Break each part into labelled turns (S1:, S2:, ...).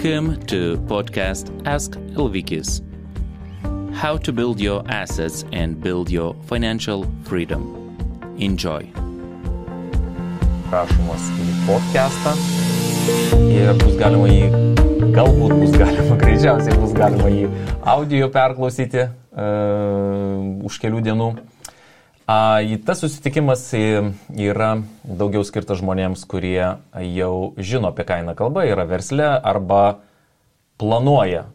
S1: Welcome to podcast Ask Elvikis. How to build your assets and build your financial freedom. Enjoy.
S2: Rašomas į podcastą ir greičiausiai bus galima jį audio perklausyti už kelių dienų. Tas susitikimas yra daugiau skirtas žmonėms, kurie jau žino, apie ką eina kalba, yra versle arba planuoja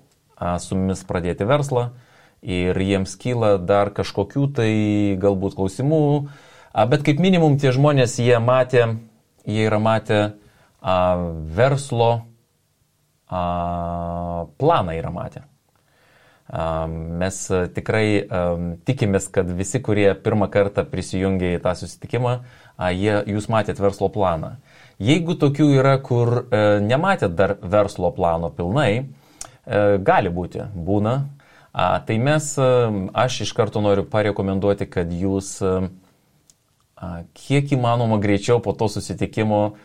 S2: su mumis pradėti verslą ir jiems kyla dar kažkokių tai galbūt klausimų, bet kaip minimum tie žmonės jie yra matę verslo planą yra matę. Mes tikrai tikimės, kad visi, kurie pirmą kartą prisijungia į tą susitikimą, jūs matėt verslo planą. Jeigu tokių yra, kur nematėt dar verslo plano pilnai, gali būti, būna, tai aš iš karto noriu parekomenduoti, kad jūs kiek įmanoma greičiau po to susitikimo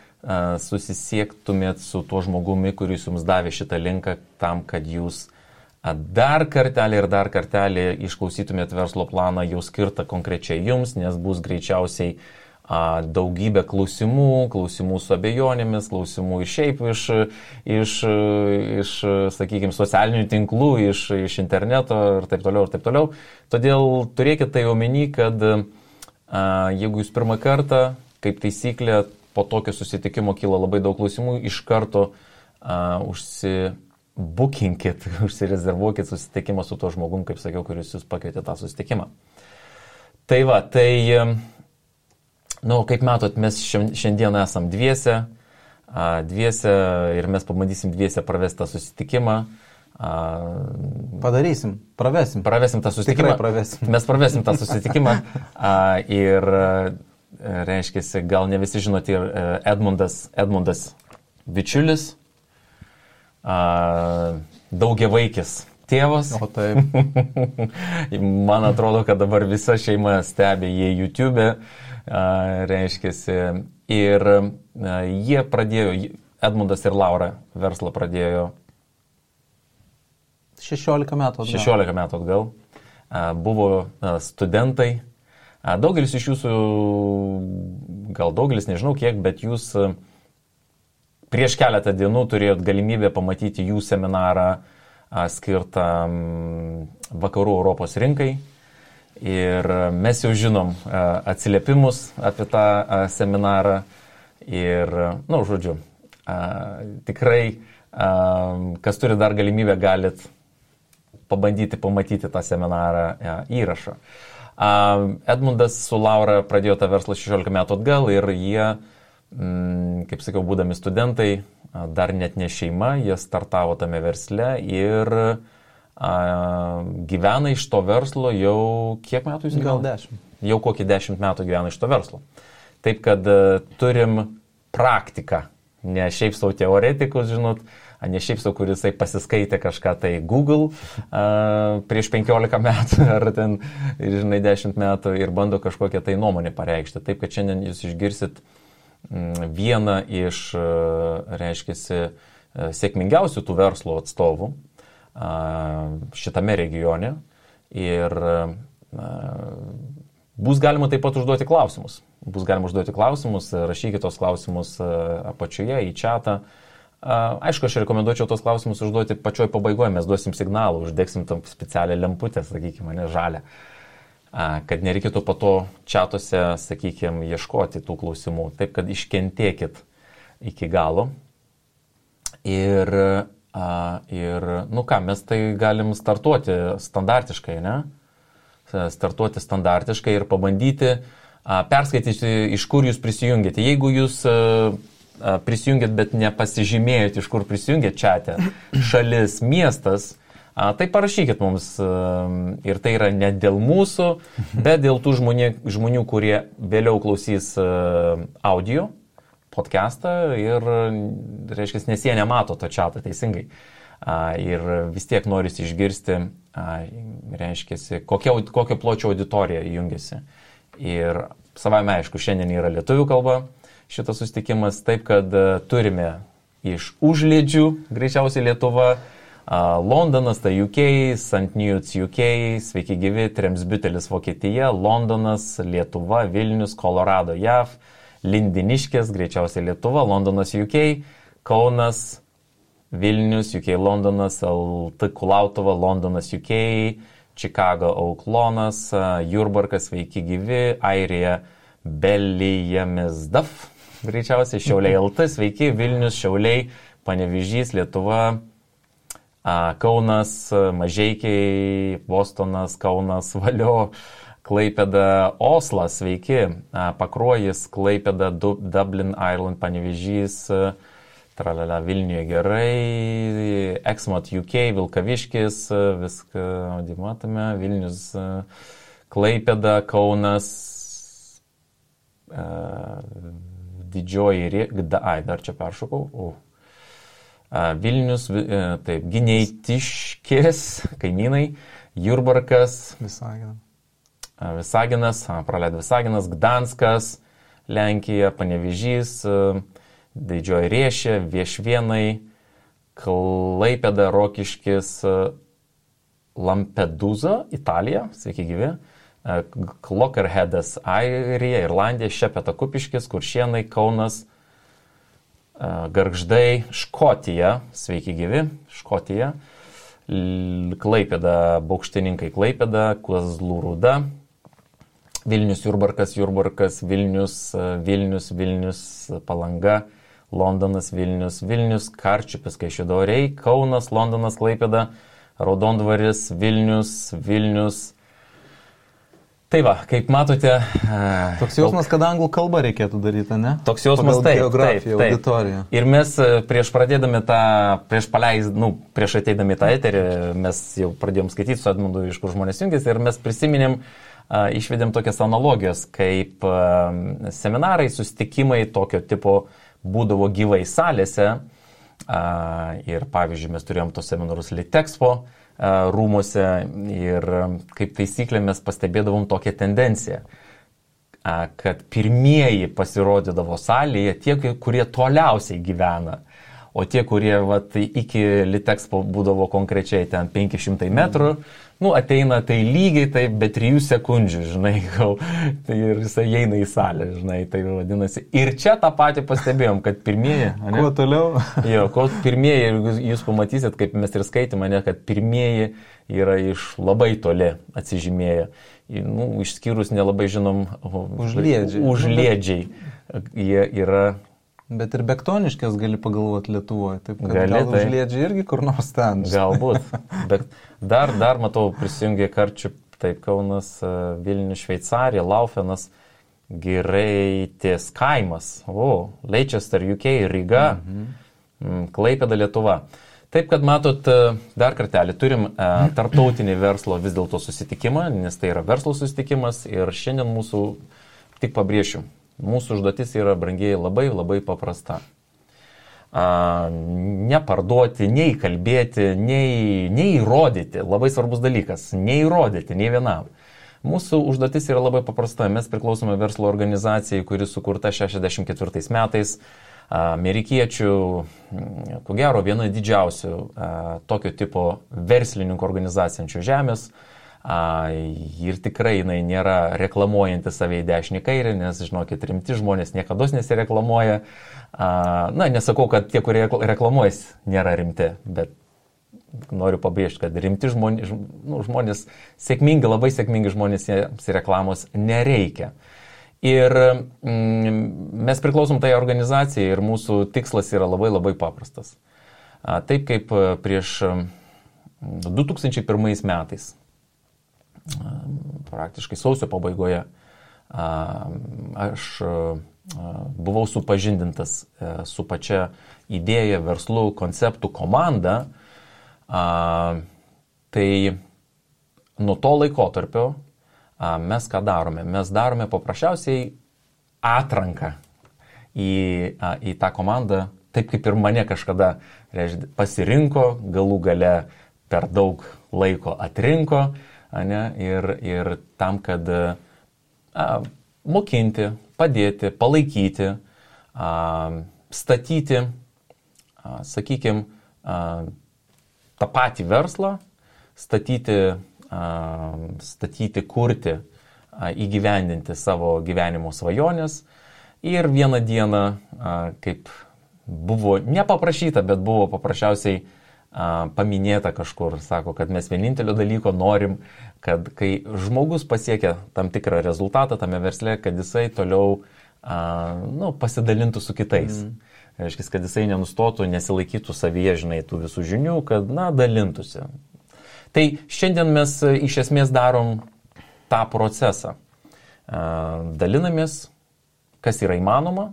S2: susisiektumėt su tuo žmogumi, kuris jums davė šitą linką tam, kad jūs dar kartelį išklausytumėt verslo planą jau skirtą konkrečiai jums, nes bus greičiausiai daugybė klausimų su abejonėmis, klausimų ir šiaip iš sakykime, socialinių tinklų, iš interneto ir taip toliau. Todėl turėkite tai omeny, kad jeigu jūs pirmą kartą, kaip taisyklė, po tokio susitikimo kyla labai daug klausimų, iš karto užsirezervuokit susitikimą su tuo žmogum, kaip sakiau, kuris jūs pakvietė tą susitikimą. Kaip matot, mes šiandien esam dviese ir mes pabandysim dviese pravesti tą susitikimą.
S3: Pravesim tą susitikimą.
S2: Tikrai pravesim. Mes pravesim tą susitikimą ir reiškiasi, gal ne visi žinote, Edmundas bičiulis, daugiavaikis tėvas.
S3: O taip.
S2: Man atrodo, kad dabar visa šeima stebi jį YouTube, reiškiasi. Ir jie pradėjo, Edmundas ir Laura verslą pradėjo
S3: 16 metų
S2: atgal. Buvo studentai. Daugelis iš jūsų, gal daugelis, nežinau kiek, bet jūs prieš keletą dienų turėjot galimybę pamatyti jų seminarą skirtą vakarų Europos rinkai. Ir mes jau žinom atsiliepimus apie tą seminarą. Ir, tikrai, kas turi dar galimybę, galit pabandyti pamatyti tą seminarą įrašą. Edmundas su Laura pradėjo tą verslą 16 metų atgal ir jie, kaip sakiau, būdami studentai, dar net ne šeima, jie startavo tame versle ir gyvena iš to verslo jau kiek metų jūs gyvena?
S3: Gal 10.
S2: Jau kokį 10 metų gyvena iš to verslo. Taip, kad turim praktiką, ne šiaip savo teoretikus, žinot, ne šiaip savo, kuris pasiskaitė kažką tai Google prieš 15 metų ar ten, 10 metų ir bando kažkokią tai nuomonę pareikšti. Taip, kad šiandien jūs išgirsit vieną iš, reiškiasi, sėkmingiausių tų verslo atstovų šitame regione ir bus galima taip pat užduoti klausimus. Rašykite tos klausimus apačioje į chatą. Aišku, aš rekomenduočiau tos klausimus užduoti pačioj pabaigoje, mes duosim signalą, uždegsim tam specialią lemputę, sakykime, žalią. Kad nereikėtų po to čatuose, sakykime, ieškoti tų klausimų. Taip, kad iškentėkit iki galo. Ir mes tai galim startuoti standartiškai, ne? Startuoti standartiškai ir pabandyti perskaityti, iš kur jūs prisijungėte. Jeigu jūs prisijungėt, bet nepasižymėjot, iš kur prisijungėt čate, šalis, miestas, tai parašykit mums ir tai yra ne dėl mūsų, bet dėl tų žmonių, kurie vėliau klausys audio podcastą ir, reiškia, nes jie nemato to chatą teisingai. Ir vis tiek norisi išgirsti, reiškia, kokio pločio auditorija jungiasi. Ir savame aišku, šiandien yra lietuvių kalba šitas susitikimas, taip kad turime iš užliedžių, greičiausiai Lietuva, Londonas, tai UK, St. Neots UK, sveiki gyvi, Tremsbütelis Vokietija, Londonas, Lietuva, Vilnius, Kolorado JAV, Lindiniškės, greičiausiai Lietuva, Londonas UK, Kaunas, Vilnius, UK, Londonas, LT Kulautova, Londonas UK, Chicago Auklonas, Jurbarkas, sveiki gyvi, Airija, Belijamesdaf, greičiausiai Šiauliai LT, sveiki, Vilnius, Šiauliai, Panevėžys, Lietuva, Kaunas, Mažeikiai, Bostonas, Kaunas, Valio, Klaipėda, Oslas, sveiki, Pakruojis, Klaipėda, Dublin, Ireland, Panevėžys, tralala, Vilniuje gerai, Exmouth UK, Vilkaviškis, viską matome, Vilnius, Klaipėda, Kaunas, Didžioji, dar čia peršokau, Vilnius, taip, Gineitiškės, kaimynai, Jurbarkas, Visaginas, praleidau Visaginas, Gdanskas, Lenkija, Panevėžys, Didžioji Riešė, Viešvienai, Klaipėda, Rokiškis, Lampedusa, Italija, sveiki gyvi, Clockerheadas, Airija, Irlandija, Šepeta Kupiškis, Kuršienai, Kaunas, Gargždai, Škotija, sveiki gyvi, Škotija, Klaipėda, Baukštininkai, Klaipėda, Kazlų Rūda, Vilnius, Jurbarkas, Vilnius, Palanga, Londonas, Vilnius, Karčiupis, Kaišiadoriai, Kaunas, Londonas, Klaipėda, Raudondvaris, Vilnius. Tai va, kaip matote...
S3: Toks jausmas, kad anglų kalbą reikėtų daryti, ne?
S2: Toks jausmas,
S3: taip. Auditorija.
S2: Ir mes prieš ateidami tą eterį, mes jau pradėjom skaityti su Edmundu, iš kur žmonės jungiasi, ir mes prisiminėm, išvedėm tokias analogijos, kaip seminarai, susitikimai tokio tipo būdavo gyvai salėse. Ir pavyzdžiui, mes turėjom tos seminarus Litexpo rūmuose ir kaip taisyklė mes pastebėdavom tokią tendenciją, kad pirmieji pasirodydavo salėje tie, kurie toliausiai gyvena, o tie, kurie iki Litexpo būdavo konkrečiai ten 500 metrų, ateina tai lygiai taip, be 3 sekundžių, žinai, tai ir jisai eina į salę, žinai, tai vadinasi. Ir čia tą patį pastebėjom, kad pirmieji...
S3: Kuo toliau?
S2: Pirmieji, jūs pamatysit, kaip mes ir skaitėme, kad pirmieji yra iš labai toli atsižymėję. Išskyrus nelabai žinom... Užliedžiai. Jie yra...
S3: Bet ir Bektoniškės gali pagalvoti Lietuvoje, taip kad gal Užliedžiai irgi kur nors ten.
S2: Galbūt, bet dar matau prisijungė Karčių, taip, Kaunas, Vilnius, Šveicarija, Laufenas, Giraitės kaimas, Leicester, UK, Ryga, Klaipėda, Lietuva. Taip, kad matot, dar kartelį turim tarptautinį verslo vis dėlto susitikimą, nes tai yra verslo susitikimas ir šiandien mūsų, tik pabrėšiu, mūsų užduotis yra, brangiai, labai, labai paprasta. Neparduoti, nei kalbėti, nei įrodyti. Labai svarbus dalykas. Neįrodyti, nei vienam. Mūsų užduotis yra labai paprasta. Mes priklausome verslo organizacijai, kuri sukurta 64 metais. Amerikiečių, ko gero, viena didžiausių tokio tipo verslininkų organizacijų žemės. Ir tikrai jinai nėra reklamuojanti save į dešinį kairį, nes, žinokit, rimti žmonės niekada nesireklamuoja. Nesakau, kad tie, kurie reklamuojas, nėra rimti, bet noriu pabrėžti, kad rimti žmonės, labai sėkmingi žmonės, reklamos nereikia. Ir mes priklausom tai organizacijai ir mūsų tikslas yra labai, labai paprastas. Taip kaip prieš 2001 metais, praktiškai sausio pabaigoje, aš buvau supažindintas su pačia idėja, verslu, konceptų, komanda. Tai nuo to laikotarpio mes ką darome? Mes darome paprasčiausiai atranką į tą komandą, taip kaip ir mane kažkada pasirinko, galų gale per daug laiko atrinko. Ir tam, kad mokinti, padėti, palaikyti, statyti sakykime, tą patį verslą statyti, kurti, įgyvendinti savo gyvenimo svajonės ir vieną dieną, kaip buvo nepaprašyta, bet buvo paprasčiausiai paminėta kažkur, sako, kad mes vienintelio dalyko norim, kad kai žmogus pasiekia tam tikrą rezultatą tame versle, kad jisai toliau pasidalintų su kitais. Reiškia, kad jisai nenustotų, nesilaikytų savyje, žinai, tų visų žinių, kad, dalintųsi. Tai šiandien mes iš esmės darom tą procesą. Dalinamės, kas yra įmanoma,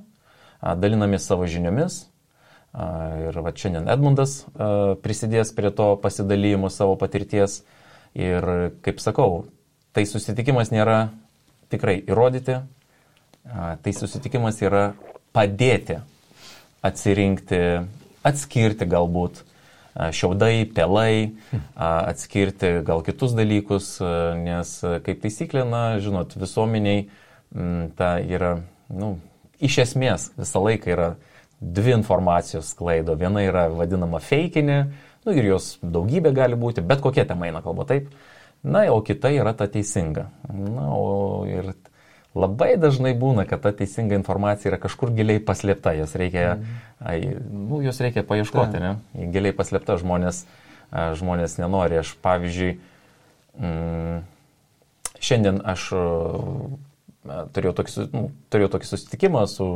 S2: dalinamės savo žiniomis. Ir šiandien Edmundas prisidės prie to pasidalymo savo patirties. Ir kaip sakau, tai susitikimas nėra tikrai įrodyti, tai susitikimas yra padėti atsirinkti, atskirti galbūt šiaudai, pelai, atskirti gal kitus dalykus, nes kaip taisyklė, žinot, visuomeniai ta yra, iš esmės visą laiką yra dvi informacijos sklaido. Viena yra vadinama feikinė, ir jos daugybė gali būti, bet kokia tema eina kalba, taip. O kita yra ta teisinga. Ir labai dažnai būna, kad ta teisinga informacija yra kažkur giliai paslėpta, jos reikia paieškoti, ne? Giliai paslėpta, žmonės nenori. Aš, pavyzdžiui, šiandien aš turėjau tokį susitikimą su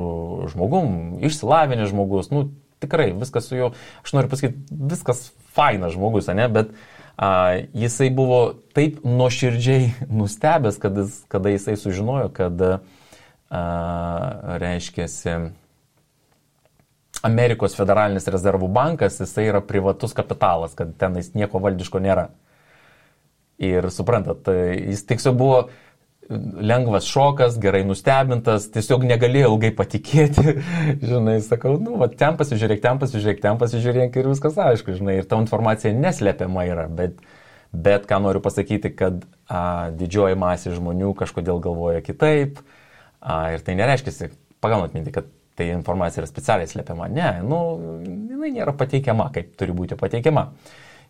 S2: žmogum, išsilavinęs žmogus, tikrai viskas su juo, aš noriu pasakyti, viskas fainas žmogus, ne, bet jisai buvo taip nuoširdžiai nustebęs, kada jisai sužinojo, kad, reiškiasi, Amerikos federalinis rezervų bankas, jisai yra privatus kapitalas, kad tenais nieko valdiško nėra. Ir suprantat, jis tiesiog buvo lengvas šokas, gerai nustebintas, tiesiog negalėjau ilgai patikėti, žinai, sakau, ten pasižiūrėk ir viskas aišku, žinai, ir ta informacija neslepiama yra, bet ką noriu pasakyti, kad didžioji masė žmonių kažkodėl galvoja kitaip, ir tai nereiškia, pagaunat mintį, kad tai informacija yra specialiai slepiama, ne, jinai nėra pateikiama, kaip turi būti pateikiama.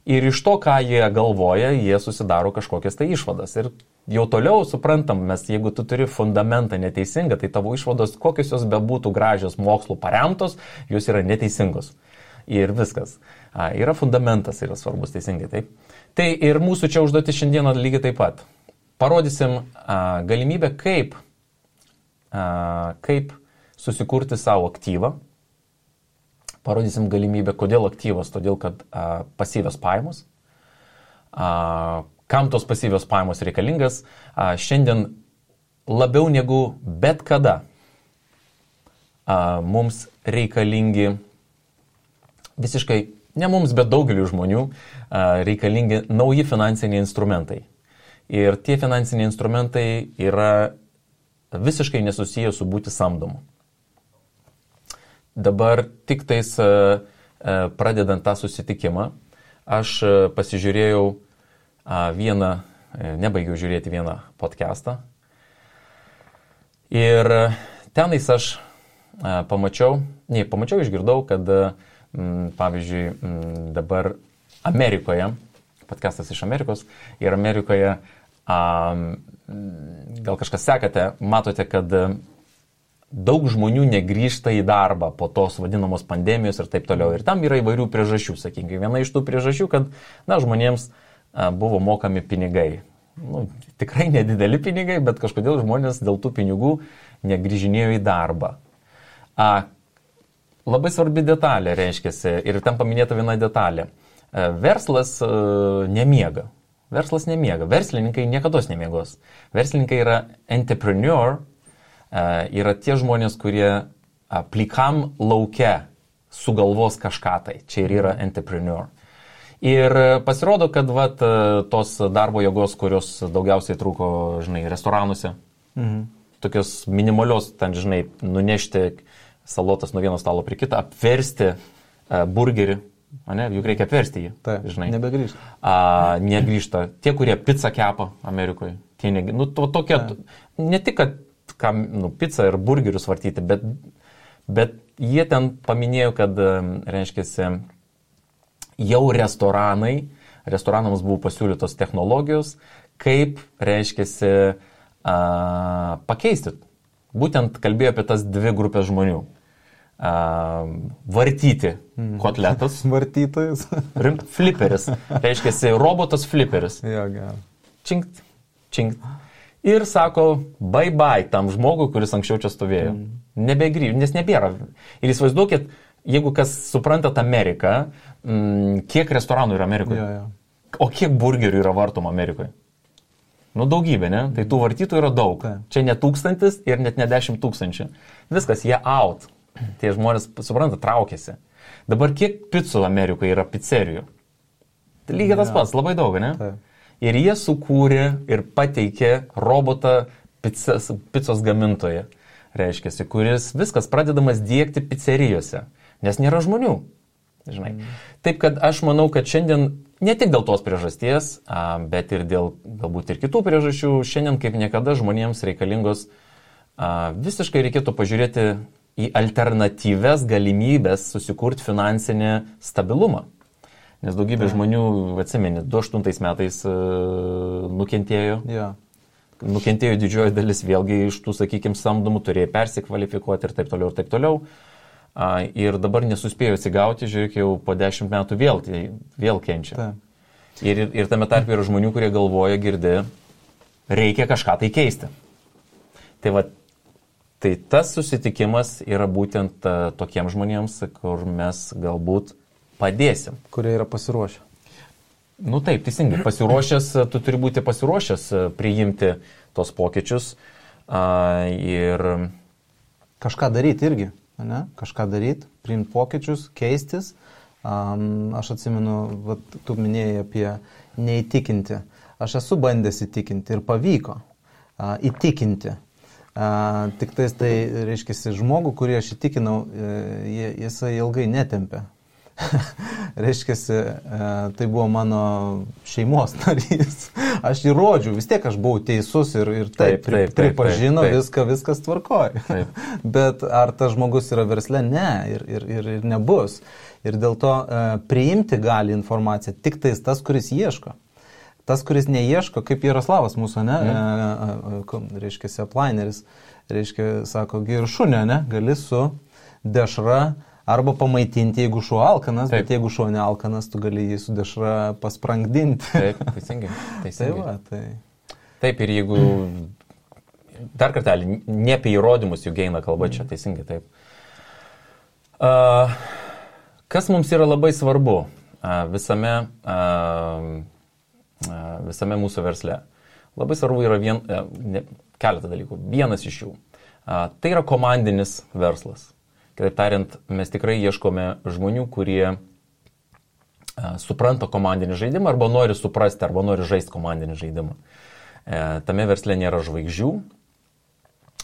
S2: Ir iš to, ką jie galvoja, jie susidaro kažkokias tai išvadas. Ir jau toliau suprantam, mes jeigu tu turi fundamentą neteisingą, tai tavo išvados, kokios jos bebūtų gražios mokslų paremtos, jos yra neteisingos. Ir viskas. Yra fundamentas, yra svarbus teisingai, taip. Tai ir mūsų čia užduoti šiandieną lygiai taip pat. Parodysim galimybę, kaip susikurti savo aktyvą. Parodysim galimybę, kodėl aktyvas, todėl kad pasyvios pajamos. Kam tos pasyvios pajamos reikalingas? Šiandien labiau negu bet kada mums reikalingi, visiškai ne mums, bet daugeliu žmonių, reikalingi nauji finansiniai instrumentai. Ir tie finansiniai instrumentai yra visiškai nesusiję su būti samdomu. Dabar tik tais pradedant tą susitikimą, aš pasižiūrėjau nebaigiau žiūrėti vieną podcastą. Ir tenais aš išgirdau, kad, pavyzdžiui, dabar Amerikoje, podcastas iš Amerikos, ir Amerikoje, gal kažkas sekate, matote, kad daug žmonių negrįžta į darbą po tos vadinamos pandemijos ir taip toliau. Ir tam yra įvairių priežasčių, sakykime. Viena iš tų priežasčių, kad žmonėms buvo mokami pinigai. Tikrai nedideli pinigai, bet kažkodėl žmonės dėl tų pinigų negrįžinėjo į darbą. Labai svarbi detalė, reiškiasi, ir tam paminėta viena detalė. Verslas nemiega. Verslininkai niekados nemiegos. Verslininkai yra entrepreneur, yra tie žmonės, kurie plikam lauke sugalvos kažką tai. Čia ir yra entrepreneur. Ir pasirodo, kad tos darbo jėgos, kurios daugiausiai trūko, žinai, restoranuose, tokios minimalios, ten, žinai, nunešti salotas nuo vieno stalo prie kitą, apversti burgerį, juk reikia apversti jį.
S3: Taip,
S2: žinai.
S3: nebegrįžta.
S2: Negrįžta. Tie, kurie pizzą kepa Amerikoje, tokie, ne tik, kad pizzą ir burgerius vartyti, bet jie ten paminėjo, kad, reiškia, jau restoranams buvo pasiūlytos technologijos, kaip, reiškia, pakeisti. Būtent kalbėjo apie tas dvi grupės žmonių. Vartyti kotletas.
S3: Vartytojas.
S2: Fliperis. Reiškia, robotas fliperis.
S3: Jo, gerai.
S2: Činkt, činkt. Ir sako, bye tam žmogui, kuris anksčiau čia stovėjo. Nebegrįžti, nes nebėra. Ir įsivaizduokit, jeigu kas suprantat Ameriką, kiek restoranų yra Amerikoje?
S3: Jo.
S2: O kiek burgerių yra vartoma Amerikoje? Nu, daugybė, ne? Tai tų vartytų yra daug. Čia ne 1000 ir net ne 10 000. Viskas, jie out. Tie žmonės, supranta, traukėsi. Dabar kiek picų Amerikoje yra pizzerijų? Tai lygiai tas pats, labai daug, ne?
S3: Tai.
S2: Ir jie sukūrė ir pateikė robotą picos gamintoje, reiškia, kuris viskas pradedamas diegti pizzerijose, nes nėra žmonių. Žinai. Taip, kad aš manau, kad šiandien ne tik dėl tos priežasties, bet ir dėl galbūt ir kitų priežasčių, šiandien kaip niekada žmonėms reikalingos visiškai reikėtų pažiūrėti į alternatyves galimybės susikurti finansinį stabilumą. Nes daugybė žmonių, atsimeni, 2008 metais nukentėjo.
S3: Ja.
S2: Nukentėjo didžioji dalis vėlgi iš tų, sakykime, samdomų, turėjo persikvalifikuoti ir taip toliau, ir taip toliau. Ir dabar nesuspėjo atsigauti, žiūrėk, jau po 10 metų vėl kenčia.
S3: Ta.
S2: Ir tame tarpe yra žmonių, kurie galvoja, girdi, reikia kažką tai keisti. Tai tas susitikimas yra būtent tokiems žmonėms, kur mes galbūt padėsim.
S3: Kurie yra pasiruošę.
S2: Nu taip, teisingai. Pasiruošęs, tu turi būti pasiruošęs priimti tos pokyčius ir...
S3: Kažką daryti irgi, ne? Kažką daryti, priimti pokyčius, keistis. Aš atsimenu, tu minėjai apie neįtikinti. Aš esu bandęs įtikinti ir pavyko įtikinti. Tik tai reiškia, žmogų, kurį aš įtikinau, jisai ilgai netempė. Reiškia, tai buvo mano šeimos narys. Aš jį rodžiau, vis tiek aš buvau teisus ir taip pripažino, viskas tvarkoja. Bet ar tas žmogus yra versle? Ne, ir nebus. Ir dėl to priimti gali informaciją tik tas, kuris ieško. Tas, kuris neieško, kaip Jaroslavas mūsų, ne? Reiškia, aplaineris, reiškia, sako, ir šunė, ne? Gali su dešra arba pamaitinti, jeigu šuo alkanas, bet jeigu šuo nealkanas, tu gali jį su dešra pasprangdinti.
S2: Taip, teisingai.
S3: Tai.
S2: Taip, ir jeigu, dar kartelį, ne apie įrodymus juk eina kalba čia, teisingai, taip. Kas mums yra labai svarbu visame mūsų versle? Labai svarbu yra keletą dalykų. Vienas iš jų. Tai yra komandinis verslas. Kitaip tariant, mes tikrai ieškome žmonių, kurie supranta komandinį žaidimą arba nori suprasti, arba nori žaisti komandinį žaidimą. Tame versle nėra žvaigždžių,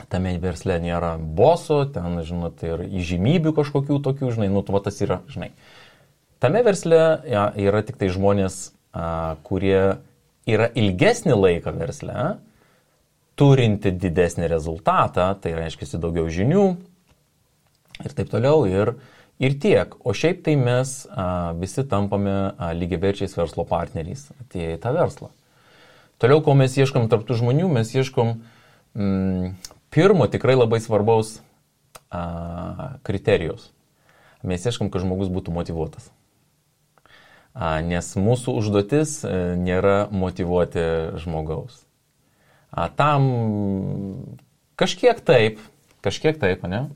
S2: tame versle nėra boso, ten, žinot, ir įžymybių kažkokių tokių, žinai, tas yra, žinai. Tame versle yra tik tai žmonės, kurie yra ilgesnį laiką versle, turinti didesnį rezultatą, tai reiškia daugiau žinių, ir taip toliau, ir tiek. O šiaip tai mes visi tampame lygiaverčiais verslo partneriais atėję į tą verslą. Toliau, ko mes ieškom tarp tų žmonių, mes ieškom pirmo tikrai labai svarbaus kriterijos. Mes ieškom, kad žmogus būtų motyvuotas. Nes mūsų užduotis nėra motyvuoti žmogaus. Tam kažkiek taip, ne?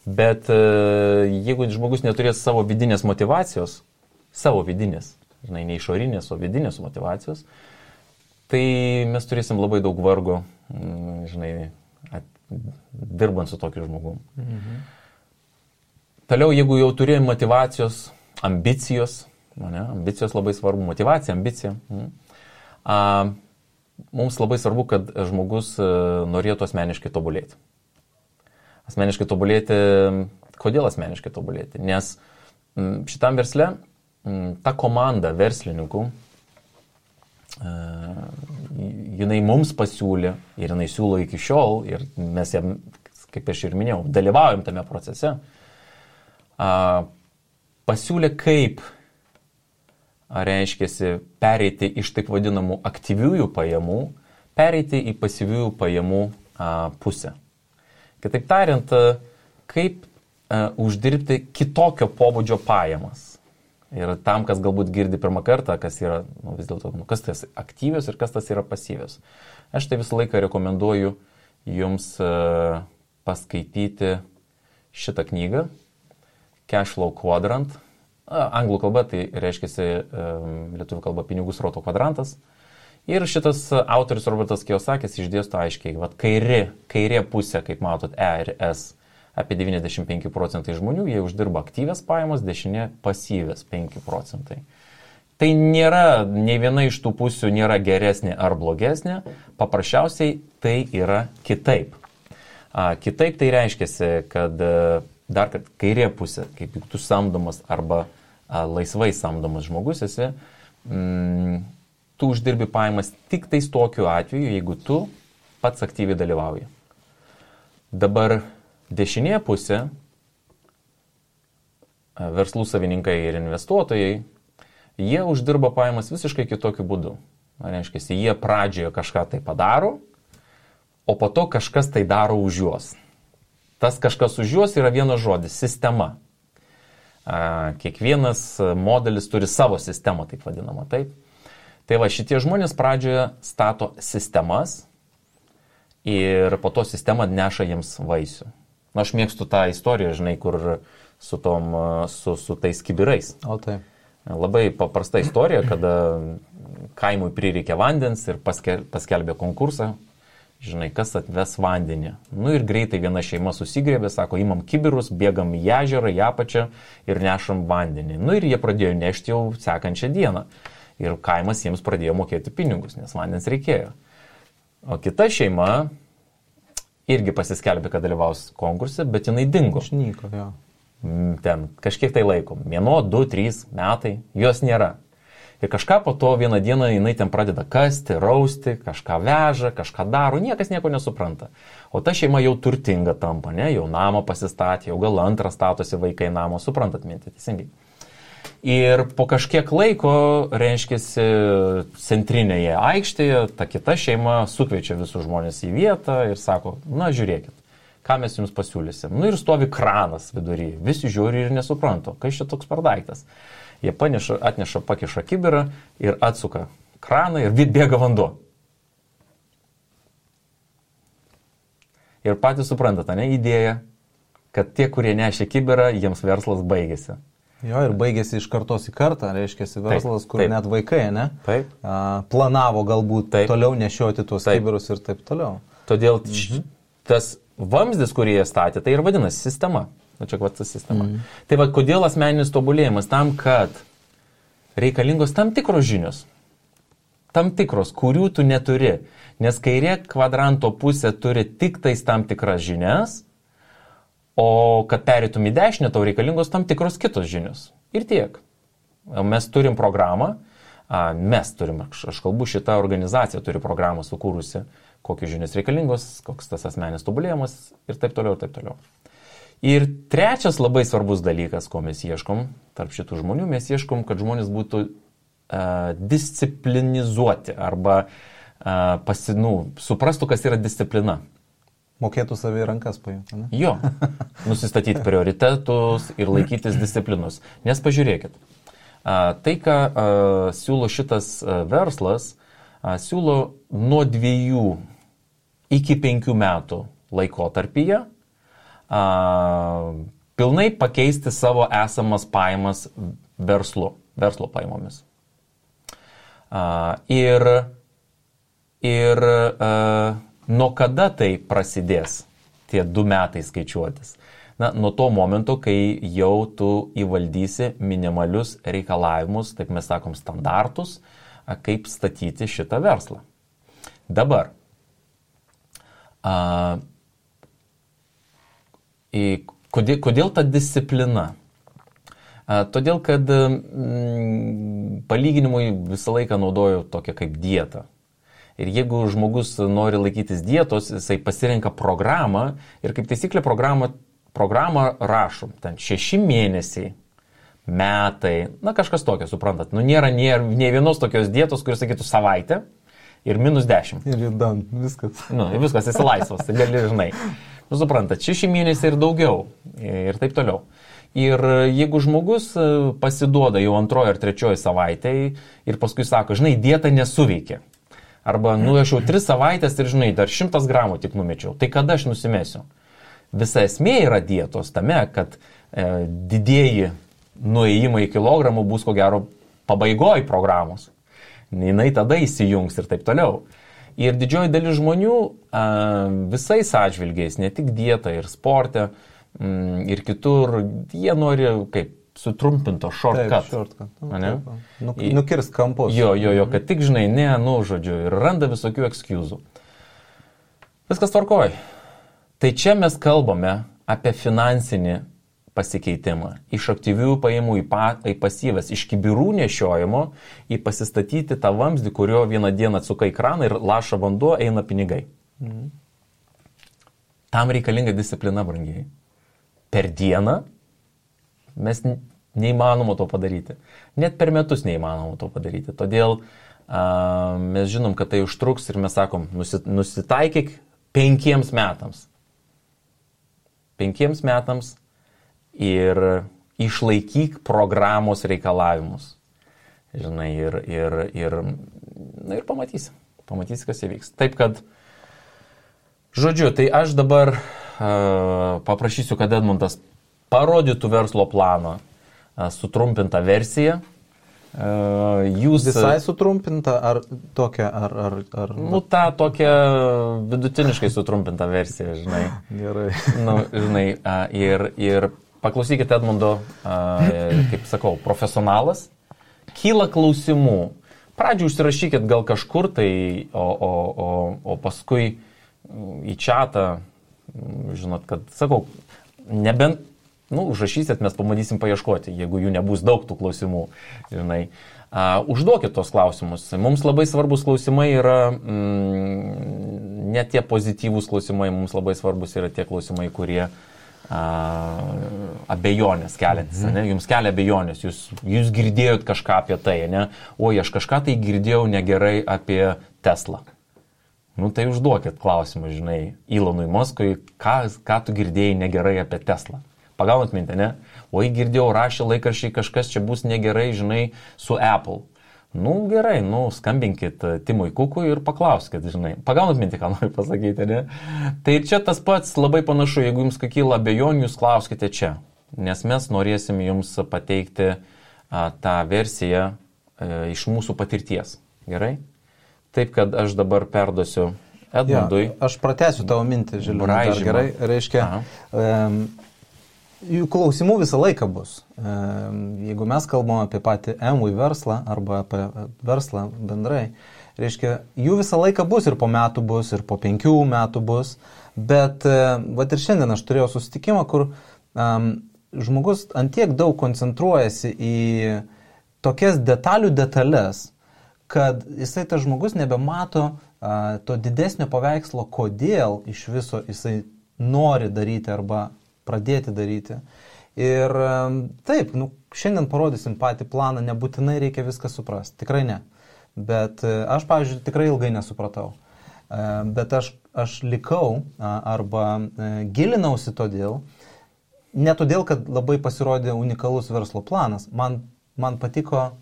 S2: Bet jeigu žmogus neturės savo vidinės motyvacijos, žinai, ne išorinės, o vidinės motyvacijos, tai mes turėsim labai daug vargo, žinai, dirbant su tokiu žmogum. Toliau, jeigu jau turi motyvacijos, ambicijos labai svarbu, motyvacija, ambicija. Mums labai svarbu, kad žmogus norėtų asmeniškai tobulėti. Asmeniškai tobulėti, kodėl asmeniškai tobulėti? Nes šitam versle ta komanda verslininkų, jinai mums pasiūlė ir jinai siūlo iki šiol ir mes jam, kaip aš ir minėjau, dalyvaujam tame procese. pasiūlė kaip, reiškiasi, pereiti iš taip vadinamų aktyviųjų pajamų, pereiti į pasyviųjų pajamų pusę. Kitaip tariant, kaip uždirbti kitokio pobūdžio pajamas. Ir tam, kas galbūt girdi pirmą kartą, kas yra, vis dėlto, kas tas aktyvios ir kas tas yra pasyvios. Aš tai visą laiką rekomenduoju jums paskaityti šitą knygą, Cash Flow Quadrant. Anglų kalba tai reiškia lietuvių kalba pinigų srauto kvadrantas. Ir šitas autorius Robertas Kiyosakis išdėsto aiškiai, vat kairė pusė, kaip matot, E ir S, apie 95% žmonių, jie uždirba aktyvias pajamas, dešinė pasyvias 5%. Tai nėra, nei viena iš tų pusių nėra geresnė ar blogesnė, paprasčiausiai tai yra kitaip. Kitaip tai reiškia, kad dar kad kairė pusė, kaip tu samdomas arba laisvai samdomas žmogus esi, tu uždirbi pajamas tik tais tokiu atveju, jeigu tu pats aktyviai dalyvauji. Dabar dešinė pusė, verslų savininkai ir investuotojai, jie uždirba pajamas visiškai kitokiu būdu. Reiškia, jie pradžioje kažką tai padaro, o po to kažkas tai daro už juos. Tas kažkas už juos yra vienas žodis – sistema. Kiekvienas modelis turi savo sistemą, taip vadinamą, taip. Tai va, šitie žmonės pradžioje stato sistemas ir po to sistema neša jiems vaisių. Na, aš mėgstu tą istoriją, žinai, kur su tais kibirais.
S3: O taip.
S2: Labai paprasta istorija, kada kaimui prireikė vandens ir paskelbė konkursą. Žinai, kas atves vandenį. Nu ir greitai viena šeima susigrėbė, sako, imam kibirus, bėgam į ežerą, į apačią ir nešam vandenį. Nu ir jie pradėjo nešti jau sekančią dieną. Ir kaimas jiems pradėjo mokėti pinigus, nes vandens reikėjo. O kita šeima irgi pasiskelbė, kad dalyvaus konkurse, bet jinai dingo.
S3: Išnyko, jo.
S2: Ten kažkiek tai laiko. 1, 2, 3 metai, jos nėra. Ir kažką po to vieną dieną jinai ten pradeda kasti, rausti, kažką veža, kažką daro, niekas nieko nesupranta. O ta šeima jau turtinga tampa, ne? Jau namą pasistatė, jau gal antrą statosi vaikai namo, suprantat mintį, teisingai. Ir po kažkiek laiko, reiškia, centrinėje aikštėje, ta kita šeima sukviečia visus žmonės į vietą ir sako, na žiūrėkit, ką mes jums pasiūlysim. Nu ir stovi kranas vidury, visi žiūri ir nesupranto, kas čia toks per daiktas. Jie atneša, pakiša kibirą ir atsuka kraną ir bėga vanduo. Ir patys suprantate, ne, idėja, kad tie, kurie nešė kibirą, jiems verslas baigėsi.
S3: Jo, ir baigėsi iš kartos į kartą, reiškia, verslas, kur net vaikai, ne?
S2: Taip.
S3: Planavo galbūt toliau nešioti tuos kibirus ir taip toliau.
S2: Todėl tas vamzdis, kurį jie statė, tai ir vadinasi sistema. Nu, čia kvata sistema. Tai va, kodėl asmeninis tobulėjimas? Tam, kad reikalingos tam tikros žinios. Tam tikros, kurių tu neturi. Nes kairė kvadranto pusė turi tik tais tam tikras žinias, o kad pereitum į dešinę, tau reikalingos tam tikros kitos žinios. Ir tiek. Mes turim programą, aš kalbu, šita organizacija turi programą sukūrusi, kokios žinios reikalingos, koks tas asmeninis tobulėjimas ir taip toliau, ir taip toliau. Ir trečias labai svarbus dalykas, ko mes ieškom tarp šitų žmonių, mes ieškom, kad žmonės būtų disciplinizuoti arba suprastų, kas yra disciplina.
S3: Mokėtų savį rankas paimti, ne?
S2: Jo, nusistatyti prioritetus ir laikytis disciplinos. Nes pažiūrėkit, tai, ką siūlo šitas verslas, siūlo nuo 2 iki 5 metų laikotarpyje pilnai pakeisti savo esamas pajamas verslo pajamomis. Ir nuo kada tai prasidės, tie 2 metai skaičiuotis? Na, nuo to momento, kai jau tu įvaldysi minimalius reikalavimus, taip mes sakom, standartus, kaip statyti šitą verslą. Dabar, kodėl ta disciplina? Todėl, kad palyginimui visą laiką naudoju tokią kaip dietą. Ir jeigu žmogus nori laikytis dietos, jisai pasirenka programą ir kaip taisyklė programą programą rašom, ten 6 mėnesiai, metai, na kažkas tokio, suprantat. Nu nėra nei vienos tokios dietos, kuris sakytų savaitę ir -10.
S3: Ir judam, viskas.
S2: Nu, viskas, esi laisvas, tai gali, žinai. Nu, suprantat, 6 mėnesiai ir daugiau ir taip toliau. Ir jeigu žmogus pasiduoda jau 2 ar 3 savaitėje ir paskui sako, žinai, dieta nesuveikia. Arba, nu, aš jau 3 savaitės ir, žinai, dar 100 gramų tik numečiau. Tai kada aš nusimesiu? Visa esmė yra dietos tame, kad didieji nuėjimai į kilogramų bus, ko gero, pabaigoj programos. Jinai tada įsijungs ir taip toliau. Ir didžioji dalis žmonių visais atžvilgiais, ne tik dieta ir sporte, ir kitur, jie nori kaip sutrumpinto shortcut.
S3: Nukirs kampus.
S2: Jo, kad tik, žinai, žodžiu, ir randa visokių excusų. Viskas tvarkoj. Tai čia mes kalbame apie finansinį pasikeitimą. Iš aktyvių pajamų į pasyvas, iš kibirų nešiojimo į pasistatyti tą vamzdį, kurio vieną dieną atsuka į kraną ir laša vanduo, eina pinigai. Tam reikalinga disciplina, brangiai. Per dieną mes neįmanoma to padaryti. Net per metus neįmanoma to padaryti. Todėl mes žinom, kad tai užtruks ir mes sakom, nusitaikyk 5 metams. 5 metams ir išlaikyk programos reikalavimus. Žinai, ir pamatysi. Pamatysi, kas įvyks. Taip, kad, žodžiu, tai aš dabar paprašysiu, kad Edmundas parodytų verslo planą sutrumpintą versiją. Jūs...
S3: Visai sutrumpinta ar tokia, ar...
S2: Nu, tą tokią vidutiniškai sutrumpintą versiją, žinai.
S3: Gerai.
S2: Nu, žinai, ir paklausykite Edmundo, kaip sakau, profesionalas. Kyla klausimų. Pradžių užsirašykit gal kažkur tai, o paskui į čatą, žinot, kad, sakau, nebent, užrašysit, mes pamatysim paieškoti, jeigu jų nebus daug tų klausimų, žinai. Užduokit tos klausimus. Mums labai svarbus klausimai yra, ne tie pozityvūs klausimai, mums labai svarbus yra tie klausimai, kurie abejonės keliantis, ne? Jums kelia abejonės, jūs girdėjot kažką apie tai, ne? Oi, aš kažką tai girdėjau negerai apie Teslą. Nu tai užduokit klausimą, žinai, Elonui Muskui, ką tu girdėjai negerai apie Teslą. Pagaunat mintį, ne? Oi, girdėjau, rašė laikraščiai, kažkas čia bus negerai, žinai, su Apple. Nu gerai, skambinkit Timui Kukui ir paklauskit, žinai. Pagaunat mintį, ką noriu pasakyti, ne? Tai čia tas pats labai panašu, jeigu jums kyla abejonių, jūs klauskite čia. Nes mes norėsim jums pateikti tą versiją iš mūsų patirties. Gerai? Taip, kad aš dabar perduosiu Edmundui.
S3: Ja, aš pratęsiu tavo mintį, Žilvinai, dar gerai. Reiškia, jų klausimų visą laiką bus. Jeigu mes kalbame apie patį MV verslą arba apie verslą bendrai, reiškia, jų visą laiką bus ir po metų bus, ir po 5 metų bus. Bet vat ir šiandien aš turėjau susitikimą, kur žmogus antiek daug koncentruojasi į tokias detalės, kad jisai tas žmogus nebemato to didesnio paveikslo, kodėl iš viso jisai nori daryti arba pradėti daryti. Ir taip, šiandien parodysim patį planą, nebūtinai reikia viską suprasti, tikrai ne. Bet aš, pavyzdžiui, tikrai ilgai nesupratau. Bet aš likau arba gilinausi todėl, ne todėl, kad labai pasirodė unikalus verslo planas. Man patiko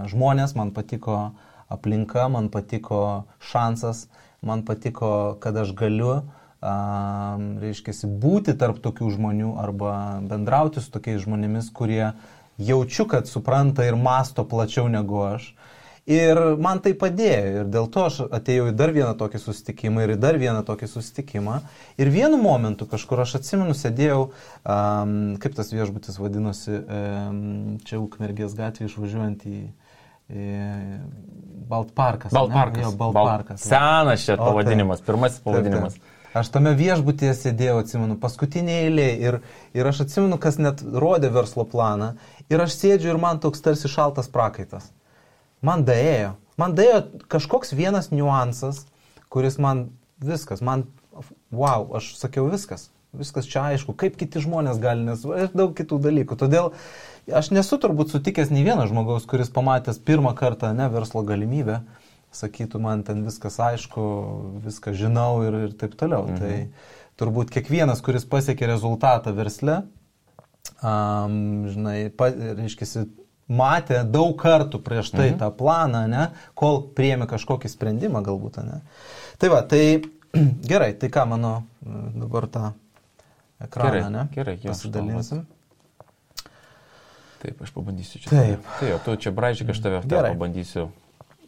S3: žmonės, man patiko aplinka, man patiko šansas, man patiko, kad aš galiu reiškiasi, būti tarp tokių žmonių arba bendrauti su tokiais žmonėmis, kurie jaučiu, kad supranta ir masto plačiau negu aš. Ir man tai padėjo. Ir dėl to aš atėjau į dar vieną tokį susitikimą ir į dar vieną tokį susitikimą. Ir vienu momentu kažkur aš atsimenu, sėdėjau, kaip tas viešbutis vadinosi, čia Ukmergės gatvė išvažiuojant į Baltparkas.
S2: Baltparkas. Senas čia pavadinimas, pirmasis pavadinimas.
S3: Taip. Aš tame viešbutyje sėdėjau, atsimenu, paskutinėje eilėje ir aš atsimenu, kas net rodė verslo planą ir aš sėdžiu ir man toks tarsi šaltas prakaitas. Man daėjo kažkoks vienas niuansas, kuris man viskas, wow, aš sakiau viskas, viskas čia aišku, kaip kiti žmonės gali, nes ir daug kitų dalykų. Todėl aš nesu turbūt sutikęs nei vieno žmogaus, kuris pamatęs pirmą kartą verslo galimybę, sakytų, man ten viskas aišku, viską žinau ir taip toliau. Tai turbūt kiekvienas, kuris pasiekė rezultatą versle, reiškia, matė daug kartų prieš tai tą planą, kol priėmė kažkokį sprendimą galbūt. Tai va, tai gerai, tai ką mano dabar tą ekraną,
S2: gerai,
S3: pasidalinsim.
S2: Taip, aš pabandysiu čia.
S3: Taip.
S2: Tu čia braižyk, aš tave pabandysiu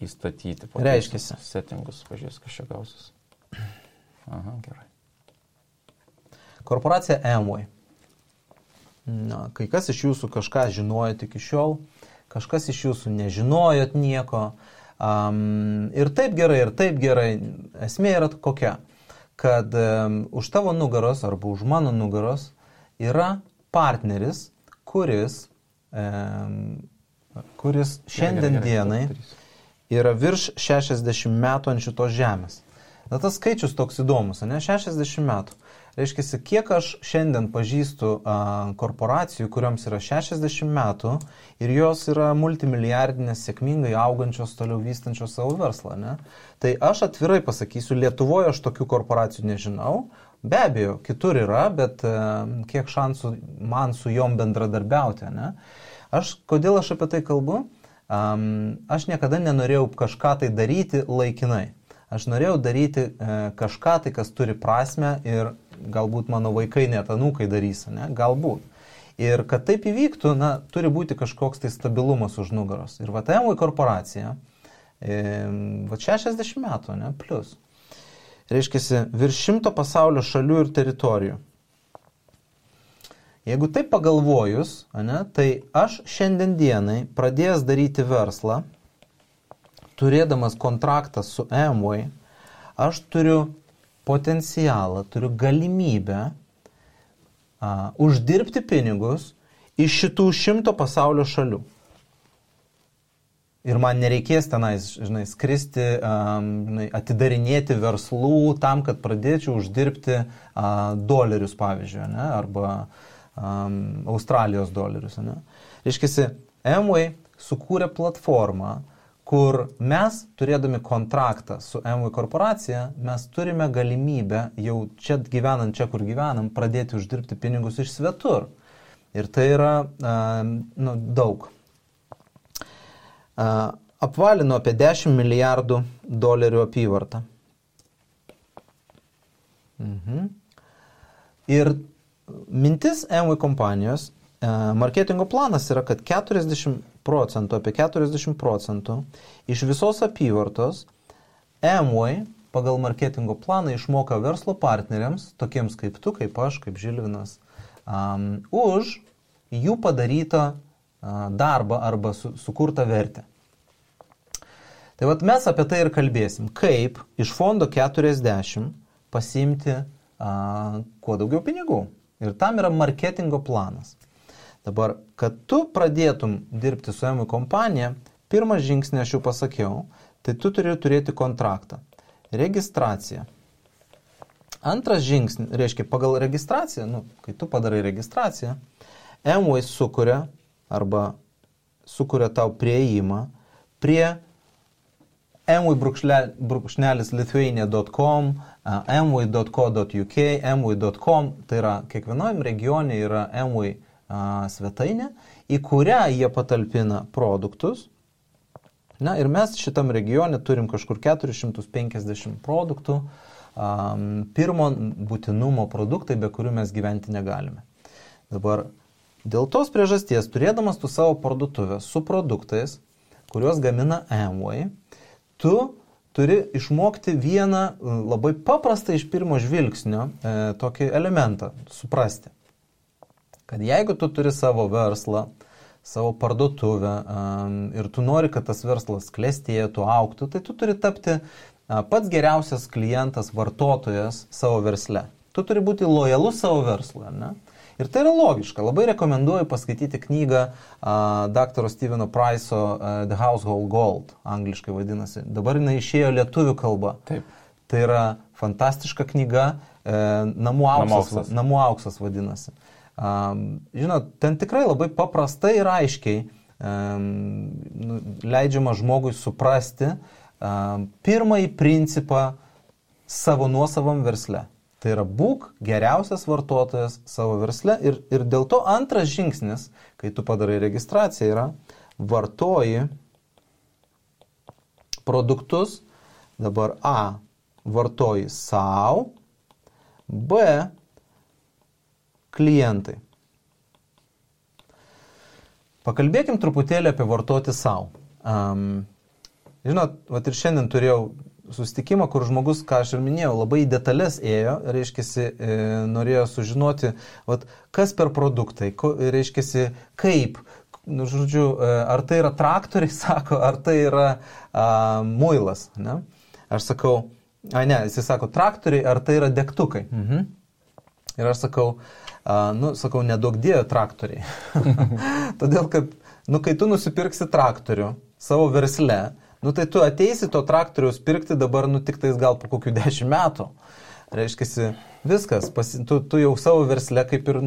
S2: įstatyti.
S3: Reiškiasi.
S2: Settingus, pažiūrės, kas čia gausis. Aha, gerai.
S3: Korporacija Amway. Kai kas iš jūsų kažką žinojot iki šiol, kažkas iš jūsų nežinojot nieko. Ir taip gerai. Esmė yra kokia, kad už tavo nugaros arba už mano nugaros yra partneris, kuris šiandien dienai yra virš 60 metų ant šitos žemės. Tas skaičius toks įdomus, 60 metų. Reiškia, kiek aš šiandien pažįstu korporacijų, kuriuoms yra 60 metų ir jos yra multimilijardinės, sėkmingai augančios, toliau vystančios savo verslą. Tai aš atvirai pasakysiu, Lietuvoje aš tokių korporacijų nežinau. Be abejo, kitur yra, bet kiek šansų man su jom bendradarbiauti. Kodėl aš apie tai kalbu? Aš niekada nenorėjau kažką tai daryti laikinai. Aš norėjau daryti kažką tai, kas turi prasmę ir galbūt mano vaikai net anūkai darys, galbūt. Ir kad taip įvyktų, turi būti kažkoks tai stabilumas už nugaros. Ir Amway korporacija, 60 metų, plus. Reiškia, virš 100 pasaulio šalių ir teritorijų. Jeigu taip pagalvojus, tai aš šiandien dienai pradėjęs daryti verslą, turėdamas kontraktą su Amway, aš turiu potencialą, turiu galimybę uždirbti pinigus iš šitų 100 pasaulio šalių. Ir man nereikės tenais, skristi, atidarinėti verslų tam, kad pradėčiau uždirbti dolerius, pavyzdžiui, arba Australijos dolerius. Reiškia, Amway sukūrė platformą, kur mes, turėdami kontraktą su Amway korporacija, mes turime galimybę jau čia gyvenant, čia kur gyvenam, pradėti uždirbti pinigus iš svetur. Ir tai yra daug. Apvalino apie 10 milijardų dolerių apyvartą. Ir mintis Amway kompanijos, marketingo planas yra, kad 40% iš visos apyvartos Amway pagal marketingo planą išmoka verslo partneriams, tokiems kaip tu, kaip aš, kaip Žilvinas, už jų padarytą darbą arba sukurtą vertę. Tai vat mes apie tai ir kalbėsim, kaip iš fondo 40 pasiimti kuo daugiau pinigų. Ir tam yra marketingo planas. Dabar, kad tu pradėtum dirbti su Amway kompanija, pirmas žingsnį aš jau pasakiau, tai tu turi turėti kontraktą. Registracija. Antras žingsnis, reiškia, pagal registraciją, kai tu padarai registraciją, Amway sukuria tau prieimą prie amway-lithuania.com, amway.co.uk, amway.com, tai yra kiekvienojam regione yra Amway svetainė, į kurią jie patalpina produktus. Ir mes šitam regione turim kažkur 450 produktų, pirmo būtinumo produktai, be kurių mes gyventi negalime. Dabar, dėl tos priežasties, turėdamas tu savo parduotuvę su produktais, kuriuos gamina Amway, tu turi išmokti vieną labai paprastą iš pirmo žvilgsnio tokį elementą, suprasti. Kad jeigu tu turi savo verslą, savo parduotuvę ir tu nori, kad tas verslas klestėtų, augtų, tai tu turi tapti pats geriausias klientas, vartotojas savo versle. Tu turi būti lojalus savo verslui, ne? Ir tai yra logiška. Labai rekomenduoju paskaityti knygą dr. Steveno Price'o The Household Gold, angliškai vadinasi. Dabar jinai išėjo lietuvių kalba.
S2: Taip.
S3: Tai yra fantastiška knyga, namų auksas vadinasi. Žinot, ten tikrai labai paprastai ir aiškiai leidžiama žmogui suprasti pirmąjį principą savo nuosavam versle. Tai yra būk geriausias vartotojas savo versle ir dėl to antras žingsnis, kai tu padarai registraciją, yra vartoji produktus, dabar A, vartoji savo, B, klientai. Pakalbėkim truputėlį apie vartoti savo. Žinot, vat ir šiandien turėjau susitikimą, kur žmogus, ką aš ir minėjau, labai į detalės ėjo, reiškiasi, norėjo sužinoti, vat, kas per produktai, reiškiasi, kaip, žodžiu, ar tai yra traktoriai, sako, ar tai yra muilas, ne? Aš sakau, jis sako, traktoriai, ar tai yra degtukai. Ir aš sakau, sakau, nedaug dėjo traktoriai. Todėl, kad, kai tu nusipirksi traktorių savo versle, tai tu ateisi to traktoriaus pirkti dabar, tik tais gal po kokių 10 metų. Reiškiasi, viskas, tu jau savo versle kaip ir,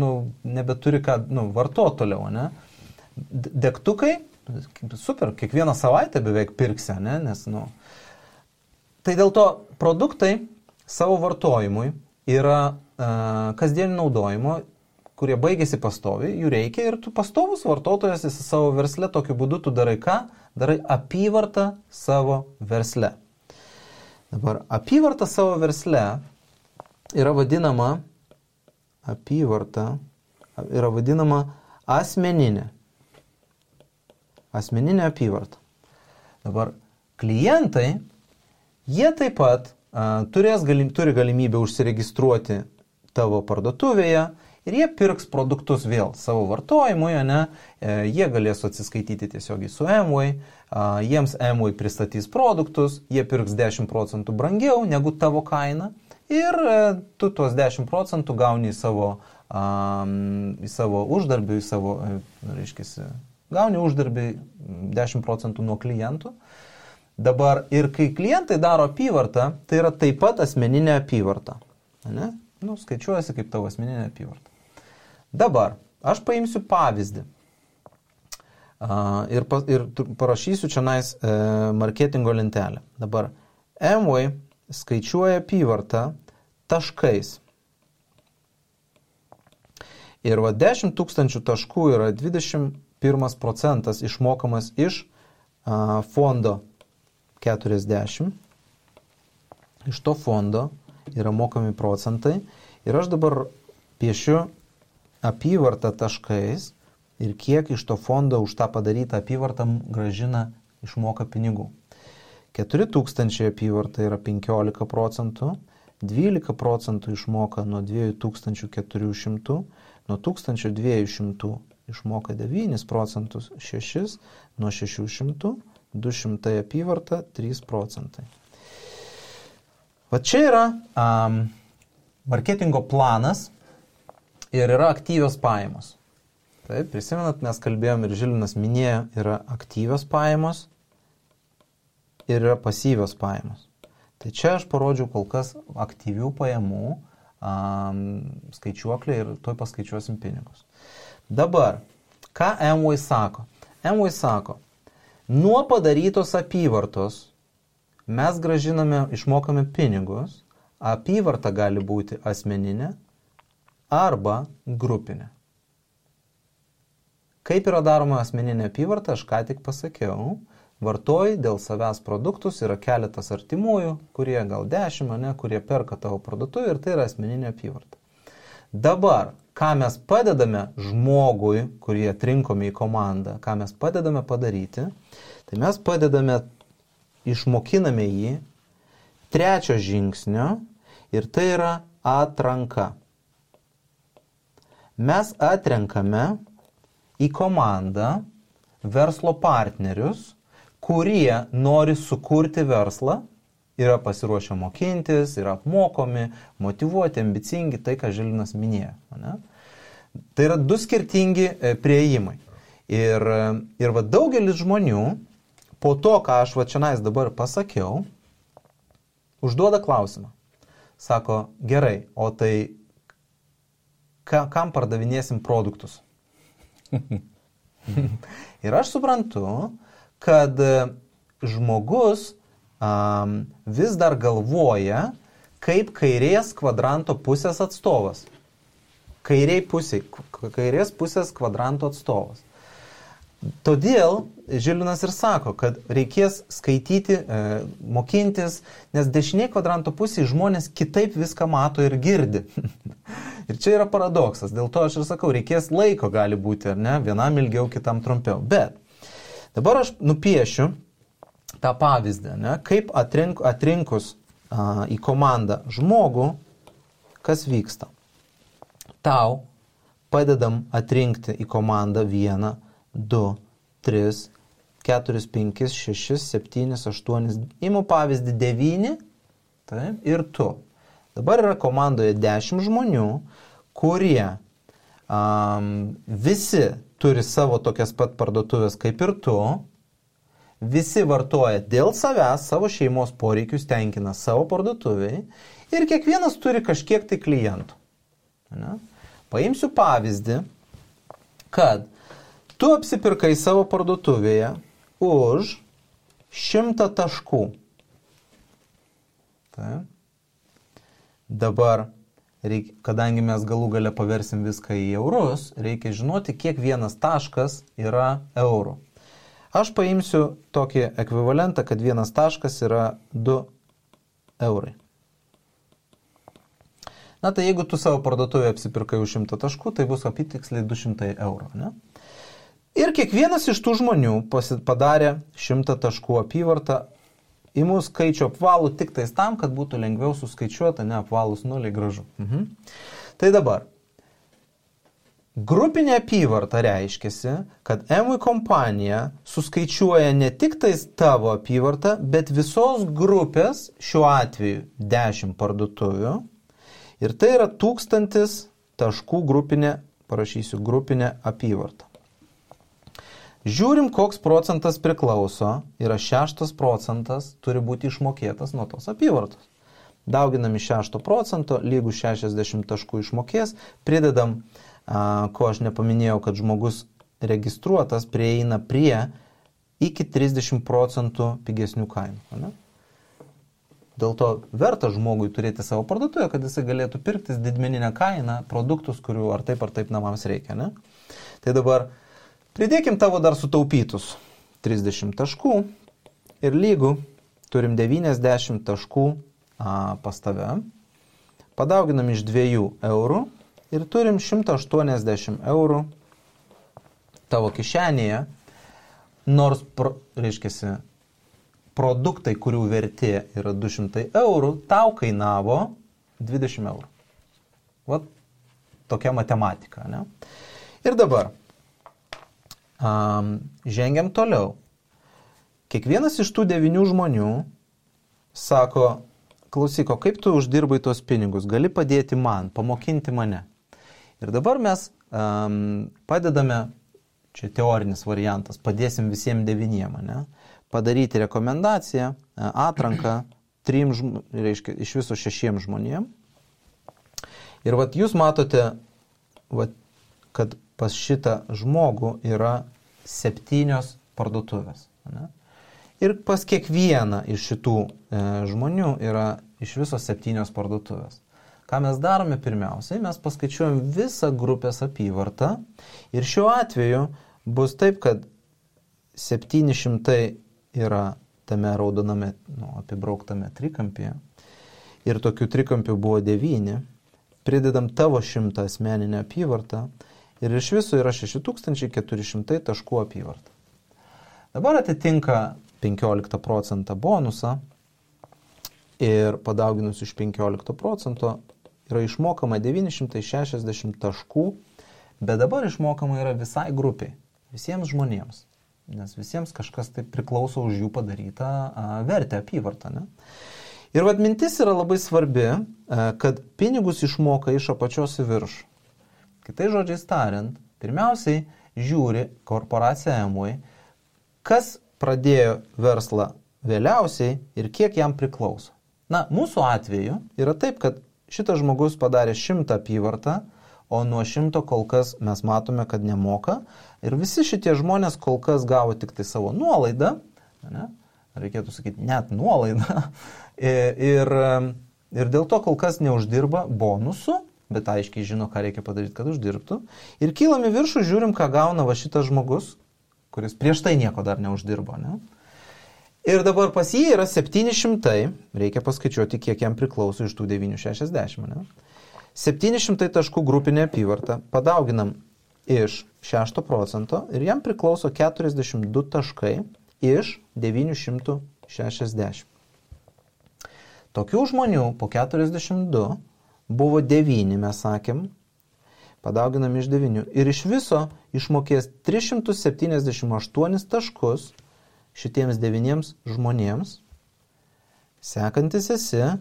S3: nebeturi ką, vartoti toliau, ne? Degtukai, super, kiekvieną savaitę beveik pirksi, ne? Nes, Tai dėl to produktai savo vartojimui yra kasdienį naudojimo, kurie baigėsi pastoviai, jų reikia ir tu pastovus vartotojas esi savo versle, tokiu būdu tu darai ką? Darai apyvartą savo versle. Dabar apyvarta savo versle yra vadinama asmeninė. Asmeninė apyvarta. Dabar klientai, jie taip pat turi galimybę užsiregistruoti tavo parduotuvėje ir jie pirks produktus vėl savo vartojimui, jie galės atsiskaityti tiesiogiai su Amway, jiems Amway pristatys produktus, jie pirks 10% brangiau negu tavo kaina ir tu tuos 10% gauni į savo uždarbį, gauni uždarbį 10% nuo klientų. Dabar ir kai klientai daro apyvartą, tai yra taip pat asmeninė apyvarta. Ne? Skaičiuojasi kaip tavo asmeninė apyvarta. Dabar aš paimsiu pavyzdį ir parašysiu čia marketingo lentelę. Dabar Amway skaičiuoja apyvartą taškais. Ir 10 000 taškų yra 21% išmokamas iš fondo 40. Iš to fondo yra mokami procentai. Ir aš dabar piešiu apyvartą taškais ir kiek iš to fondo už tą padarytą apyvartą grąžina išmoka pinigų. 4000 apyvarta yra 15%, 12% išmoka nuo 2400, nuo 1200 išmoka 9%, 6 nuo 600, 200 apyvarta 3%. Va čia yra marketingo planas ir yra aktyvios pajamos. Taip, prisimenat, mes kalbėjom ir Žilvinas minėjo, yra aktyvios pajamos ir yra pasyvios pajamos. Tai čia aš parodžiau kol kas aktyvių pajamų skaičiuoklę ir toj paskaičiuosim pinigus. Dabar, ką Amway sako? Amway sako, nuo padarytos apyvartos mes išmokame pinigus, apyvarta gali būti asmeninė arba grupinė. Kaip yra daroma asmeninė apyvarta, aš ką tik pasakiau, vartoji dėl savęs produktus, yra keletas artimųjų, kurie gal 10, kurie perka tavo parduotuvę ir tai yra asmeninė apyvarta. Dabar, ką mes padedame žmogui, kurį atrinkome į komandą, ką mes padedame padaryti, tai mes išmokiname jį 3 žingsnio ir tai yra atranka. Mes atrenkame į komandą verslo partnerius, kurie nori sukurti verslą, yra pasiruošę mokintis, yra apmokomi, motyvuoti, ambicingi, tai, ką Žilvinas minėjo. Ne? Tai yra 2 skirtingi prieimai. Ir va, daugelis žmonių, po to, ką aš va čia dabar pasakiau, užduoda klausimą. sako, gerai, o tai kam pardavinėsim produktus? Ir aš suprantu, kad žmogus vis dar galvoja, kaip kairės kvadranto pusės atstovas. Kairės pusės kvadranto atstovas. Todėl Žilvinas ir sako, kad reikės skaityti, mokintis, nes dešiniai kvadranto pusėje žmonės kitaip viską mato ir girdi. Ir čia yra paradoksas. Dėl to aš ir sakau, reikės laiko gali būti, ar ne? Vienam ilgiau, kitam trumpiau. Bet dabar aš nupiešiu tą pavyzdį, ne? Kaip atrinkus į komandą žmogų, kas vyksta. Tau padedam atrinkti į komandą 1, 2, 3, 4, 5, 6, 7, 8, imu pavyzdį 9, taip, ir tu. Dabar yra komandoje 10 žmonių, kurie visi turi savo tokias pat parduotuvės kaip ir tu, visi vartoja dėl savęs, savo šeimos poreikius tenkina savo parduotuviai ir kiekvienas turi kažkiek tai klientų. Ne? Paimsiu pavyzdį, kad tu apsipirkai savo parduotuvėje už 100 taškų. Taip. Dabar, kadangi mes galų gale paversim viską į eurus, reikia žinoti, kiek vienas taškas yra eurų. Aš paimsiu tokį ekvivalentą, kad vienas taškas yra 2 eurai. Na, tai jeigu tu savo parduotuvėje apsipirkai už 100 taškų, tai bus apytiksliai 200 eurų. Ne? Ir kiekvienas iš tų žmonių padarė 100 taškų apyvartą, imu skaičių apvalų tik tais tam, kad būtų lengviau suskaičiuota, ne apvalus nuliai gražu. Tai dabar, grupinė apyvarta reiškiasi, kad M kompanija suskaičiuoja ne tik tais tavo apyvartą, bet visos grupės, šiuo atveju 10 parduotuvių, ir tai yra 1000 taškų grupinė, parašysiu, grupinė apyvarta. Žiūrim, koks procentas priklauso, yra 6 procentas turi būti išmokėtas nuo tos apyvartos. Dauginami 6 procento, lygų 60 taškų išmokės, pridedam, ko aš nepaminėjau, kad žmogus registruotas prieina prie iki 30 procentų pigesnių kainų. Ne? Dėl to verta žmogui turėti savo parduotuvę, kad jisai galėtų pirktis didmeninę kainą produktus, kurių ar taip namams reikia. Ne? Tai dabar pridėkim tavo dar sutaupytus 30 taškų ir lygų turim 90 taškų pas tave. Padauginam iš 2 eurų ir turim 180 eurų tavo kišenėje, nors, reiškiasi, produktai, kurių vertė yra 200 eurų, tau kainavo 20 eurų. Vat tokia matematika. Ne? Ir dabar žengiam toliau. Kiekvienas iš tų 9 žmonių sako, klausyk, kaip tu uždirbai tos pinigus, gali padėti man, pamokinti mane. Ir dabar mes padedame, čia teorinis variantas, padėsim visiems 9, ne? Padaryti rekomendaciją, atranką 3, reiškia, iš viso 6 žmonėm. Ir vat jūs matote, kad pas šitą žmogų yra 7 parduotuvės. Ne? Ir pas kiekvieną iš šitų žmonių yra iš viso 7 parduotuvės. Ką mes darome pirmiausiai? Mes paskaičiuojam visą grupės apyvartą ir šiuo atveju bus taip, kad 700 yra tame raudoname, apibrauktame trikampyje ir tokių trikampių buvo 9, pridedam tavo 100 asmeninę apyvartą ir iš viso yra 6400 taškų apyvarta. Dabar atitinka 15 procentą bonusą ir padauginus iš 15 procento yra išmokama 960 taškų, bet dabar išmokama yra visai grupiai, visiems žmonėms. Nes visiems kažkas tai priklauso už jų padarytą vertę, apyvartą. Ne? Ir vat mintis yra labai svarbi, kad pinigus išmoka iš apačios į viršų. Kitais žodžiais tariant, pirmiausiai žiūri korporacija Amway, kas pradėjo verslą vėliausiai ir kiek jam priklauso. Mūsų atveju yra taip, kad šitas žmogus padarė 100 apyvartą, o nuo 100 kol kas mes matome, kad nemoka. Ir visi šitie žmonės kol kas gavo tik tai savo nuolaidą, ne? Reikėtų sakyti, net nuolaidą. Ir dėl to kol kas neuždirba bonusų, bet aiškiai žino, ką reikia padaryti, kad uždirbtų. Ir kylam į viršų, žiūrim, ką gauna va šitas žmogus, kuris prieš tai nieko dar neuždirbo, ne? Ir dabar pas jį yra 700, reikia paskaičiuoti, kiek jam priklauso iš tų 960. Ne? 700 taškų grupinė apyvarta, padauginam iš 6% ir jam priklauso 42 taškai iš 960. Tokių žmonių po 42 buvo 9, mes sakėm, padauginam iš 9 ir iš viso išmokės 378 taškus šitiems 9 žmonėms. Sekantis esi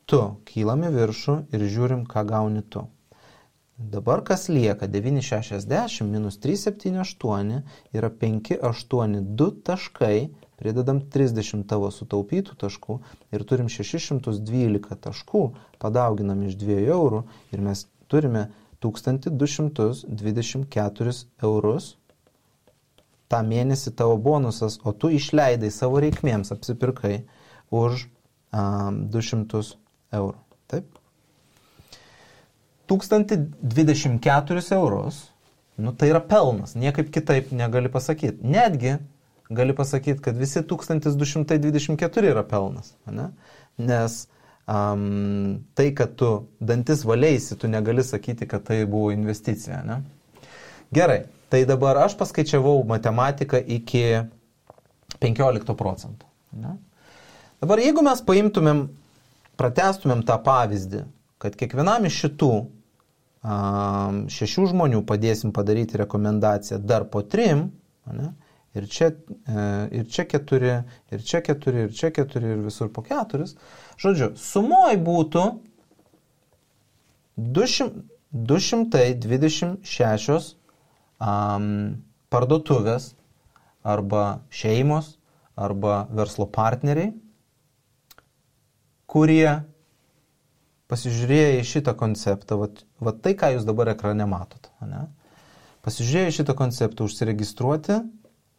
S3: tu, kylam į viršų ir žiūrim, ką gauni tu. Dabar kas lieka? 960 minus 378 yra 582 taškai, pridedam 30 tavo sutaupytų taškų ir turim 612 taškų, padauginam iš 2 eurų ir mes turime 1224 eurus. tą mėnesį tavo bonusas, o tu išleidai savo reikmėms, apsipirkai už 200 eurų. Taip? 1024 eurus, tai yra pelnas, niekaip kitaip negali pasakyti. Netgi gali pasakyti, kad visi 1224 yra pelnas. Ne? Nes tai, kad tu dantis valėsi, tu negali sakyti, kad tai buvo investicija. Ne? Gerai, tai dabar aš paskaičiavau matematiką iki 15%. Ne? Dabar jeigu mes paimtumėm, pratęstumėm tą pavyzdį, kad kiekvienam iš šitų 6 žmonių padėsim padaryti rekomendaciją dar po 3, ne? Ir čia 4, ir čia 4, ir čia 4, ir visur po 4. Žodžiu, sumoj būtų 226 parduotuvės arba šeimos arba verslo partneriai, kurie pasižiūrėję į šitą konceptą, va tai, ką jūs dabar ekrane matot, ne? Pasižiūrėję į šitą konceptą, užsiregistruoti,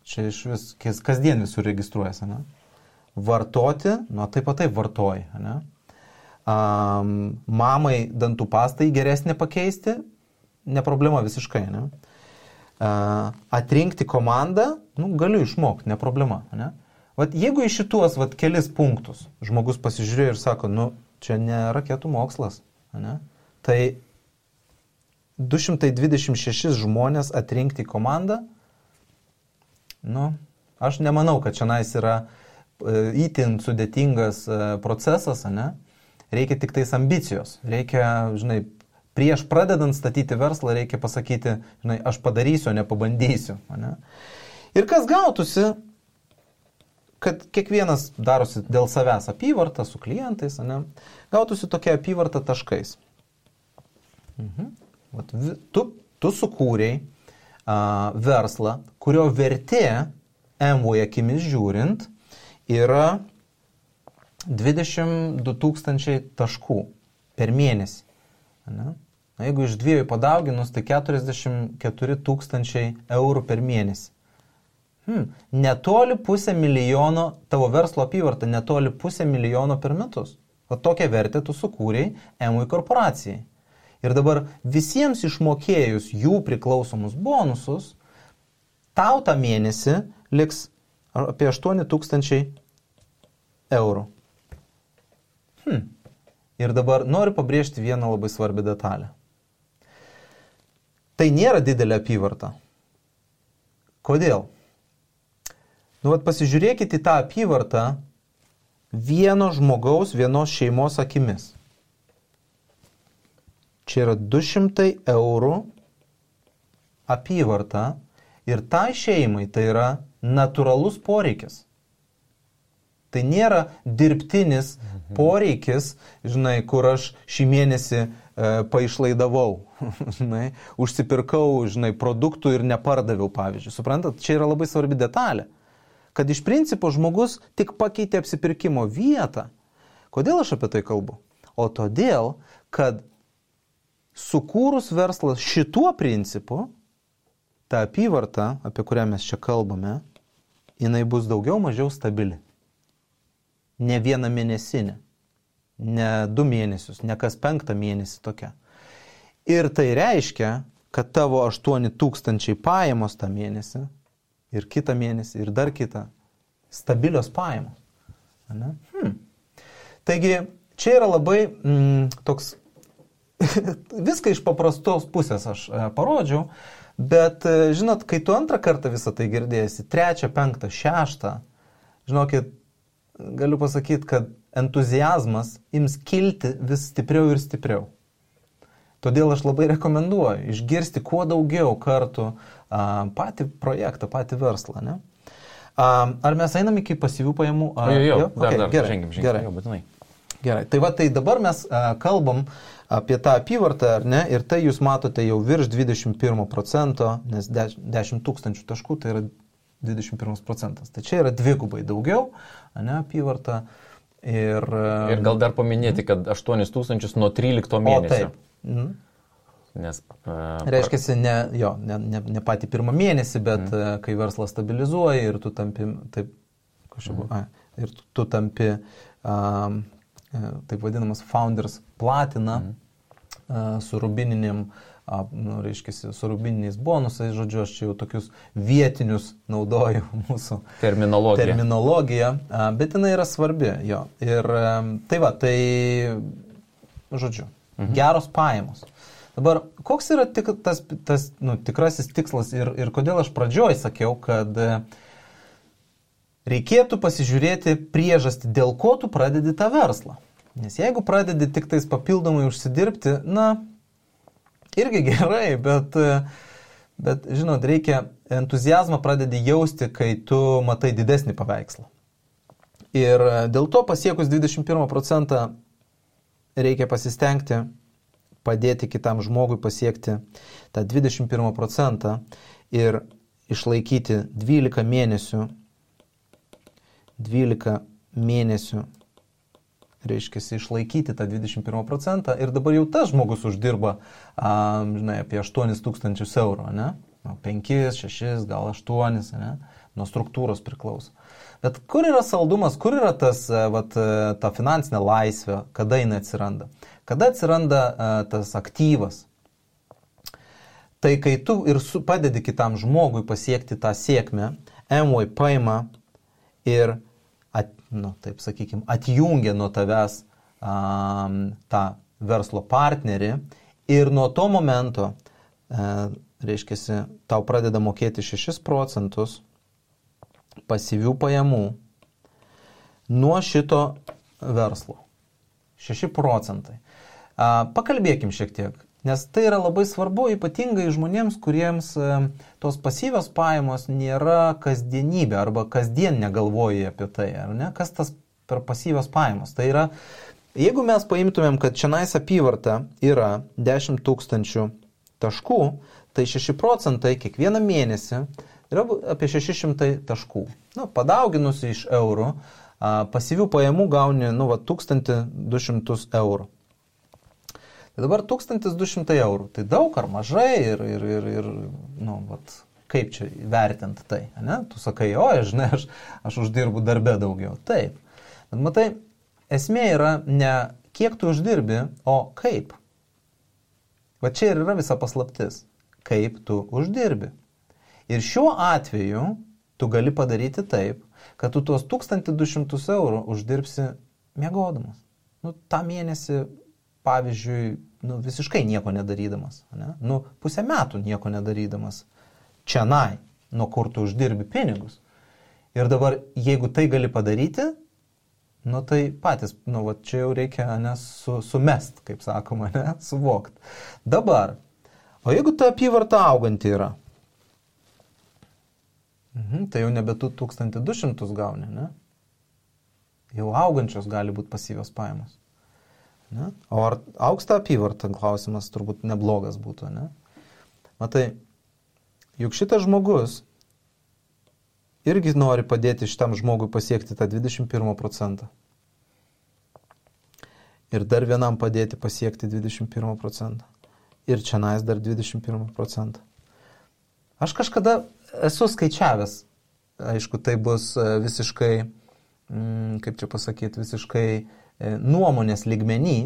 S3: čia iš vis, kasdien visur registruojasi, ne? Vartoti, taip pat taip vartoji, ne? Mamai dantų pastai geresnė pakeisti, ne problema visiškai, ne? Atrinkti komandą, galiu išmokti, ne problema, ne? Vat jeigu į šituos kelis punktus žmogus pasižiūrėjo ir sako, čia ne raketų mokslas, ne? Tai 226 žmonės atrinkti komandą, aš nemanau, kad šiandien yra itin sudėtingas procesas, ne? Reikia tik tais ambicijos, reikia, prieš pradedant statyti verslą reikia pasakyti, aš padarysiu, nepabandysiu, ne? Ir kas gautųsi, kad kiekvienas darosi dėl savęs apyvartą su klientais, ne? Gautųsi tokia apyvarta taškais. Tu sukūrei verslą, kurio vertė MVI akimis žiūrint yra 22 000 taškų per mėnesį. Ne? Jeigu iš 2 padauginus, tai 44 000 eurų per mėnesį. Netoli 500 000 tavo verslo apyvarta, netoli 500 000 per metus. O tokią vertę tu sukūrei MVI korporacijai. Ir dabar visiems išmokėjus jų priklausomus bonusus, tau tą mėnesį liks apie 8 000 eurų. Ir dabar noriu pabrėžti vieną labai svarbią detalę. Tai nėra didelė apyvarta. Kodėl? Pasižiūrėkite į tą apyvartą vieno žmogaus, vienos šeimos akimis. Čia yra 200 eurų apyvarta ir tai šeimai tai yra natūralus poreikis. Tai nėra dirbtinis poreikis, kur aš šį mėnesį paišlaidavau, užsipirkau, produktų ir nepardaviau, pavyzdžiui. Suprantat, čia yra labai svarbi detalė, kad iš principo žmogus tik pakeitė apsipirkimo vietą, Kodėl aš apie tai kalbu? O todėl, kad sukūrus verslą šituo principu, ta apyvarta, apie kurią mes čia kalbame, jinai bus daugiau mažiau stabili. Ne vieną mėnesinę, ne 2 mėnesius, ne kas 5 mėnesį tokia. Ir tai reiškia, kad tavo 8,000 pajamos tą mėnesį ir kitą mėnesį ir dar kitą stabilios pajamos. Ne? Taigi, čia yra labai toks, viską iš paprastos pusės aš parodžiau, bet, žinot, kai tu antrą kartą visą tai girdėsi, 3, 5, 6, žinokit, galiu pasakyti, kad entuziazmas ims kilti vis stipriau ir stipriau. Todėl aš labai rekomenduoju išgirsti kuo daugiau kartų patį projektą, patį verslą. Ne? Ar mes einam iki pasyvių pajamų?
S2: Dar
S3: gerai,
S2: žengim,
S3: gerai.
S2: Jau būtinai.
S3: Gerai, tai dabar mes kalbam apie tą apyvartą, ar ne, ir tai jūs matote jau virš 21%, nes 10 000 taškų tai yra 21%. Tai čia yra dvigubai daugiau, ne, apyvarta. Ir
S2: gal dar paminėti, kad 8 000 nuo 13 mėnesio.
S3: O, taip. Nes, reiškia, ne patį pirmą mėnesį, bet kai verslas stabilizuoja ir tu tampi, tu tampi, taip vadinamas founders platina su rubininiam, su rubininiais bonusais, žodžiu, aš čia jau tokius vietinius naudoju mūsų terminologiją, bet jinai yra svarbi, jo. Ir tai žodžiu, geros pajamos. Dabar, koks yra tas tikrasis tikslas ir kodėl aš pradžioj sakiau, kad reikėtų pasižiūrėti priežastį, dėl ko tu pradedi tą verslą. Nes jeigu pradedi tik tais papildomai užsidirbti, irgi gerai, bet žinot, reikia entuziazmą pradedi jausti, kai tu matai didesnį paveikslą. Ir dėl to pasiekus 21% reikia pasistengti padėti kitam žmogui pasiekti tą 21% ir išlaikyti 12 mėnesių, reiškia, išlaikyti tą 21% ir dabar jau tas žmogus uždirba, apie 8 000 eurų, ne? 5, 6, gal 8, ne? Nuo struktūros priklauso. Bet kur yra saldumas, kur yra ta finansinė laisvė, kada jinai atsiranda? Kada atsiranda tas aktyvas? Tai kai tu ir padedi kitam žmogui pasiekti tą sėkmę, Amway paima ir, taip sakykime, atjungia nuo tavęs tą verslo partnerį ir nuo to momento, reiškia, tau pradeda mokėti 6% pasyvių pajamų nuo šito verslo. 6%. Pakalbėkim šiek tiek, nes tai yra labai svarbu, ypatingai žmonėms, kuriems tos pasyvios pajamos nėra kasdienybė arba kasdien negalvoji apie tai, ar ne? Kas tas per pasyvios pajamos? Tai yra, jeigu mes paimtumėm, kad čionais apyvarta yra 10 000 taškų, tai 6% kiekvieną mėnesį yra apie 600 taškų. Padauginus iš eurų, pasyvių pajamų gauni 1200 eurų. Tai dabar 1200 eurų. Tai daug ar mažai ir kaip čia vertinti tai? Ne? Tu sakai, žinai, aš uždirbu darbe daugiau. Taip. Bet matai, esmė yra ne kiek tu uždirbi, o kaip. Va čia ir yra visa paslaptis. Kaip tu uždirbi. Ir šiuo atveju tu gali padaryti taip, kad tu tuos 1200 eurų uždirbsi miegodamas. tą mėnesį, pavyzdžiui, visiškai nieko nedarydamas, ne? Pusę metų nieko nedarydamas. Čianai, nuo kur tu uždirbi pinigus. Ir dabar, jeigu tai gali padaryti, tai patys, čia jau reikia sumest, kaip sakoma, suvokti. Dabar, o jeigu ta apyvarta auganti yra, tai jau nebe 1200 gauni, ne? Jau augančios gali būti pasyvios pajamos. Ne? O ar augs ta apyvarta, klausimas turbūt neblogas būtų, ne? Matai, juk šitas žmogus irgi nori padėti šitam žmogui pasiekti tą 21%. ir dar vienam padėti pasiekti 21%. Ir čianais dar 21%. Aš kažkada esu skaičiavęs, aišku, tai bus visiškai, kaip čia pasakyti, visiškai nuomonės lygmenį,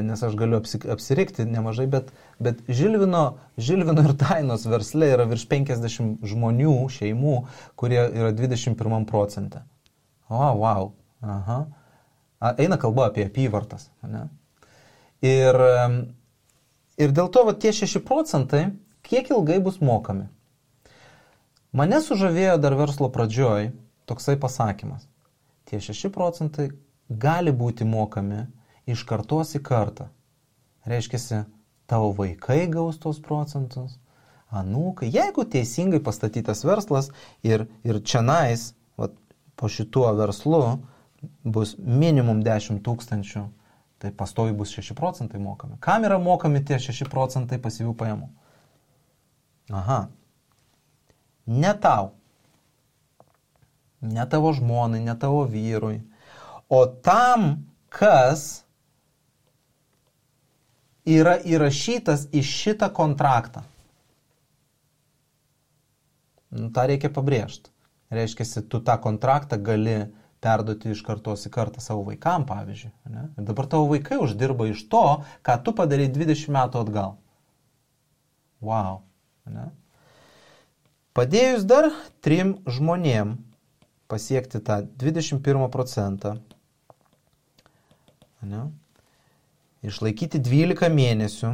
S3: nes aš galiu apsirikti nemažai, bet Žilvino ir Dainos versle yra virš 50 žmonių, šeimų, kurie yra 21%. Wow. Aha. Eina kalba apie apyvartas. Ne? Ir dėl to tie 6%, kiek ilgai bus mokami? Mane sužavėjo dar verslo pradžioj toksai pasakymas. Tie 6% gali būti mokami iš kartos į kartą. Reiškiasi, tavo vaikai gaus tos procentus, anūkai. Jeigu teisingai pastatytas verslas ir čianais, po šituo verslu, bus minimum 10 000, tai pastovi bus 6% mokami. Kam yra mokami tie 6% pasyvių pajamų? Aha. Ne tau. Ne tavo žmonai, ne tavo vyrui. O tam, kas yra įrašytas į šitą kontraktą. Ta reikia pabrėžti. Reiškia, tu tą kontraktą gali perduoti iš kartos į kartą savo vaikam, pavyzdžiui. Ne? Ir dabar tavo vaikai uždirba iš to, ką tu padarei 20 metų atgal. Wow. Ne? Padėjus dar 3 žmonėm pasiekti tą 21%, ne? Išlaikyti 12 mėnesių,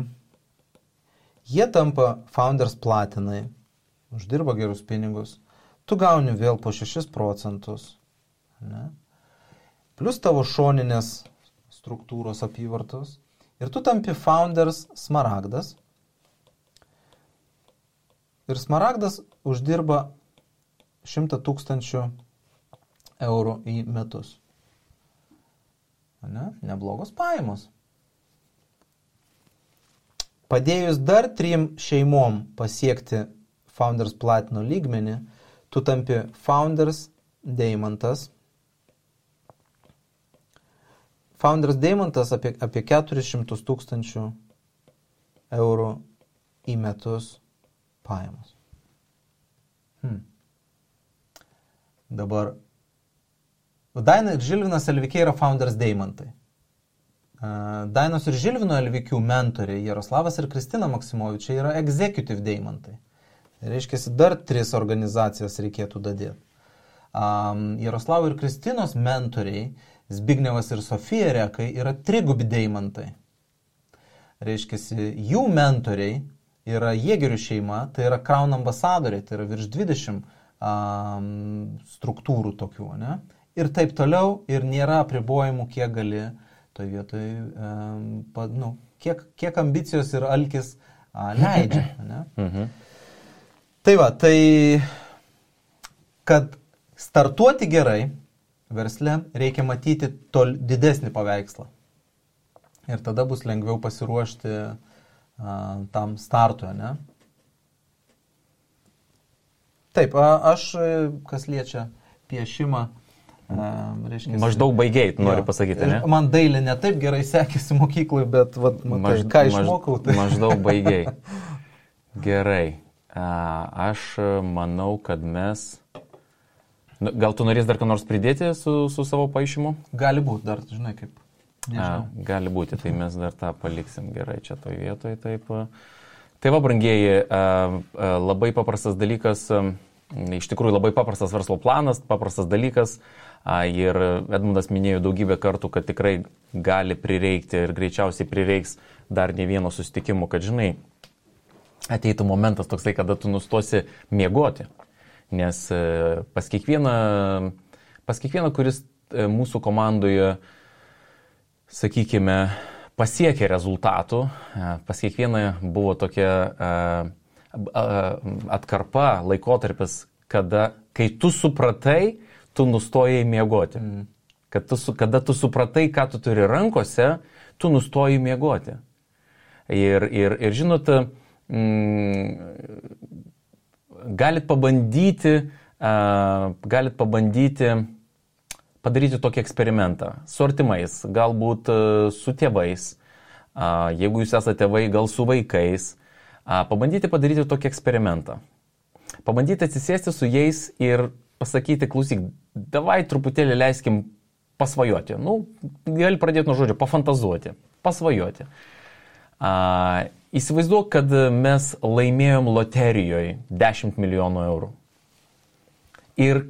S3: jie tampa Founders Platinai, uždirba gerus pinigus, tu gauni vėl po 6%, ne? Plus tavo šoninės struktūros apyvartos ir tu tampi Founders Smaragdas. Ir Smaragdas uždirba 100 000 eurų į metus. Ne? Neblogos pajamos. Padėjus dar 3 šeimom pasiekti Founders Platino lygmenį, tu tampi Founders Deimantas. Founders Deimantas apie 400 000 eurų į metus pajamos. Dabar Daina ir Žilvinas Elvikiai yra Founders Deimantai. Dainos ir Žilvino Elvikių mentoriai Jaroslavas ir Kristina Maksimovičiai yra Executive Deimantai. Reiškia, dar 3 organizacijas reikėtų dadėti. Jaroslavo ir Kristinos mentoriai Zbignevas ir Sofija Rekai yra trigubi deimantai. Reiškia, jų mentoriai yra Jėgerių šeima, tai yra Crown ambasadoriai, tai yra virš 20 struktūrų tokių, ne? Ir taip toliau, ir nėra apribojimų, kiek gali toj vietoj, kiek ambicijos ir alkis leidžia. Ne? Tai va, tai kad startuoti gerai versle, reikia matyti didesnį paveikslą. Ir tada bus lengviau pasiruošti tam startui, ne? Taip, aš, kas liečia piešimą, reiškia...
S2: Maždaug baigiai, noriu pasakyti, ne?
S3: Man dailė ne taip gerai sekėsi mokyklai, bet ką išmokau, tai...
S2: Maždaug baigiai. Gerai. Aš manau, kad mes... Gal tu norės dar ką nors pridėti su savo paaišymu?
S3: Gali būti, dar, žinai, kaip...
S2: Gali būti, tai mes dar tą paliksim gerai čia toj vietoj. Taip. Tai va, brangieji, labai paprastas dalykas, iš tikrųjų labai paprastas verslo planas, paprastas dalykas. Ir Edmundas minėjo daugybę kartų, kad tikrai gali prireikti ir greičiausiai prireiks dar ne vieno susitikimo, kad, žinai, ateitų momentas toksai, kada tu nustosi miegoti. Nes pas kiekvieną, kuris mūsų komandoje, sakykime, pasiekė rezultatų, pas kiekvieną buvo tokia atkarpa, laikotarpis, kai tu supratai, tu nustojai miegoti. Kada tu supratai, ką tu turi rankose, tu nustojai miegoti. Ir žinot, galit pabandyti padaryti tokį eksperimentą su artimais, galbūt su tėvais, jeigu jūs esate tėvai, gal su vaikais, pabandyti padaryti tokį eksperimentą. Pabandyti atsisėsti su jais ir pasakyti, klausyk, davai truputėlį leiskim pasvajoti. Gali pradėti nuo žodžio, pafantazuoti, pasvajoti. Įsivaizduok, kad mes laimėjom loterijoje 10 milijonų eurų. Ir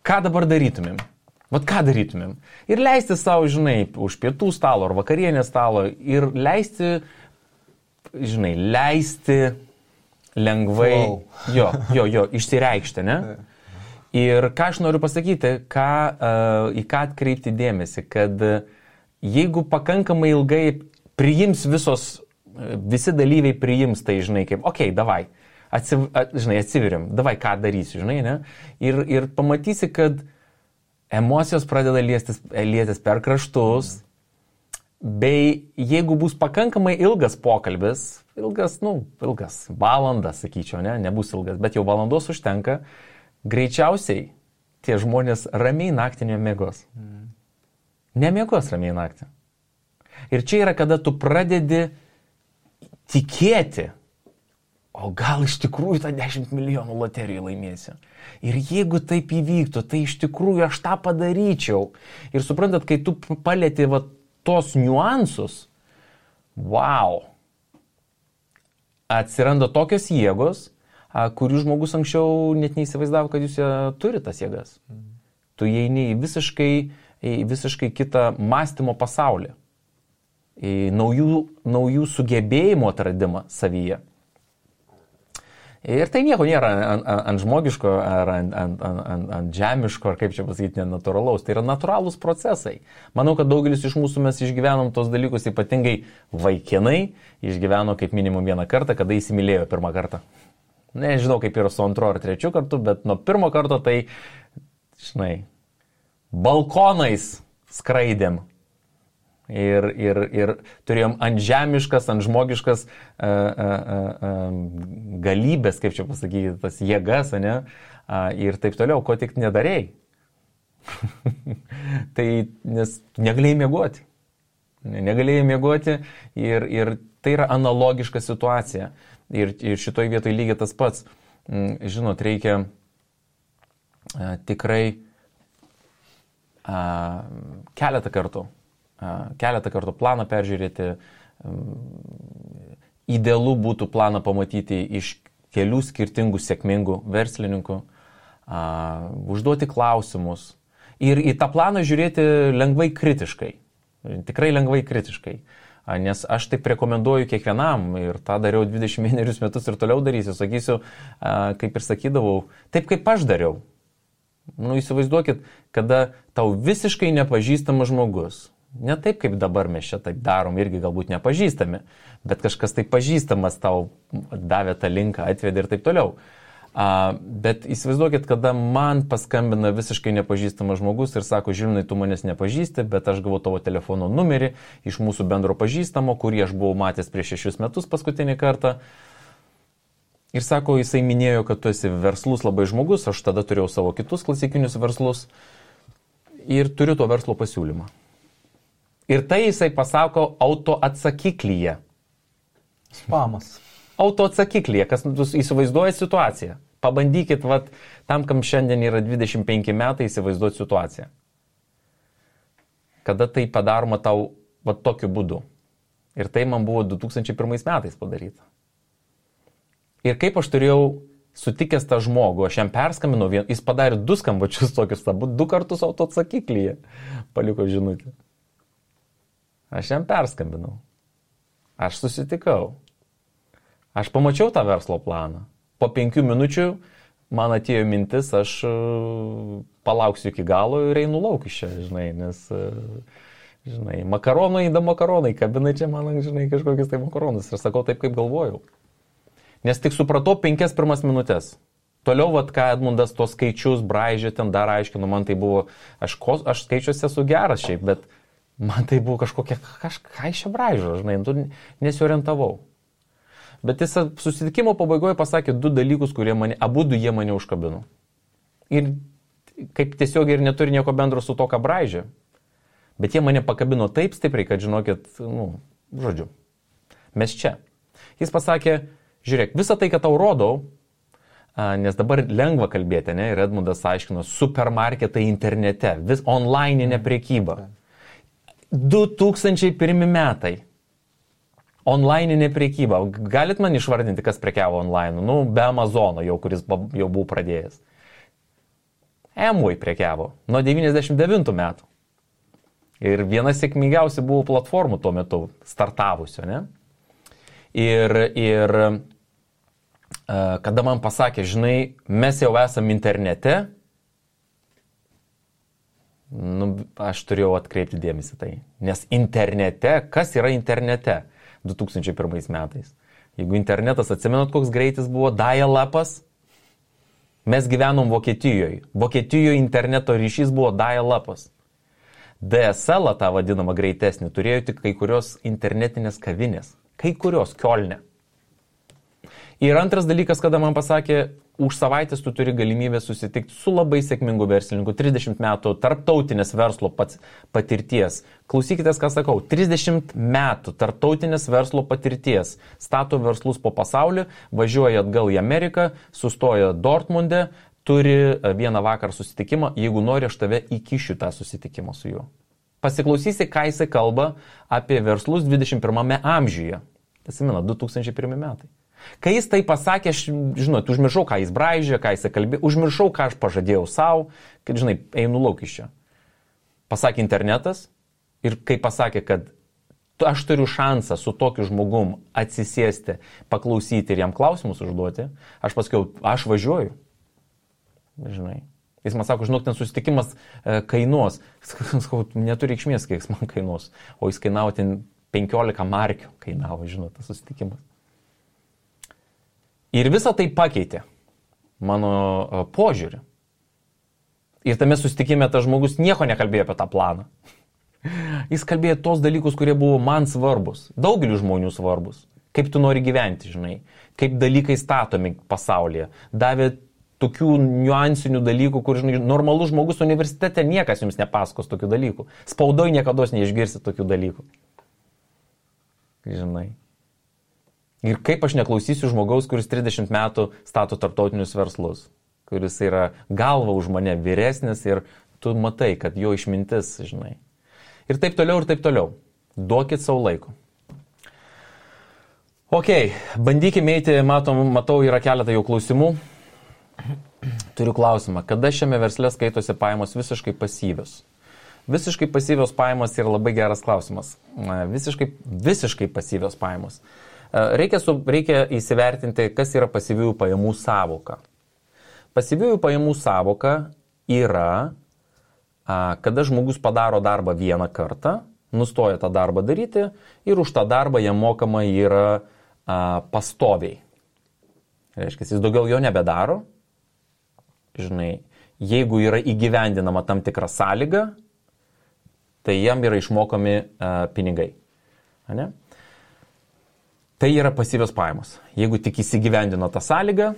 S2: ką dabar darytumėm? Vat ką darytumėm? Ir leisti savo, žinai, už pietų stalo ar vakarienės stalo ir leisti, žinai, leisti lengvai, išsireikšti, ne? Ir ką aš noriu pasakyti, į ką atkreipti dėmesį, kad jeigu pakankamai ilgai priims visi dalyviai priims tai, žinai, kaip, okei, davai, atsiveriam, davai, ką darysiu, žinai, ne? Ir pamatysi, kad emocijos pradeda liestis per kraštus, bei jeigu bus pakankamai ilgas pokalbis, ilgas, valandas, sakyčiau, nebus ilgas, bet jau valandos užtenka, greičiausiai tie žmonės ramiai naktį nemiegos. Nemiegos ramiai naktį. Ir čia yra, kada tu pradedi tikėti, o gal iš tikrųjų tą 10 milijonų loteriją laimėsiu. Ir jeigu taip įvyktų, tai iš tikrųjų aš tą padaryčiau. Ir suprantat, kai tu palieti tos niuansus, atsiranda tokios jėgos, kurių žmogus anksčiau net neįsivaizdavo, kad jūs turi tas jėgas. Tu įeini į visiškai kitą mąstymo pasaulį, į naujų sugebėjimų atradimą savyje. Ir tai nieko nėra ant žmogiško ar ant žemiško, ar kaip čia pasakyti, nenatūralaus. Tai yra natūralūs procesai. Manau, kad daugelis iš mūsų mes išgyvenom tos dalykus, ypatingai vaikinai, išgyveno kaip minimum vieną kartą, kada įsimylėjo pirmą kartą. Nežinau, kaip yra su antru ar trečiu kartu, bet nuo pirmo karto tai, žinai, balkonais skraidėm. Ir turėjom ant žemiškas, ant žmogiškas galybės, kaip čia pasakyti, tas jėgas, ne? Ir taip toliau, ko tik nedarėjai. Tai, nes negalėjai miegoti. Negalėjai miegoti ir tai yra analogiška situacija. Ir šitoj vietoj lygiai tas pats. Žinot, reikia tikrai keletą kartų planą peržiūrėti. Idealu būtų planą pamatyti iš kelių skirtingų sėkmingų verslininkų, užduoti klausimus ir į tą planą žiūrėti lengvai kritiškai, tikrai lengvai kritiškai. Nes aš taip rekomenduoju kiekvienam ir tą dariau 21 metus ir toliau darysiu, sakysiu, kaip ir sakydavau, taip kaip aš dariau. Įsivaizduokit, kada tau visiškai nepažįstamas žmogus, ne taip kaip dabar mes čia taip darom, irgi galbūt nepažįstami, bet kažkas taip pažįstamas tau davė tą linką, atvedė ir taip toliau. Bet įsivaizduokit, kada man paskambina visiškai nepažįstamas žmogus ir sako, Žilvinai, tu manęs nepažįsti, bet aš gavau tavo telefono numerį iš mūsų bendro pažįstamo, kurį aš buvau matęs prieš 6 metus paskutinį kartą. Ir sako, jisai minėjo, kad tu esi verslus labai žmogus, aš tada turėjau savo kitus klasikinius verslus ir turiu to verslo pasiūlymą. Ir tai jisai pasako autoatsakiklyje.
S3: Spamas.
S2: Autoatsakiklyje, kas įsivaizduoja situaciją. Pabandykit, tam, kam šiandien yra 25 metai, įsivaizduoti situaciją. Kada tai padaroma tau tokiu būdu. Ir tai man buvo 2001 metais padaryta. Ir kaip aš turėjau sutikęs tą žmogų, aš jam perskambinau, jis padarė 2 skambučius tokius, 2 kartus autoatsakiklyje paliko žinutę. Aš jam perskambinau. Aš susitikau. Aš pamačiau tą verslo planą. Po 5 minučių man atėjo mintis, aš palauksiu iki galo ir einu lauk iš čia, žinai, nes, žinai, makaronai, kabina čia man, žinai, kažkokius tai makaronus. Ir sakau taip, kaip galvojau. Nes tik supratau 5 pirmas minutės. Toliau, ką Edmundas tos skaičius braižė, ten dar aiškino, man tai buvo, aš skaičiuose esu geras šiaip, bet man tai buvo kažkokia, ką iš čia braižo, žinai, nesiorientavau. Bet jis susitikimo pabaigoje pasakė 2 dalykus, kurie abudu jie mane užkabino. Ir kaip tiesiog ir neturi nieko bendro su to, ką braižė. Bet jie mane pakabino taip stipriai, kad žinokit, žodžiu, mes čia. Jis pasakė, žiūrėk, visą tai, ką tau rodau, nes dabar lengva kalbėti, ne, ir Edmundas aiškino, supermarketai internete, vis online'inė prekyba. 2001 metai. Online'inė prekyba. Galit man išvardinti, kas prekiavo online? Be Amazono jau, kuris jau buvo pradėjęs. Amway prekiavo nuo 99 metų. Ir viena sėkmingiausia buvo platformų tuo metu startavusio, ne? Ir kada man pasakė, žinai, mes jau esam internete, aš turėjau atkreipti dėmesį tai. Nes internete, kas yra internete 2001 metais? Jeigu internetas, atsimenat, koks greitis buvo, dial-upas, mes gyvenom Vokietijoje. Vokietijoje interneto ryšys buvo dial-upas. DSL, tą vadinamą greitesnį, turėjo tik kai kurios internetinės kavinės. Kai kurios, Kiolne. Ir antras dalykas, kada man pasakė, už savaitės tu turi galimybę susitikti su labai sėkmingu verslininku, 30 metų tarptautinės verslo patirties. Klausykitės, ką sakau, 30 metų tarptautinės verslo patirties. Stato verslus po pasaulį, važiuoja atgal į Ameriką, sustoja Dortmunde, turi vieną vakarą susitikimą, jeigu nori, aš tave įkišiu tą susitikimą su juo. Pasiklausysi, ką jisai kalba apie verslus 21 amžiuje. Atsimena, 2001 metai. Kai jis tai pasakė, aš, žinot, užmiršau, ką jis braižė, ką jis kalbė, užmiršau, ką aš pažadėjau savo, kad, žinai, einu lauk iš čia. Pasakė internetas ir kai pasakė, kad aš turiu šansą su tokiu žmogum atsisėsti, paklausyti ir jam klausimus užduoti, aš pasakiau, aš važiuoju. Žinai. Jis man sako, žinok, ten susitikimas kainuos. Sakau, neturi reikšmės, kiek jis man kainuos. O jis kainavo ten 15 markių, kainavo, žinot, tas susitikimas. Ir visą tai pakeitė mano požiūrį. Ir tame susitikime tas žmogus nieko nekalbėjo apie tą planą. Jis kalbėjo tos dalykus, kurie buvo man svarbus, daugeliu žmonių svarbus. Kaip tu nori gyventi, žinai, kaip dalykai statomi pasaulyje. Davė tokių niuansinių dalykų, kur, žinai, normalus žmogus universitete niekas jums nepasakos tokių dalykų. Spaudoj niekados neišgirsi tokių dalykų. Žinai. Ir kaip aš neklausysiu žmogaus, kuris 30 metų stato tarptautinius verslus, kuris yra galva už mane vyresnis ir tu matai, kad jo išmintis, žinai. Ir taip toliau, ir taip toliau. Duokit savo laiko. Ok, bandykime eiti, matau, yra keletą jau klausimų. Turiu klausimą, kada šiame versle skaitosi pajamos visiškai pasyvios? Visiškai pasyvios pajamos yra labai geras klausimas. Visiškai pasyvios pajamos. Reikia įsivertinti, kas yra pasyviųjų pajamų sąvoka. Pasyviųjų pajamų sąvoka yra, kada žmogus padaro darbą vieną kartą, nustoja tą darbą daryti ir už tą darbą jam mokama yra pastoviai. Reiškia, jis daugiau jo nebedaro. Žinai, jeigu yra įgyvendinama tam tikra sąlyga, tai jam yra išmokami pinigai. Ane? Tai yra pasyvios pajamos. Jeigu tik įsigyvendino tą sąlygą,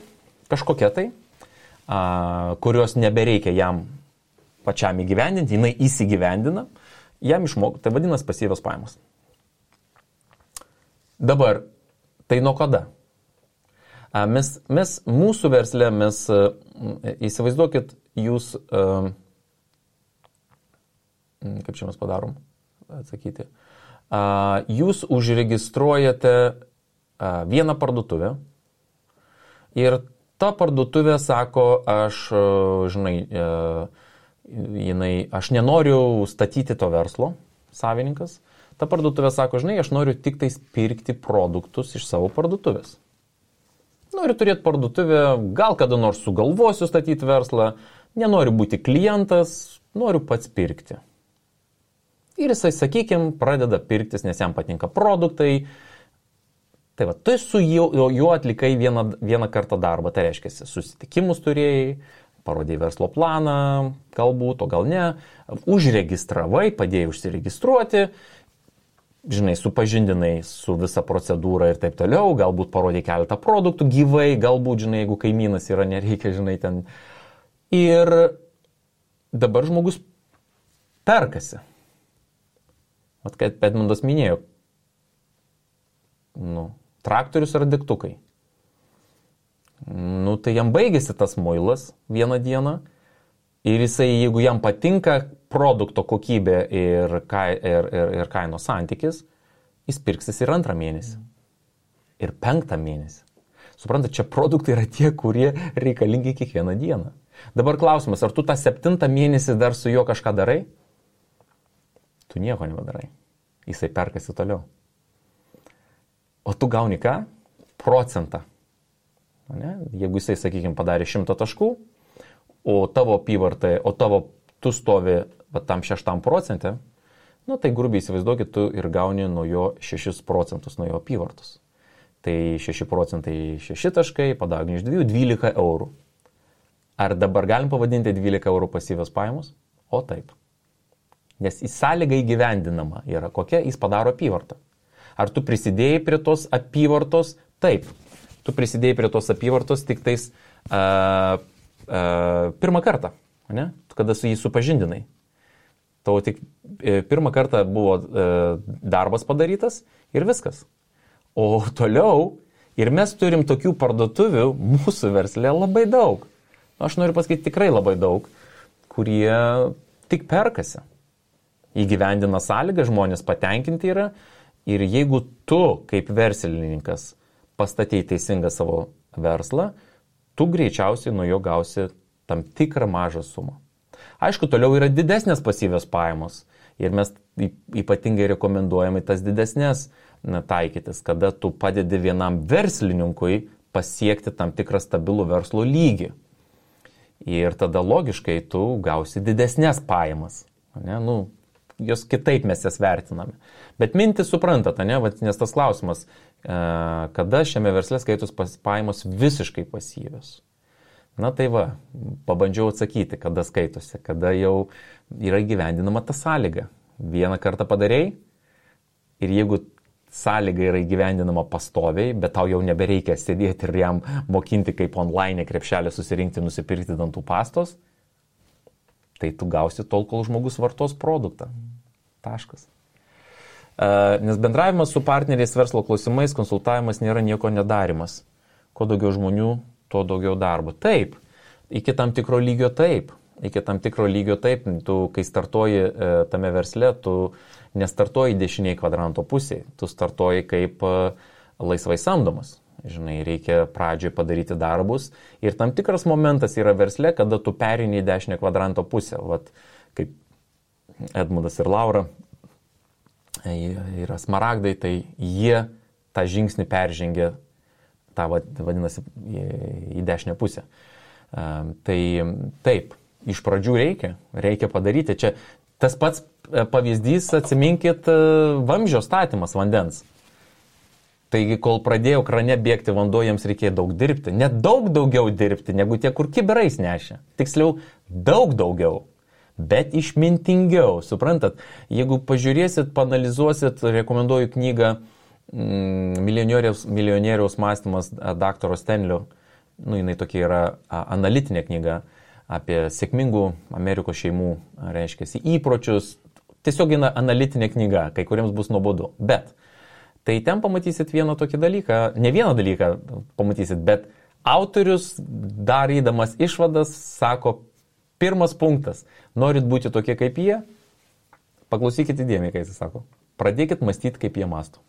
S2: kažkokia tai, kurios nebereikia jam pačiam įgyvendinti, jinai įsigyvendina, jam išmokti, tai vadinasi pasyvios pajamos. Dabar, tai nuo kada? Mes mūsų versle, įsivaizduokit, jūs, kaip čia mes padarom, atsakyti, jūs užregistruojate vieną parduotuvę ir ta parduotuvė sako, aš nenoriu statyti to verslo, savininkas. Ta parduotuvė sako, aš noriu tik tais pirkti produktus iš savo parduotuvės. Noriu turėti parduotuvę, gal kada nors sugalvosiu statyti verslą, nenoriu būti klientas, noriu pats pirkti. Ir jisai, sakykime, pradeda pirktis, nes jam patinka produktai. Tai va, tu su juo atlikai vieną kartą darbą, tai reiškia, susitikimus turėjai, parodėjai verslo planą, galbūt, o gal ne, užregistravai, padėjai užsiregistruoti, žinai, supažindinai su visa procedūra ir taip toliau, galbūt parodėjai keletą produktų gyvai, galbūt, žinai, jeigu kaimynas yra, nereikia, žinai, ten. Ir dabar žmogus perkasi. Vat kaip Edmundas minėjo, traktorius ar degtukai. Tai jam baigėsi tas muilas vieną dieną ir jisai, jeigu jam patinka produkto kokybė ir kainos santykis, jis pirksis ir 2 mėnesį. Ir 5 mėnesį. Suprantate, čia produktai yra tie, kurie reikalingi kiekvieną dieną. Dabar klausimas, ar tu tą 7 mėnesį dar su juo kažką darai? Tu nieko nebadarai. Jisai perkasi toliau. O tu gauni ką? Procentą. Ne? Jeigu jisai, sakykime, padarė 100 taškų, o tavo apyvartai, tu stovi tam 6%, tai grubiai įsivaizduokit, tu ir gauni nuo jo 6% nuo jo apyvartos. Tai 6% 6 taškai, padaugini iš 2, 12 eurų. Ar dabar galim pavadinti 12 eurų pasyvios pajamos? O taip. Nes į sąlygą įgyvendinama yra kokia, jis padaro apyvartą. Ar tu prisidėjai prie tos apyvartos? Taip. Tu prisidėjai prie tos apyvartos tik tais pirmą kartą, ne? Kada su jį supažindinai. Tau tik pirmą kartą buvo darbas padarytas ir viskas. O toliau, ir mes turim tokių parduotuvių mūsų versle labai daug. Aš noriu pasakyti tikrai labai daug, kurie tik perkasi. Įgyvendina sąlygą, žmonės patenkinti yra. Ir jeigu tu kaip verslininkas pastatei teisingą savo verslą, tu greičiausiai nuo jo gausi tam tikrą mažą sumą. Aišku, toliau yra didesnės pasyvios pajamos. Ir mes ypatingai rekomenduojame tas didesnės taikytis, kada tu padedi vienam verslininkui pasiekti tam tikrą stabilų verslo lygį. Ir tada logiškai tu gausi didesnės pajamas. Ne? Jos kitaip mes jas vertiname. Bet mintį suprantate, ne? Nes tas klausimas, kada šiame versle skaitos pajamos visiškai pasyvios. Tai pabandžiau atsakyti, kada skaitosi, kada jau yra įgyvendinama ta sąlyga. Vieną kartą padarei ir jeigu sąlyga yra įgyvendinama pastoviai, bet tau jau nebereikia sėdėti ir jam mokinti kaip online krepšelį susirinkti, nusipirkti dantų pastos, tai tu gausi tol, kol žmogus vartos produktą. Taškas. Nes bendravimas su partneriais verslo klausimais, konsultavimas nėra nieko nedarimas. Kuo daugiau žmonių, tuo daugiau darbo. Taip, iki tam tikro lygio taip. Tu, kai startuoji tame versle, tu nestartuoji dešiniai kvadranto pusėje, tu startuoji kaip laisvai samdomas. Žinai, reikia pradžioj padaryti darbus ir tam tikras momentas yra versle, kada tu perini į dešinę kvadranto pusę. Vat, kaip Edmundas ir Laura yra smaragdai, tai jie tą žingsnį peržengė, tą vadinasi, į dešinę pusę. Tai taip, iš pradžių reikia padaryti. Čia tas pats pavyzdys, atsiminkit, vamzdžio statymas vandens. Taigi, kol pradėjo krane bėgti vanduo, jiems reikėjo daug dirbti. Net daug daugiau dirbti, negu tie, kur kibirais nešė. Tiksliau, daug daugiau, bet išmintingiau. Suprantat, jeigu pažiūrėsit, panalizuosit, rekomenduoju knygą Milijonieriaus mąstymas daktaro Stenlio. Jinai tokia yra analitinė knyga apie sėkmingų Amerikos šeimų, reiškia, įpročius. Tiesiog analitinė knyga, kai kuriems bus nuobodu. Bet tai ten pamatysit vieną tokį dalyką, ne vieną dalyką pamatysit, bet autorius, darydamas išvadas, sako, pirmas punktas, norit būti tokie kaip jie, paklausykite įdėmiai, kai jis sako, pradėkit mąstyti, kaip jie mąsto.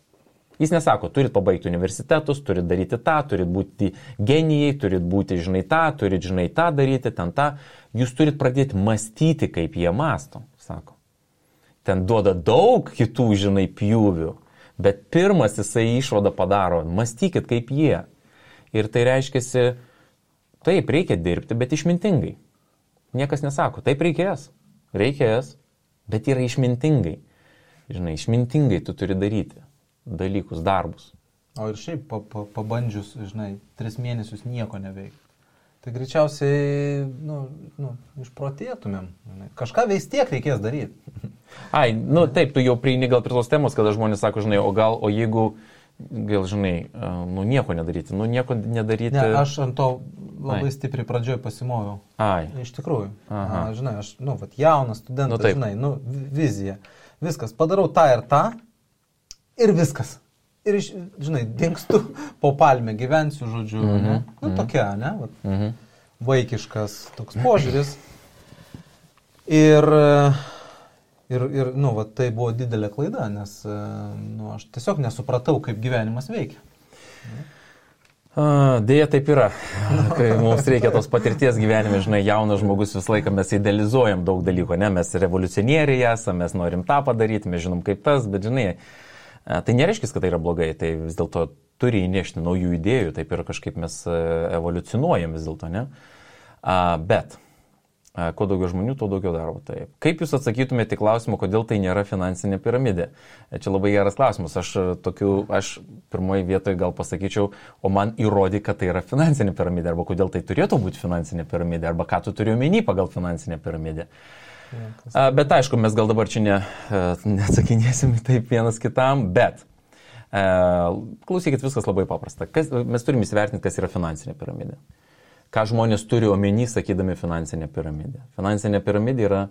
S2: Jis nesako, turit pabaigti universitetus, turit daryti tą, turit būti genijai, turit būti, žinai, tą daryti, ten tą. Jūs turit pradėti mąstyti, kaip jie mąsto, sako. Ten duoda daug kitų, žinai, pjūvių, bet pirmas jisai išvadą padaro, mąstykit kaip jie. Ir tai reiškiasi, taip, reikia dirbti, bet išmintingai. Niekas nesako, taip reikės, bet yra išmintingai. Žinai, išmintingai tu turi daryti dalykus, darbus.
S3: O ir šiaip pabandžius, žinai, 3 mėnesius nieko neveikti. Tai greičiausiai, išprotėtumėm. Kažką vis tiek reikės daryti.
S2: Taip, tu jau prieini gal prie tos temos, kada žmonės sako, žinai, o jeigu gal žinai, nieko nedaryti, nieko nedaryti.
S3: Ne, aš ant to labai stipriai pradžioj pasimoviau.
S2: Ai.
S3: Iš tikrųjų. Žinai, aš, jaunas studentas, žinai, vizija. Viskas, padarau tą ir viskas. Ir, žinai, dingstu po palmę, gyvensiu, žodžiu, ne? Tokia, ne? Vat, vaikiškas toks požiūris. Ir tai buvo didelė klaida, nes aš tiesiog nesupratau, kaip gyvenimas veikia.
S2: Deja, taip yra. Kai mums reikia tos patirties gyvenime, žinai, jaunas žmogus visą laiką mes idealizuojam daug dalykų, ne? Mes revoliucionieriai esame, mes norim tą padaryti, mes žinom kaip tas, bet žinai, tai nereiškia, kad tai yra blogai, tai vis dėlto turi įnešti naujų idėjų, taip ir kažkaip mes evoliucionuojam vis dėlto, ne? Bet kuo daugiau žmonių, tuo daugiau darbo. Taip. Kaip jūs atsakytumėte į klausimą, kodėl tai nėra finansinė piramidė? Čia labai geras klausimas. Aš pirmoji vietoje gal pasakyčiau, o man įrodė, kad tai yra finansinė piramidė, arba kodėl tai turėtų būti finansinė piramidė, arba ką tu turi omeny pagal finansinę piramidę. Bet aišku, mes gal dabar čia neatsakinėsim taip vienas kitam, bet klausykit, viskas labai paprasta. Mes turime įsivertinti, kas yra finansinė piramidė. Ką žmonės turi omeny, sakydami finansinę piramidę. Finansinė piramidė yra,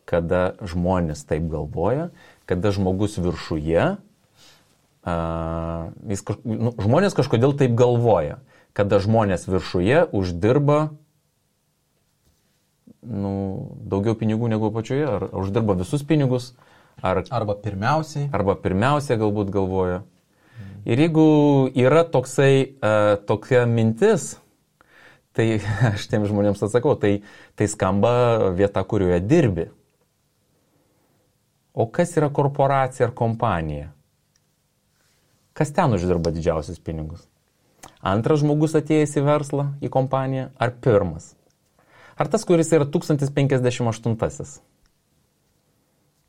S2: kada žmonės taip galvoja, kada žmogus viršuje, žmonės kažkodėl taip galvoja, kada žmonės viršuje uždirba daugiau pinigų negu apačioje, ar uždirba visus pinigus,
S3: arba
S2: pirmiausiai galbūt galvoja. Ir jeigu yra tokia mintis, tai aš tiem žmonėms atsakau, tai skamba vieta, kurioje dirbi. O kas yra korporacija ar kompanija? Kas ten uždirba didžiausius pinigus? Antras žmogus atėjęs į verslą, į kompaniją, ar pirmas? Ar tas, kuris yra 1058?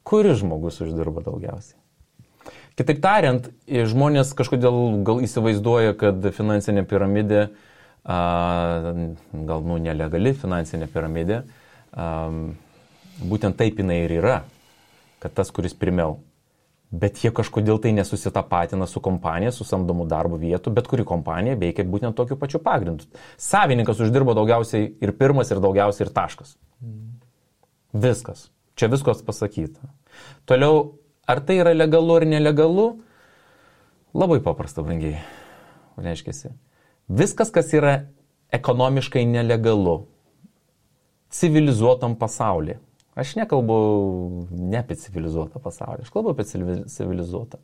S2: Kuris žmogus uždirba daugiausiai? Kitaip tariant, žmonės kažkodėl gal įsivaizduoja, kad finansinė piramidė gal nelegali finansinė piramidė, būtent taip jinai ir yra, kad tas, kuris pirmiau. Bet jie kažkodėl tai nesusitapatina su kompanija, su samdomų darbo vietų, bet kuri kompanija veikia būtent tokiu pačiu pagrindu. Savininkas uždirbo daugiausiai ir pirmas, ir daugiausiai ir taškas. Viskas. Čia viskas pasakyta. Toliau, ar tai yra legalu ar nelegalu? Labai paprasta, brangiai. Reiškiasi. Viskas, kas yra ekonomiškai nelegalu, civilizuotam pasaulyje. Aš nekalbu ne apie civilizuotą pasaulį, aš kalbu apie civilizuotą.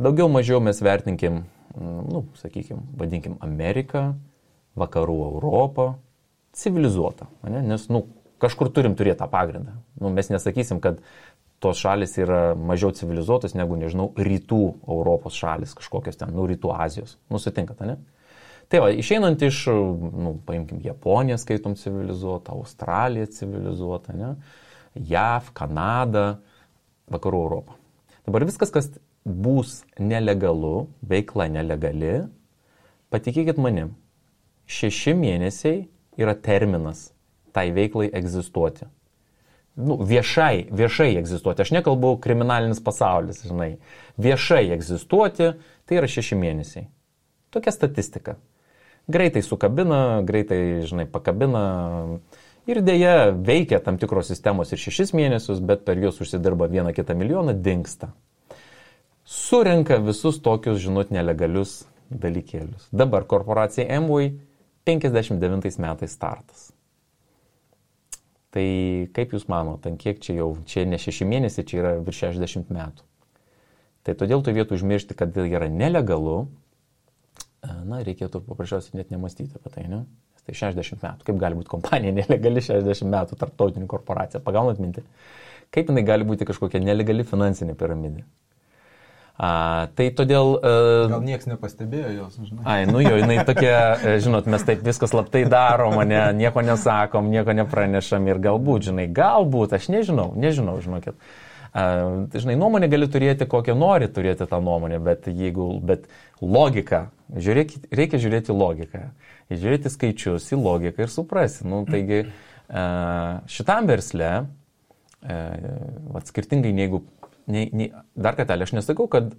S2: Daugiau mažiau mes vertinkim, vadinkim Ameriką, vakarų Europą, civilizuotą. Nes, kažkur turim turėti tą pagrindą. Mes nesakysim, kad tos šalis yra mažiau civilizuotos negu, rytų Europos šalis, kažkokios ten, rytų Azijos. Sutinkat, ne? Tai va, išeinant iš, paimkim, Japoniją skaitom civilizuotą, Australiją civilizuotą, ne? JAV, Kanada, vakarų Europą. Dabar viskas, kas bus nelegalu, veikla nelegali, patikėkit manim, 6 mėnesiai yra terminas tai veiklai egzistuoti. Viešai egzistuoti. Aš nekalbu kriminalinis pasaulis, žinai. Viešai egzistuoti, tai yra 6 mėnesiai. Tokia statistika. Greitai sukabina, greitai, pakabina ir dėja veikia tam tikros sistemos ir 6 mėnesius, bet per juos užsidirba 1-2 milijoną, dingsta. Surenka visus tokius, nelegalius dalykėlius. Dabar korporacija Amway 59 metais startas. Tai kaip jūs manote, kiek čia ne 6 mėnesiai, čia yra virš 60 metų. Tai todėl tu vietų užmiršti, kad tai yra nelegalu, reikėtų paprasčiausiai net nemastyti apie tai, ne? Tai 60 metų. Kaip gali būti kompanija nelegali 60 metų, tarptautinė korporacija? Pagaunat mintį? Kaip jinai gali būti kažkokia nelegali finansinė piramidė? Tai todėl...
S3: Gal niekas nepastebėjo jos, žinai.
S2: Jinai tokia, mes taip viskas slaptai darom, nieko nesakom, nieko nepranešam ir galbūt, aš nežinau, žinokit. Nuomonę gali turėti, kokią nori turėti tą nuomonę, bet logika, reikia žiūrėti logiką, žiūrėti skaičius į logiką ir suprasti. Taigi šitam versle, skirtingai negu dar kartelį, aš nesakau, kad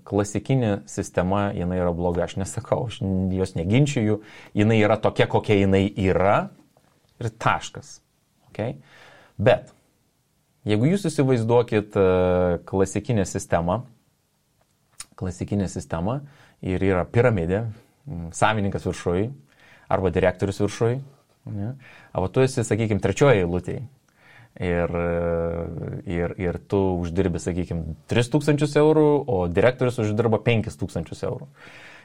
S2: klasikinė sistema, jinai yra bloga, aš nesakau, aš jos neginčiju, jinai yra tokia, kokia jinai yra ir taškas. Okay? Bet, jeigu jūs įsivaizduokit klasikinę sistemą ir yra piramidė, savininkas viršui arba direktorius viršui, ne? Arba tu esi, sakykime, trečioje eilutėje. Ir tu uždirbi, sakykime, 3000 eurų, o direktorius uždirba 5000 eurų.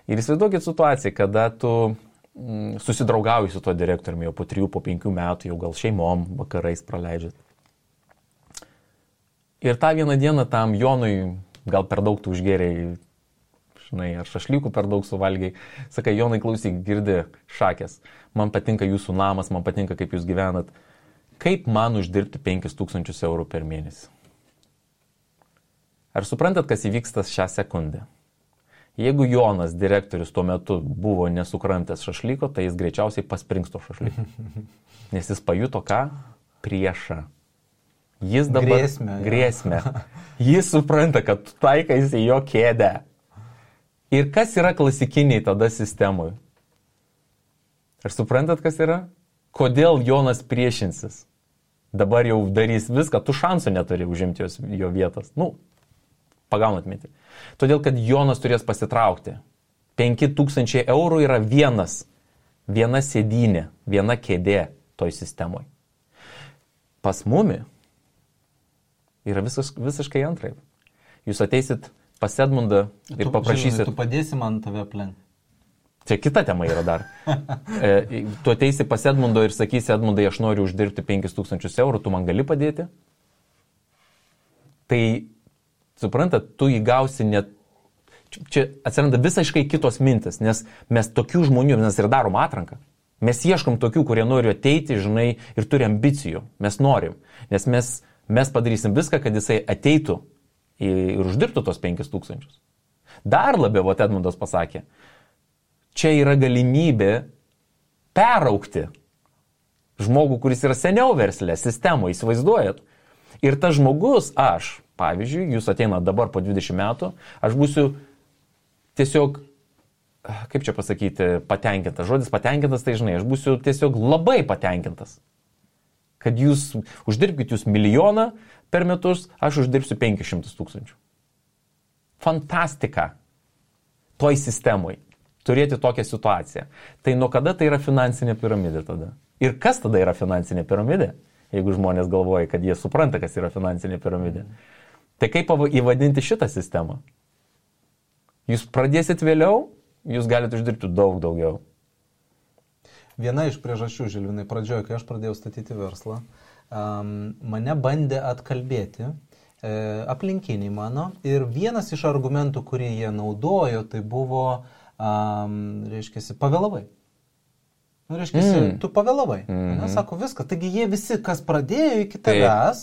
S2: Ir įsivaizduokit situaciją, kada tu susidraugauji su tuo direktoriumi jau po 3-5 metų, jau gal šeimom vakarais praleidžiat. Ir tą vieną dieną tam Jonui gal per daug tu užgėrėjai, žinai, ar šašlykų per daug suvalgiai. Sakai, Jonai, klausyk, girdi šakės, man patinka jūsų namas, man patinka, kaip jūs gyvenat. Kaip man uždirbti 5000 eurų per mėnesį? Ar suprantat, kas įvyksta šią sekundę? Jeigu Jonas, direktorius, tuo metu buvo nesukramtęs šašlyko, tai jis greičiausiai pasprings to šašlyko. Nes jis pajuto ką? Priešą. Jis dabar... Grėsmę. Jis supranta, kad taikaisi jo kėdę. Ir kas yra klasikiniai tada sistemui? Ar suprantat, kas yra? Kodėl Jonas priešinsis? Dabar jau darys viską, tu šansų neturi užimti jo vietos. Pagaunat mintį. Todėl, kad Jonas turės pasitraukti. 5000 eurų yra viena sėdynė, viena kėdė toj sistemoje. Pas mumi yra visiškai antraip. Jūs ateisit pas Edmundą ir paprašysit...
S3: Tu padėsi man tave aplenkti.
S2: Čia kita tema yra dar. Tu ateisi pas Edmundo ir sakysi, Edmundai, aš noriu uždirbti 5000 eurų, tu man gali padėti? Tai, suprantat, tu įgausi net... Čia atsiranda visiškai kitos mintis, nes mes tokių žmonių, mes ir darom atranką. Mes ieškom tokių, kurie nori ateiti, žinai, ir turi ambicijų. Mes norim. Nes mes padarysim viską, kad jisai ateitų ir uždirbtų tos 5000. Dar labiau, Edmundas pasakė, čia yra galimybė peraukti žmogų, kuris yra seniau verslė, sistemoje, įsivaizduojat. Ir tas žmogus, aš, pavyzdžiui, jūs ateina dabar po 20 metų, aš būsiu tiesiog, kaip čia pasakyti, patenkintas. Žodis patenkintas, tai žinai, aš būsiu tiesiog labai patenkintas. Kad jūs uždirbkite jūs 1 milijoną per metus, aš uždirbsiu 500 000. Fantastika toj sistemoje. Turėti tokią situaciją. Tai nuo kada tai yra finansinė piramidė tada? Ir kas tada yra finansinė piramidė? Jeigu žmonės galvoja, kad jie supranta, kas yra finansinė piramidė. Tai kaip įvadinti šitą sistemą? Jūs pradėsit vėliau, jūs galite uždirbti daug daugiau.
S3: Viena iš priežasčių, Žilvinai, pradžioje, kai aš pradėjau statyti verslą, mane bandė atkalbėti aplinkiniai mano. Ir vienas iš argumentų, kurį jie naudojo, tai buvo... reiškiasi, pavėlavai. Tu pavėlavai. Sako, viskas. Taigi jie visi, kas pradėjo iki tavęs,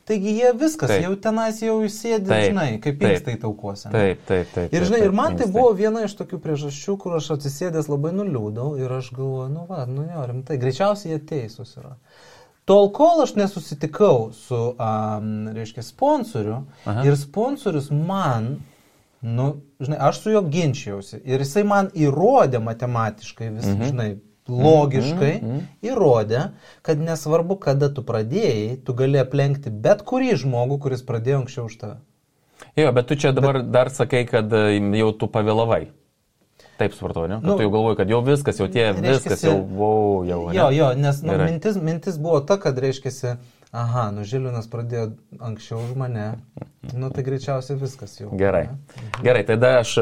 S3: taigi jie viskas, jau tenais jau įsėdė, žinai, kaip inkstai taukuose.
S2: Taip.
S3: Ir žinai, ir man tai buvo viena iš tokių priežasčių, kur aš atsisėdęs labai nuliūdau ir aš galvoju, rimtai, greičiausiai jie teisūs yra. Tol, kol aš nesusitikau su, reiškia, sponsoriu ir sponsorius man žinai, aš su juo ginčiausi ir jisai man įrodė matematiškai, žinai, logiškai įrodė, kad nesvarbu, kada tu pradėjai, tu gali aplenkti bet kurį žmogų, kuris pradėjo anksčiau už tave.
S2: Jo, bet tu čia dabar dar sakai, kad jau tu pavėlavai. Taip supratau, ne? Kad tu jau galvoji, kad jau viskas, jau viskas, jau, ne?
S3: Jo, nes mintis buvo ta, kad reiškiasi, Žilvinas pradėjo anksčiau už mane, tai greičiausiai viskas jau.
S2: Gerai, tada aš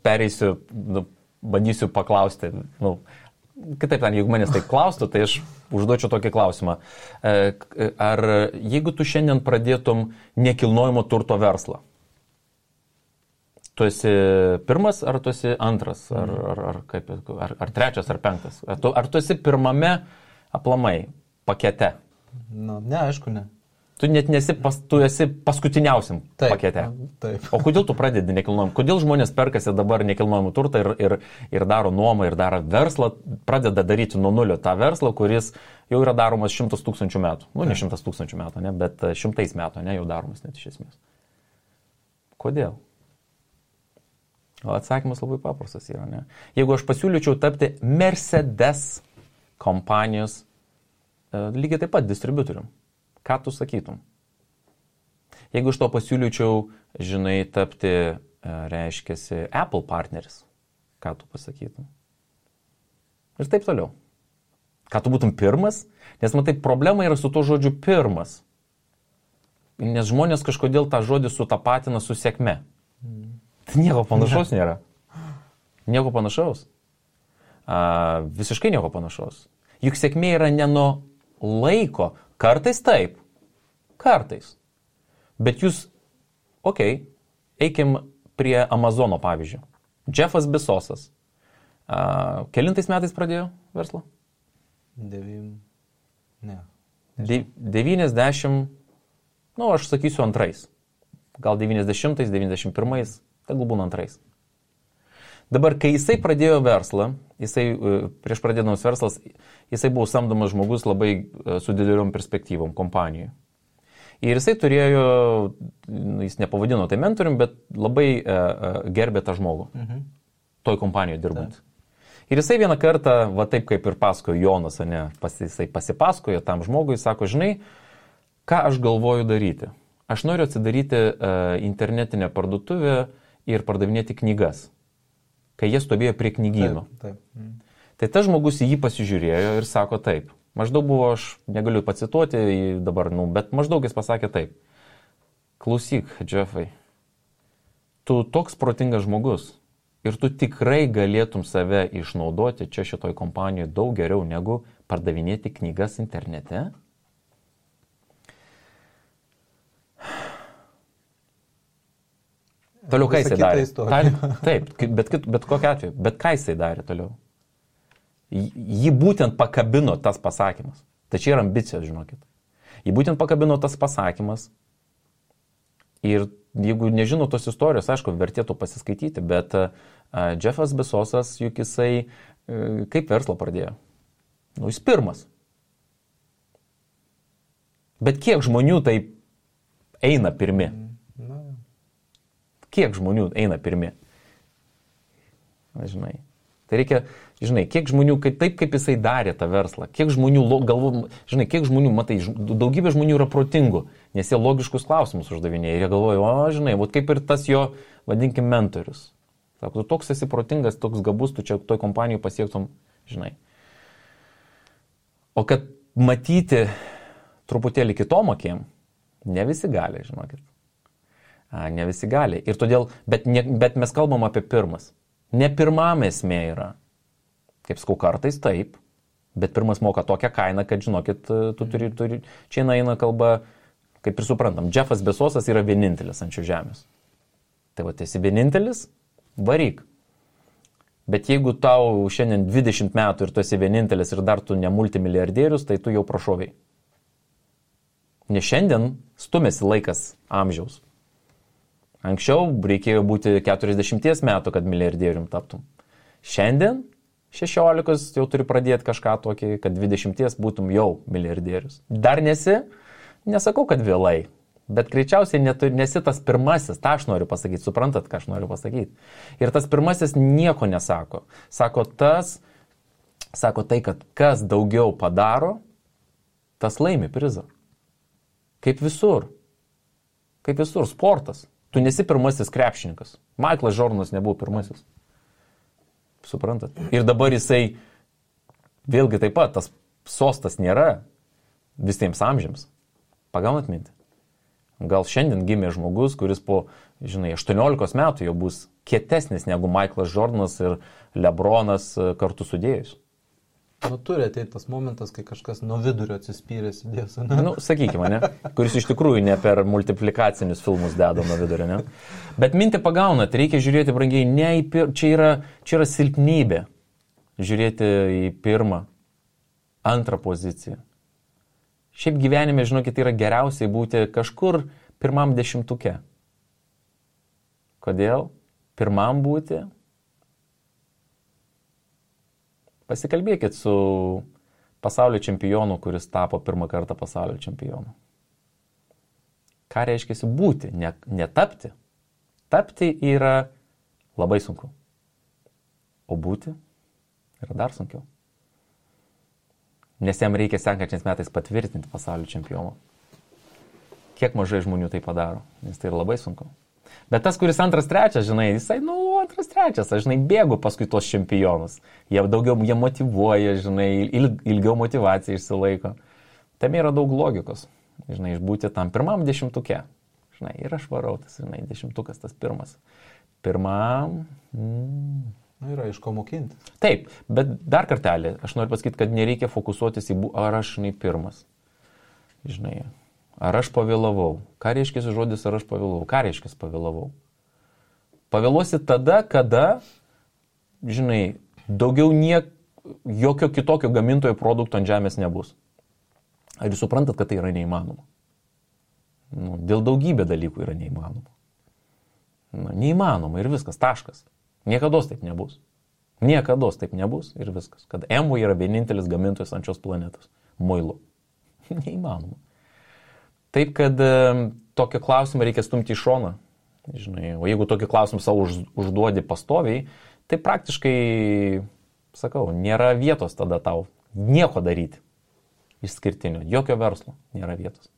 S2: pereisiu, bandysiu paklausti, kitaip, jeigu manęs taip klaustų, tai aš užduočiau tokį klausimą. Ar jeigu tu šiandien pradėtum nekilnojamo turto verslą, tu esi pirmas, ar tu esi antras, ar trečias, ar penktas? Ar tu esi pirmame aplamai pakete?
S3: Ne, aišku, ne.
S2: Tu net tu esi paskutiniausiam pakete.
S3: Taip.
S2: O kodėl tu pradedi nekilnojamą? Kodėl žmonės perkasi dabar nekilnojamą turtą ir daro nuomą, ir daro verslą, pradeda daryti nuo nulio tą verslą, kuris jau yra daromas 100 000 metų. Ne 100 000 metų, ne, bet 100 metų, ne, jau daromas net iš esmės. Kodėl? O atsakymas labai paprastas yra, ne? Jeigu aš pasiūlyčiau tapti Mercedes kompanijos lygiai taip pat distributorium, ką tu sakytum? Jeigu iš to pasiūlyčiau, žinai, tapti, reiškiasi, Apple partneris, ką tu pasakytum? Ir taip toliau. Ką tu būtum pirmas? Nes matai, problema yra su to žodžiu pirmas. Nes žmonės kažkodėl tą žodį sutapatina su sėkme. Nieko panašaus nėra. Nieko panašaus. Visiškai nieko panašaus. Juk sėkmė yra ne nuo laiko. Kartais taip. Kartais. Bet jūs, eikim prie Amazono pavyzdžio. Jeffas Bezosas. Kelintais metais pradėjo verslą? 90, aš sakysiu antrais. Gal 90-ais, 91-ais, tegul būna antrais. Dabar, kai jisai pradėjo verslą, prieš pradėdamas verslas, jisai buvo samdomas žmogus labai su dideliom perspektyvom kompanijoje. Ir jisai turėjo, jis nepavadino tai mentorium, bet labai gerbė tą žmogų, toj kompanijoje dirbant. Ir jisai vieną kartą, va taip kaip ir pasakojo Jonas, jisai pasipasakojo tam žmogui, sako, žinai, ką aš galvoju daryti. Aš noriu atsidaryti internetinę parduotuvę ir pardavinėti knygas, kai jie stovėjo prie knygyno.
S3: Taip.
S2: Tai tas žmogus į jį pasižiūrėjo ir sako taip. Maždaug buvo, aš negaliu pacituoti dabar, bet maždaug jis pasakė taip. Klausyk, Jeffai, tu toks protingas žmogus ir tu tikrai galėtum save išnaudoti čia šitoj kompanijoje daug geriau negu pardavinėti knygas internete. Toliau ką jisai darė? Taip, bet kokiu atveju. Bet ką jisai darė toliau? Jį būtent pakabino tas pasakymas. Tai čia yra ambicijos, žinokit. Jį būtent pakabino tas pasakymas. Ir jeigu nežino tos istorijos, aišku, vertėtų pasiskaityti, bet Jeffas Bezosas, juk jisai kaip verslą pradėjo? Jis pirmas. Bet kiek žmonių taip eina pirmi? Kiek žmonių eina pirmi? Žinai. Tai reikia, žinai, kiek žmonių, taip kaip jisai darė tą verslą, kiek žmonių, žinai, kiek žmonių, matai, daugybė žmonių yra protingų, nes jie logiškus klausimus uždavinėja ir jie galvoja, žinai, kaip ir tas jo, vadinkim, mentorius. Sako, tu toks esi protingas, toks gabus, tu čia toj kompanijai pasiektum, žinai. O kad matyti truputėlį kitom akim, ne visi gali, žinokit. Ne visi gali. Ir todėl, bet mes kalbam apie pirmas. Ne pirmam esmė yra. Kaip sakau, kartais taip, bet pirmas moka tokią kainą, kad, žinokit, tu turi, čia eina kalba, kaip ir suprantam, Jeffas Bezosas yra vienintelis ant šios žemės. Tai va, esi vienintelis, varyk. Bet jeigu tau šiandien 20 metų ir tu esi vienintelis ir dar tu ne multimilijardierius, tai tu jau prašoviai. Nes šiandien stumėsi laikas amžiaus. Anksčiau reikėjo būti 40 metų, kad milijardierium taptum. Šiandien 16 jau turi pradėti kažką tokį, kad 20 būtum jau milijardierius. Dar nesakau, kad vėlai, bet greičiausiai nesi tas pirmasis, tą aš noriu pasakyti, suprantat, ką aš noriu pasakyti. Ir tas pirmasis nieko nesako. Sako tai, kad kas daugiau padaro, tas laimi prizą. Kaip visur, sportas. Tu nesi pirmasis krepšininkas. Michaelas Jordanas nebuvo pirmasis. Suprantat? Ir dabar jisai, vėlgi taip pat, tas sostas nėra visiems amžiams. Pagaunat mintį? Gal šiandien gimė žmogus, kuris po, 18 metų jau bus kietesnis negu Michaelas Jordanas ir LeBronas kartu sudėjus.
S3: Turi ateiti tas momentas, kai kažkas nuo vidurio atsispyrės įdės, ne?
S2: Sakykime, ne? Kuris iš tikrųjų ne per multiplikacinius filmus deda nuo vidurio, ne? Bet mintį pagaunat, reikia žiūrėti, brangiai, čia yra silpnybė. Žiūrėti į pirmą, antrą poziciją. Šiaip gyvenime, žinokit, yra geriausiai būti kažkur pirmam 10. Kodėl? Pirmam būti? Pasikalbėkit su pasaulio čempionu, kuris tapo pirmą kartą pasaulio čempionu. Ką reiškia būti, ne tapti? Tapti yra labai sunku. O būti yra dar sunkiau. Nes jam reikia sekančiais metais patvirtinti pasaulio čempioną. Kiek mažai žmonių tai padaro, nes tai yra labai sunku. Bet tas, kuris antras, trečias, žinai, jisai, antras, trečias, aš, žinai, bėgu paskui tos čempionus. Jie motyvuoja, žinai, ilgiau motyvacija išsilaiko. Tam yra daug logikos, žinai, išbūti tam pirmam 10-tuke. Žinai, ir aš varau, tas, žinai, 10-tukas tas pirmas. Pirmam...
S3: Yra iš ko mokinti.
S2: Taip, bet dar kartelį, aš noriu pasakyti, kad nereikia fokusuotis į ar aš, žinai, pirmas. Žinai, ar aš pavėlavau. Ką reiškia žodis, ar aš pavėlavau? Ką reiškia pavėlavau? Pavėluosi tada, kada, žinai, daugiau jokio kitokio gamintojo produkto ant žemės nebus. Ar jūs suprantat, kad tai yra neįmanoma? Dėl daugybė dalykų yra neįmanoma. Neįmanoma ir viskas, taškas. Niekados taip nebus. Niekados taip nebus ir viskas. Kad Amway yra vienintelis gamintojas ant šios planetos. Muilo. Neįmanoma. Taip, kad tokį klausimą reikia stumti į šoną. Žinai, o jeigu tokį klausimą savo užduodi pastoviai, tai praktiškai, sakau, nėra vietos tada tau nieko daryti. Išskirtinio. Jokio verslo nėra vietos.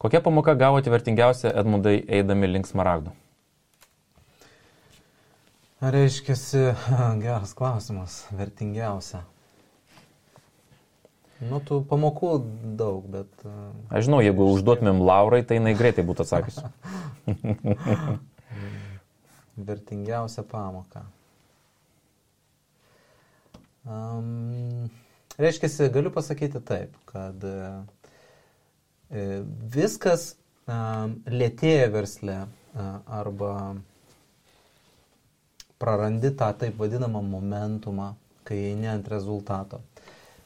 S2: Kokia pamoka gavote vertingiausia, Edmundai, eidami link Smaragdų?
S3: Reiškiasi, geras klausimas, vertingiausia. Tų pamokų daug, bet...
S2: Aš žinau, jeigu užduotumėm Laurai, tai jinai greitai būtų atsakius.
S3: Vertingiausia pamoka. Reiškiasi, galiu pasakyti taip, kad viskas lėtėja versle arba prarandi tą taip vadinamą momentumą, kai eini ant rezultato.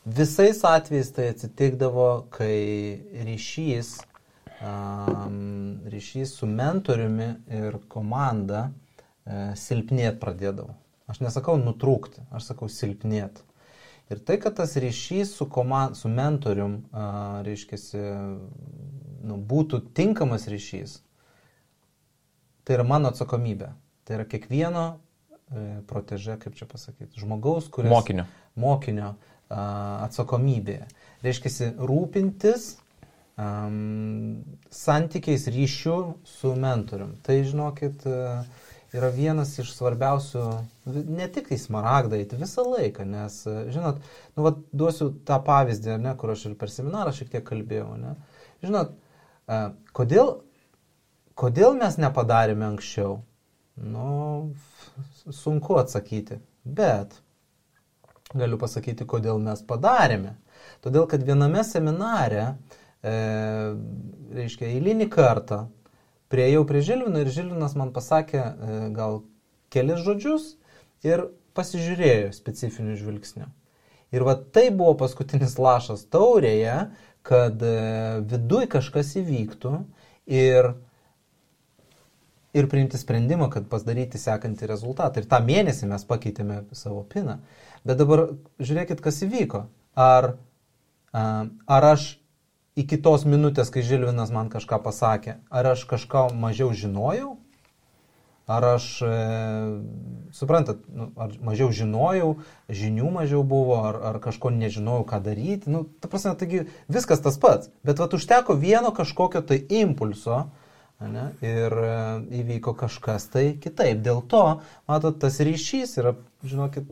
S3: Visais atvejais tai atsitikdavo, kai ryšys su mentoriumi ir komanda silpnėt pradėdavo. Aš nesakau nutrūkti, aš sakau silpnėt. Ir tai, kad tas ryšys su mentorium, reiškiasi, būtų tinkamas ryšys, tai yra mano atsakomybė. Tai yra kiekvieno proteže, kaip čia pasakyti, žmogaus, kuris... Mokinio atsakomybė. Reiškiasi, rūpintis santykiais ryšių su mentorium. Tai, žinokit, yra vienas iš svarbiausių, ne tik į Smaragdą eiti visą laiką, nes, žinot, duosiu tą pavyzdį, ne, kur aš ir per seminarą šiek tiek kalbėjau, ne. Žinot, kodėl mes nepadarėme anksčiau? Sunku atsakyti, bet galiu pasakyti, kodėl mes padarėme. Todėl, kad viename seminare, reiškia, eilinį kartą priėjau prie Žilvino ir Žilvinas man pasakė gal kelis žodžius ir pasižiūrėjo specifiniu žvilgsniu. Ir tai buvo paskutinis lašas taurėje, kad viduj kažkas įvyktų ir priimti sprendimą, kad pasidaryti sekantį rezultatą. Ir tą mėnesį mes pakeitėme savo piną. Bet dabar žiūrėkit, kas įvyko. Ar aš iki tos minutės, kai Žilvinas man kažką pasakė, ar aš kažką mažiau žinojau? Ar aš, suprantat, ar mažiau žinojau, žinių mažiau buvo, ar kažko nežinojau, ką daryti? Ta prasme, taigi viskas tas pats. Bet užteko vieno kažkokio tai impulso, ne, ir įvyko kažkas tai kitaip. Dėl to, matot, tas ryšys yra, žinokit...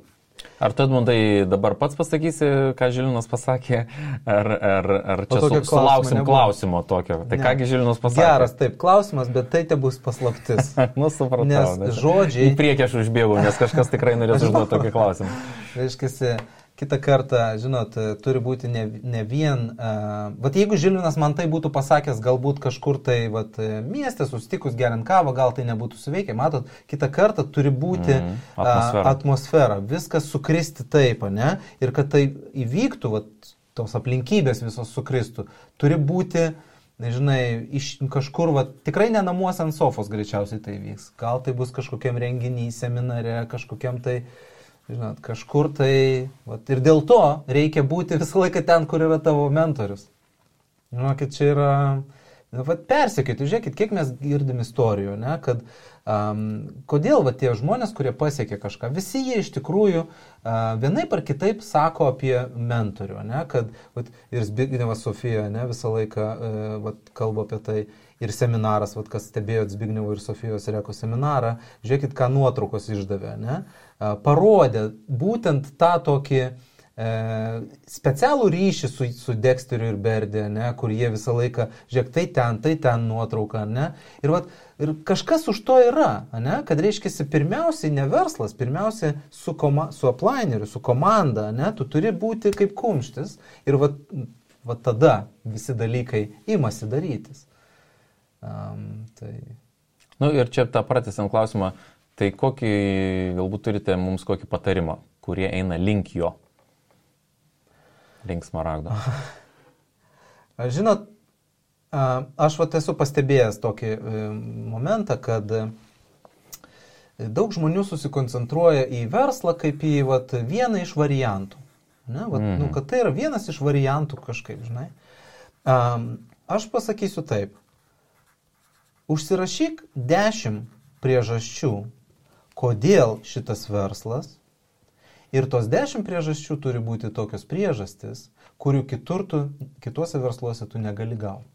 S2: Ar tu, Edmundai, dabar pats pasakysi, ką Žilvinas pasakė, ar čia sulauksim klausimo tokio? Tai kągi Žilvinas pasakė?
S3: Geras, taip, klausimas, bet tai te bus paslaptis.
S2: Supratau.
S3: Nes žodžiai...
S2: Į priekį aš užbėgau, nes kažkas tikrai norės užduoti tokį klausimą.
S3: Reiškiasi, kitą kartą, žinot, turi būti ne vien... jeigu Žilvinas man tai būtų pasakęs galbūt kažkur tai mieste, susitikus geriant kavą, gal tai nebūtų suveikę. Matot, kitą kartą turi būti atmosfera. Viskas sukristi taip, ne? Ir kad tai įvyktų, tos aplinkybės visos sukristų, turi būti, nežinai, iš kažkur, tikrai ne namuose ant sofos greičiausiai tai vyks. Gal tai bus kažkokiam renginiui, seminare, kažkokiam tai... Žinot, kažkur tai... Ir dėl to reikia būti visą laiką ten, kur yra tavo mentorius. Žinokit, čia Persekioti, žiūrėkit, kiek mes girdim istorijų, ne, kad kodėl tie žmonės, kurie pasiekė kažką, visi jie iš tikrųjų vienaip ar kitaip sako apie mentorių, ne, kad ir Zbignevas Sofija, ne, visą laiką kalba apie tai, ir seminaras, kas stebėjo Zbignevo ir Sofijos Reko seminarą, žiūrėkit, ką nuotraukos išdavė, ne, parodė būtent tą tokį specialų ryšį su Dexteriu ir Berdė, ne, kur jie visą laiką, žiūrėk, tai ten nuotrauka, ne, ir kažkas už to yra, ne, kad reiškiasi pirmiausiai ne verslas, pirmiausiai su uplineriu, su komanda, ne, tu turi būti kaip kumštis ir tada visi dalykai imasi darytis.
S2: Ir čia tą pratęsiant klausimą, tai kokį, galbūt turite mums kokį patarimą, kurie eina link jo? Link smaragdo.
S3: Žinot, aš esu pastebėjęs tokį momentą, kad daug žmonių susikoncentruoja į verslą kaip į vieną iš variantų. Ne? Kad tai yra vienas iš variantų kažkaip, žinai. Aš pasakysiu taip. Užsirašyk 10 priežasčių, kodėl šitas verslas. Ir tos 10 priežasčių turi būti tokios priežastis, kurių kituose versluose tu negali gauti.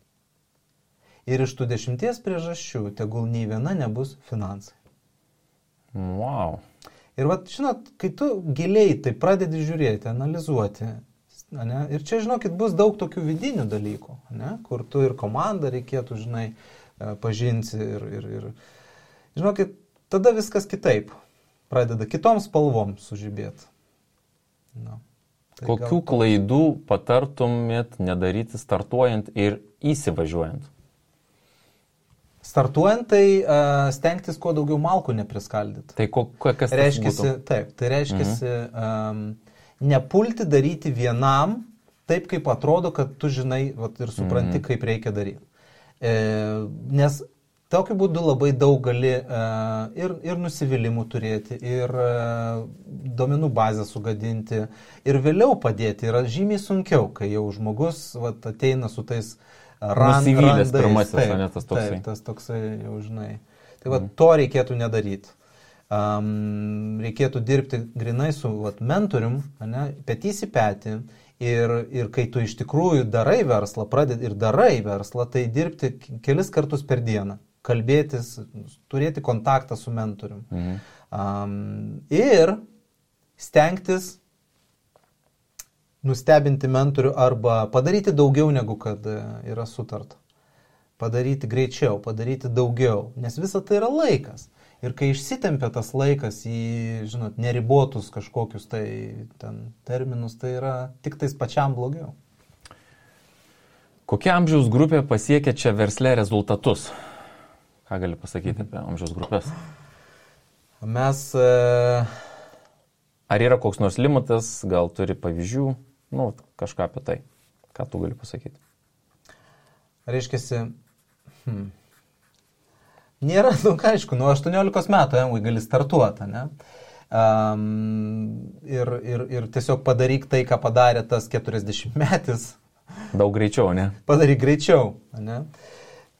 S3: Ir iš tų 10 priežasčių tegul nei viena nebus finansai.
S2: Wow.
S3: Ir žinot, kai tu giliai tai pradedi žiūrėti, analizuoti, ne, ir čia, žinokit, bus daug tokių vidinių dalykų, ne, kur tu ir komandą reikėtų, žinai, pažinti ir žinokit, tada viskas kitaip. Pradeda kitom spalvom sužibėti.
S2: Kokių klaidų patartumėt nedaryti startuojant ir įsivažiuojant?
S3: Startuojant, tai stengtis kuo daugiau malkų nepriskaldyti.
S2: Tai kas tai būtų?
S3: Taip, tai reiškiasi nepulti daryti vienam taip, kaip atrodo, kad tu žinai ir supranti, kaip reikia daryti. Nes tokiu būdu labai daug gali ir nusivylimų turėti, ir duomenų bazę sugadinti, ir vėliau padėti. Yra žymiai sunkiau, kai jau žmogus ateina su tais
S2: nusivylęs pirmasis, ne tas toksai.
S3: Taip, tas toksai jau žinai. Tai to reikėtų nedaryti. Reikėtų dirbti grinai su mentorium, petys į petį. Ir kai tu iš tikrųjų darai verslą, pradedi ir darai verslą, tai dirbti kelis kartus per dieną. Kalbėtis, turėti kontaktą su mentorium. Ir stengtis nustebinti mentorių arba padaryti daugiau negu kad yra sutarta. Padaryti greičiau, padaryti daugiau, nes visa tai yra laikas. Ir kai išsitempia tas laikas į, žinot, neribotus kažkokius tai terminus, tai yra tik tais pačiam blogiau.
S2: Kokia amžiaus grupė pasiekia čia versle rezultatus? Ką gali pasakyti apie amžiaus grupės?
S3: Mes...
S2: Ar yra koks nors limitas, gal turi pavyzdžių, kažką apie tai. Ką tu gali pasakyti?
S3: Reiškiasi, nėra, aišku, nuo 18 metų gali startuoti, ne? Ir tiesiog padaryk tai, ką padarė tas 40 metis.
S2: Daug greičiau, ne?
S3: Padaryk greičiau, ne?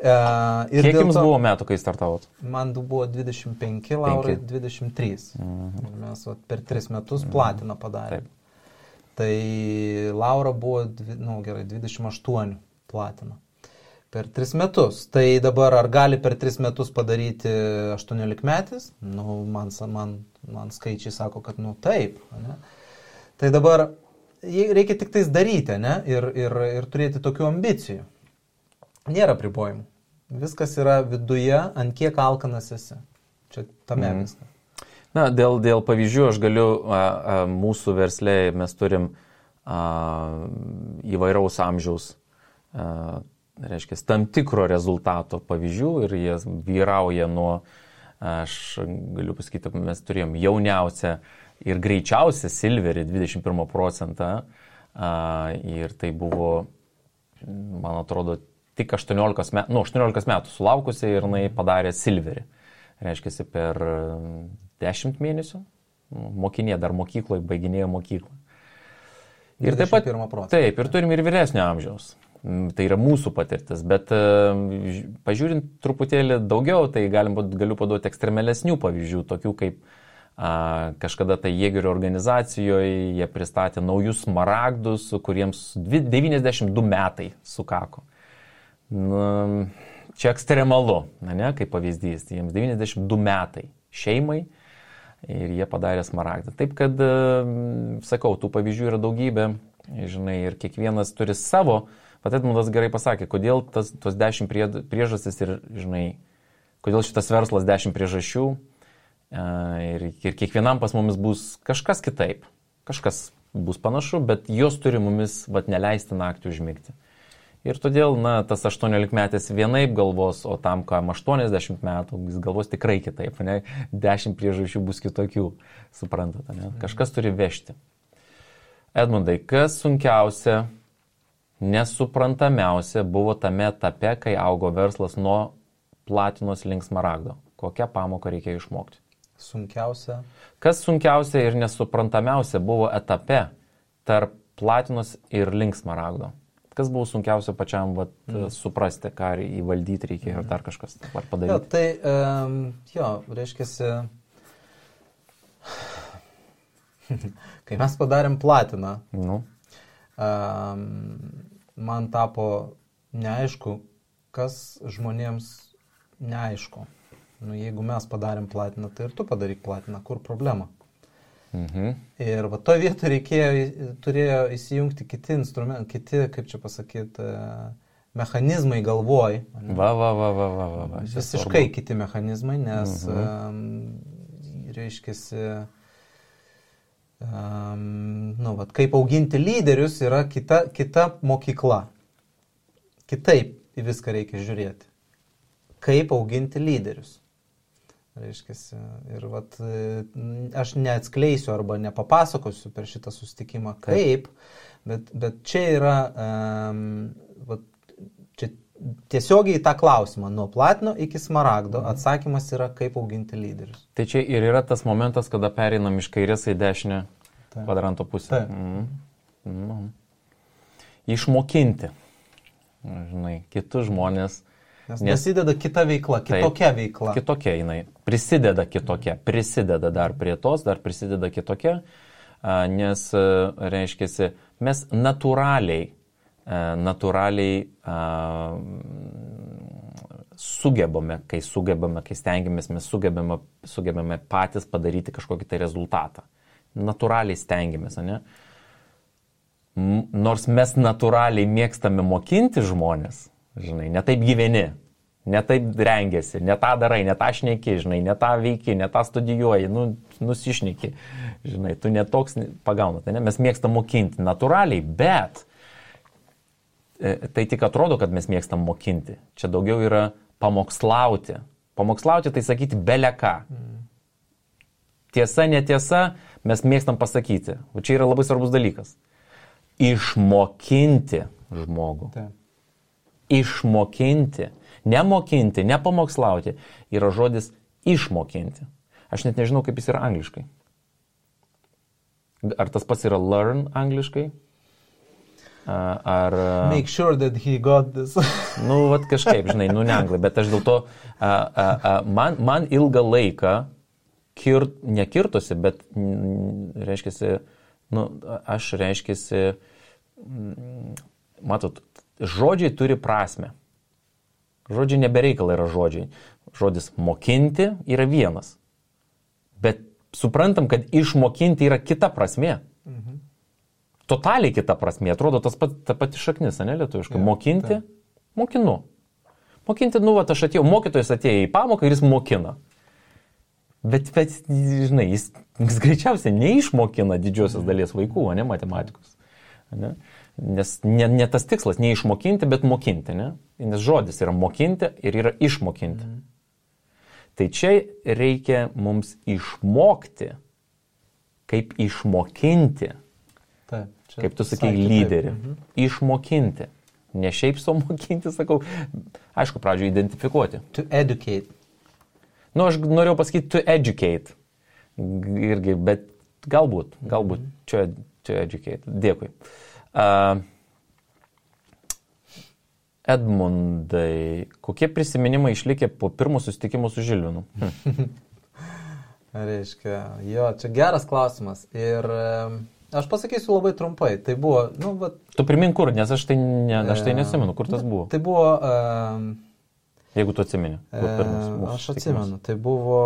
S2: Kiek jums buvo metų, kai startavot?
S3: Man buvo 25, Laurai 23. Ir mes per 3 metus platiną padarėm. Tai Laura buvo, 28 platiną. Per 3 metus. Tai dabar ar gali per 3 metus padaryti 18 metis? Man skaičiai sako, kad taip. Ne? Tai dabar reikia tik tais daryti, ne? Ir turėti tokių ambicijų. Nėra pribojimų. Viskas yra viduje, ant kiek alkanas esi. Čia tame viskas.
S2: Na, dėl pavyzdžių aš galiu, mūsų versle mes turim įvairaus amžiaus, reiškia, tam tikro rezultato pavyzdžių ir jie vyrauja nuo, aš galiu pasakyti, mes turėjom jauniausią ir greičiausią silverį 21% ir tai buvo, man atrodo, tik 18 metų sulaukusi ir jinai padarė silverį. Reiškia, per 10 mėnesių mokinė dar mokykloje, baiginėjo mokyklą. Ir taip pat, ir turim ir vyresnio amžiaus. Tai yra mūsų patirtis, bet pažiūrint truputėlį daugiau, tai galiu paduoti ekstremalesnių pavyzdžių, tokių kaip kažkada tai Jėgerio organizacijoje jie pristatė naujus smaragdus, kuriems 92 metai sukako. Čia ekstremalu, ne, kaip pavyzdys, jiems 92 metai šeimai ir jie padarė smaragdą. Taip kad, sakau, tų pavyzdžių yra daugybė, žinai, ir kiekvienas turi savo, bet Edmundas gerai pasakė, kodėl tos 10 priežastis ir, žinai, kodėl šitas verslas 10 priežasčių ir kiekvienam pas mumis bus kažkas kitaip, kažkas bus panašu, bet jos turi mumis neleisti naktį užmigti. Ir todėl, tas 18-metis vienaip galvos, o tam, kam 80 metų, jis galvos tikrai kitaip, ne? 10 priežasčių bus kitokių, suprantate, ne? Kažkas turi vežti. Edmundai, kas sunkiausia, nesuprantamiausia buvo tame etape, kai augo verslas nuo platinos link smaragdo? Kokią pamoką reikėjo išmokti?
S3: Sunkiausia.
S2: Kas sunkiausia ir nesuprantamiausia buvo etape tarp platinos ir link smaragdo? Kas buvo sunkiausia pačiam suprasti, ką įvaldyti reikėjo ir dar kažkas padaryti?
S3: Reiškiasi, kai mes padarėm platiną, man tapo neaišku, kas žmonėms neaišku. Jeigu mes padarėm platiną, tai ir tu padaryk platiną, kur problema? Ir to vietoj turėjo įsijungti kiti instrumentai, kiti, kaip čia pasakyti, mechanizmai galvoj. Visiškai kiti mechanizmai, nes, reiškiasi, kaip auginti lyderius yra kita mokykla. Kitaip į viską reikia žiūrėti. Kaip auginti lyderius. Reiškiasi, ir aš neatskleisiu arba nepapasakosiu per šitą susitikimą kaip, bet čia yra čia tiesiogiai į tą klausimą, nuo platino iki smaragdo, atsakymas yra kaip auginti lyderius.
S2: Tai čia ir yra tas momentas, kada pereinam iš kairės į dešinę kvadranto pusę. Išmokinti, žinai, kitus žmonės.
S3: Nes prasideda kita veikla, kitokia veikla.
S2: Kitokia jinai, prisideda dar prie tos, dar prisideda kitokia, nes, reiškiasi, mes natūraliai sugebame, kai stengiamės, mes sugebame patys padaryti kažkokį tai rezultatą. Natūraliai stengiamės, ne? Nors mes natūraliai mėgstame mokinti žmonės, žinai, ne taip gyveni, ne taip rengiasi, ne tą darai, ne tą šneki, žinai, ne tą veiki, ne tą studijuoji, nusišneki, žinai, tu netoks pagaunat, ne? Mes mėgstam mokinti natūraliai, bet tai tik atrodo, kad mes mėgstam mokinti. Čia daugiau yra pamokslauti. Pamokslauti tai sakyti beleką. Tiesa, netiesa, mes mėgstam pasakyti. O čia yra labai svarbus dalykas. Išmokinti žmogų.
S3: Taip.
S2: Išmokinti, nemokinti, nepamokslauti yra žodis išmokinti. Aš net nežinau, kaip jis yra angliškai. Ar tas pats yra learn angliškai? Ar...
S3: Make sure that he got this.
S2: Kažkaip, žinai, ne anglai, bet aš dėl to, man ilgą laiką nekirtosi, bet reiškiasi, matot, žodžiai turi prasme. Žodžiai nebereikala yra žodžiai. Žodis mokinti yra vienas. Bet suprantam, kad išmokinti yra kita prasmė. Totaliai kita prasmė. Atrodo ta pati šaknis, ne lietuviškai. Mokinti, mokinu. Mokinti, aš atėjau, mokytojas atėjo į pamoką ir jis mokina. Bet žinai, jis greičiausiai neišmokina didžiosios dalies vaikų, ne matematikos. Ne? Nes ne tas tikslas, neišmokinti, bet mokinti, ne? Nes žodis yra mokinti ir yra išmokinti. Tai čia reikia mums išmokti, kaip išmokinti, kaip tu sakai, lyderį. Išmokinti. Ne šiaip sau mokinti, sakau, aišku, pradžioje identifikuoti.
S3: To educate.
S2: Aš norėjau pasakyti to educate. Irgi, bet galbūt to educate. Dėkui. Edmundai, kokie prisiminimai išlikė po pirmo susitikimo su Žilvinu?
S3: Reiškia, jo, čia geras klausimas. Ir aš pasakysiu labai trumpai. Tai buvo,
S2: Tu primink kur, nes aš tai nesimenu, kur tas buvo.
S3: Tai buvo...
S2: Jeigu tu atsimeni.
S3: Aš atsimenu, tai buvo...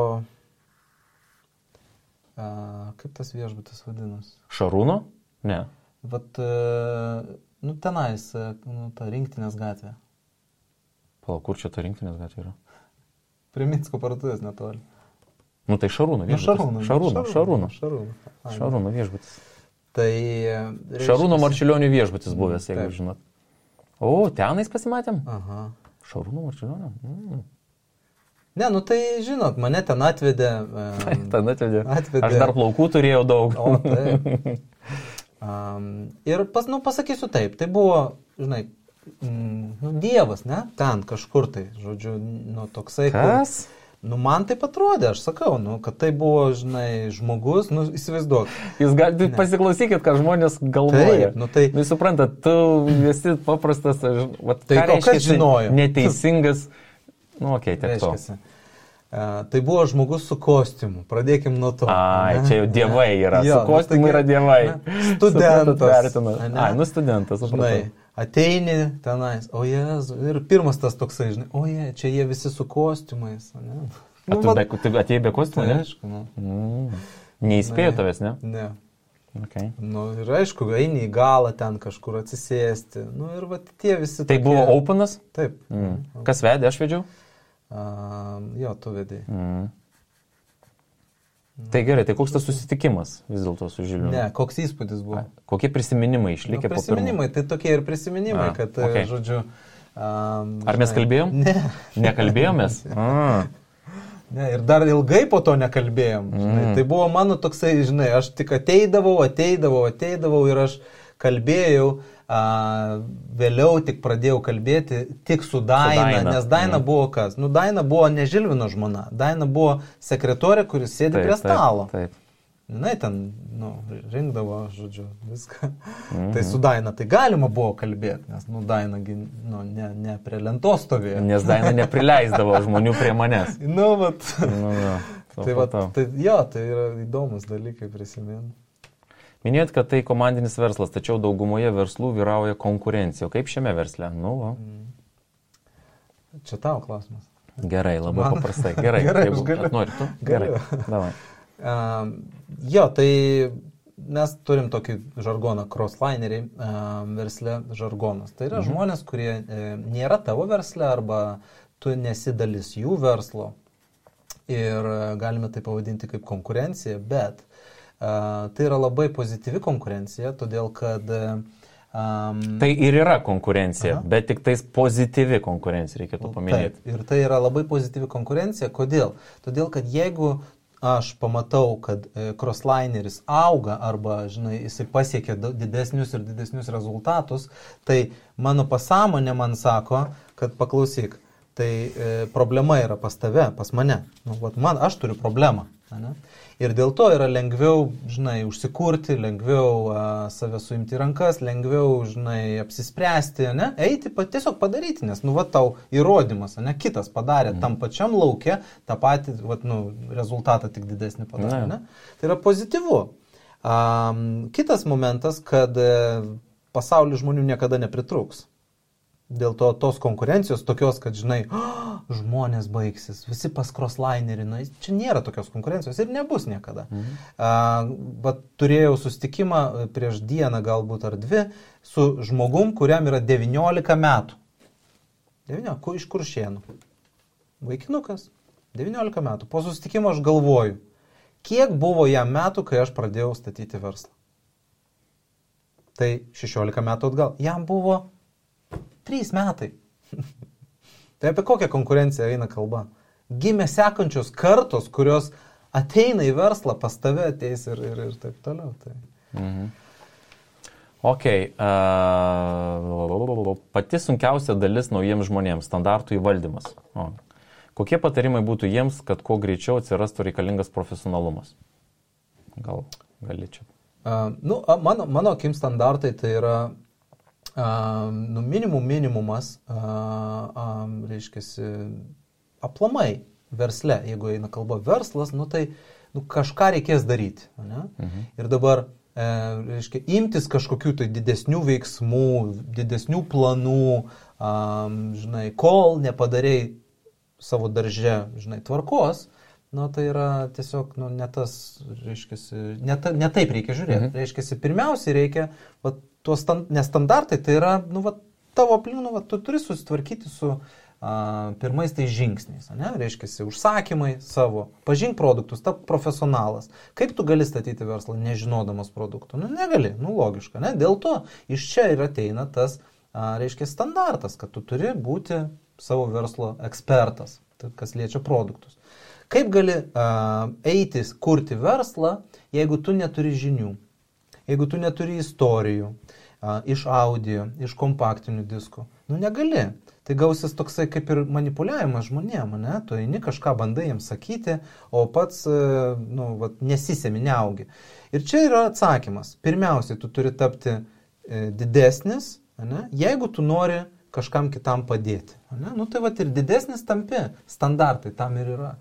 S3: kaip tas viešbutis vadinas?
S2: Šarūno? Ne.
S3: Tenais, ta Rinktinės gatvė.
S2: Palauk, kur čia ta Rinktinės gatvė yra?
S3: Prie Minsko parduotuvės netoli.
S2: Tai Šarūno viešbutis. Šarūno viešbutis.
S3: Tai...
S2: Šarūno Marčiulionio viešbutis buvęs, jeigu žinot. O, tenais pasimatėm?
S3: Aha.
S2: Šarūno Marčiulionio?
S3: Ne, tai žinot, mane ten atvedė.
S2: Ten atvedė. Aš dar plaukų turėjau daug.
S3: O, taip. Ir pasakysiu taip, tai buvo, žinai, Dievas, ne, ten kažkur tai, žodžiu, toksai.
S2: Kas?
S3: Man taip atrodė, aš sakau, kad tai buvo, žinai, žmogus, įsivaizduok.
S2: Jūs galite pasiklausykit, ką žmonės galvoja.
S3: Taip,
S2: Jūs suprantat, tu esi paprastas,
S3: tai kas žinojo?
S2: Neteisingas, tiek to.
S3: Tai buvo žmogus su kostiumu, pradėkim nuo to.
S2: Čia jau dievai yra, su kostiumu yra dievai.
S3: Studentas.
S2: Studentas,
S3: žinai, ateini tenais, o Jėzu, ir pirmas tas toksai, žinai, čia jie visi su kostiumais.
S2: Tu atėjai be kostiumų, ne?
S3: Aišku,
S2: Neįspėjo tavęs, ne?
S3: Ne.
S2: Okay.
S3: Ir aišku, eini į galą ten kažkur atsisėsti. Ir tie visi...
S2: Tai buvo openas?
S3: Taip.
S2: Kas vedė, aš vedžiau?
S3: Jo, tu vedėjai.
S2: Tai gerai, tai koks tas susitikimas vis dėlto su Žilvinu?
S3: Ne, koks įspūdis buvo?
S2: Kokie prisiminimai išlikė po pirmo?
S3: Prisiminimai, tai tokie ir prisiminimai, kad, žodžiu...
S2: Ar mes kalbėjom?
S3: Ne.
S2: Nekalbėjomės?
S3: Ne, ir dar ilgai po to nekalbėjom. Tai buvo mano toksai, žinai, aš tik ateidavau ir aš kalbėjau, vėliau tik pradėjau kalbėti tik su Daina, nes Daina buvo kas? Daina buvo ne Žilvino žmona, Daina buvo sekretorė, kuris sėdi prie stalo.
S2: Taip.
S3: Jinai ten, rinkdavo, žodžiu, viską. Tai su Daina tai galima buvo kalbėti, nes, Daina, ne prie lentos stovėjo.
S2: Nes Daina neprileisdavo žmonių prie manęs.
S3: Tai yra įdomus dalykai prisiminti.
S2: Minėjot, kad tai komandinis verslas, tačiau daugumoje verslų vyrauja konkurencija. O kaip šiame versle?
S3: Čia tavo klausimas.
S2: Gerai, labai paprastai. Gerai,
S3: aš galiu.
S2: Nori tu? Gerai, davai.
S3: Tai mes turim tokį žargoną, crosslineriai versle žargonas. Tai yra žmonės, kurie nėra tavo versle arba tu nesi dalis jų verslo. Ir galime tai pavadinti kaip konkurencija, bet tai yra labai pozityvi konkurencija, todėl kad...
S2: Tai ir yra konkurencija, bet tik tais pozityvi konkurencija, reikėtų paminėti.
S3: Taip, ir tai yra labai pozityvi konkurencija. Kodėl? Todėl, kad jeigu aš pamatau, kad crosslineris auga arba, žinai, jisai pasiekia didesnius ir didesnius rezultatus, tai mano pasąmonė man sako, kad paklausyk, tai problema yra pas tave, pas mane. Aš turiu problemą. Ne? Ir dėl to yra lengviau, žinai, užsikurti, lengviau save suimti rankas, lengviau, žinai, apsispręsti, ne? Eiti, tiesiog padaryti, nes, tau įrodymas, ne? Kitas padarė tam pačiam lauke, tą patį, rezultatą tik didesnį padarė, ne? Tai yra pozityvu. Kitas momentas, kad pasaulyje žmonių niekada nepritrūks. Dėl to tos konkurencijos tokios, kad, žinai, žmonės baigsis, visi pas crosslinerį, čia nėra tokios konkurencijos ir nebus niekada. Bet turėjau susitikimą prieš dieną galbūt ar dvi su žmogum, kuriam yra 19 metų. 19, iš Kuršėnų. Vaikinukas, 19 metų. Po susitikimo aš galvoju, kiek buvo jam metų, kai aš pradėjau statyti verslą. Tai 16 metų atgal. Jam buvo 3 metai. Tai apie kokią konkurenciją eina kalba? Gimė sekančios kartos, kurios ateina į verslą, pas tave ateis ir taip toliau. Tai.
S2: Pati sunkiausia dalis naujiems žmonėms – standartų įvaldymas. Kokie patarimai būtų jiems, kad kuo greičiau atsirastų reikalingas profesionalumas? Gali čia.
S3: Mano akim standartai tai yra minimumas, reiškia, aplamai versle, jeigu eina kalba verslas, tai kažką reikės daryti. Ne? Ir dabar, reiškia, imtis kažkokių tai didesnių veiksmų, didesnių planų, žinai, kol nepadarei savo darže, žinai, tvarkos, tai yra tiesiog, ne tas, reiškia, ne taip reikia žiūrėti. Reiškia, pirmiausiai reikia, nes standartai tai yra, tavo aplink, tu turi susitvarkyti su pirmais tai žingsniais, ne? Reiškia, užsakymai savo, pažink produktus, tap profesionalas. Kaip tu gali statyti verslą nežinodamas produktų? Negali, logiška, ne? Dėl to iš čia ir ateina tas, reiškia, standartas, kad tu turi būti savo verslo ekspertas, kas liečia produktus. Kaip gali eiti, kurti verslą, jeigu tu neturi žinių, jeigu tu neturi istorijų, iš audio, iš kompaktinių diskų? Negali. Tai gausis toksai kaip ir manipuliavimas žmonėm, ne? Tu eini kažką bandai jiems sakyti, o pats nesisemi, neaugi. Ir čia yra atsakymas. Pirmiausiai, tu turi tapti didesnis, ne? Jeigu tu nori kažkam kitam padėti. Ne? Tai ir didesnis tampi, standartai tam ir yra.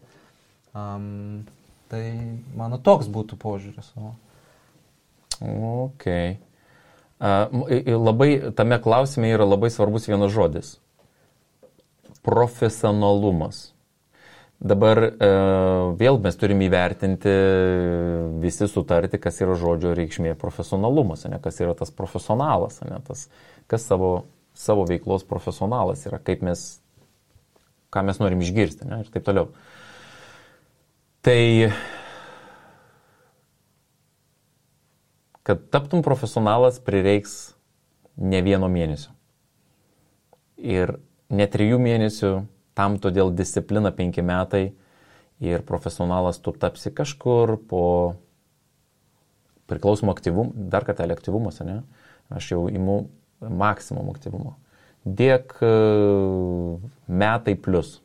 S3: Tai mano toks būtų požiūris.
S2: Ok. Labai tame klausime yra labai svarbus vienas žodis. Profesionalumas. Dabar vėl mes turime įvertinti, visi sutarti, kas yra žodžio reikšmė profesionalumas, ne? Kas yra tas profesionalas, ne? Tas, kas savo veiklos profesionalas yra, ką mes norim išgirsti, ne? Ir taip toliau. Tai, kad taptum profesionalas, prireiks ne 1 mėnesio. Ir ne 3 mėnesių, tam todėl disciplina 5 metai ir profesionalas tu tapsi kažkur po priklausomų aktyvumų, dar kartelį aktyvumas, ne? Aš jau imu maksimum aktyvumo. Dėk metai plus.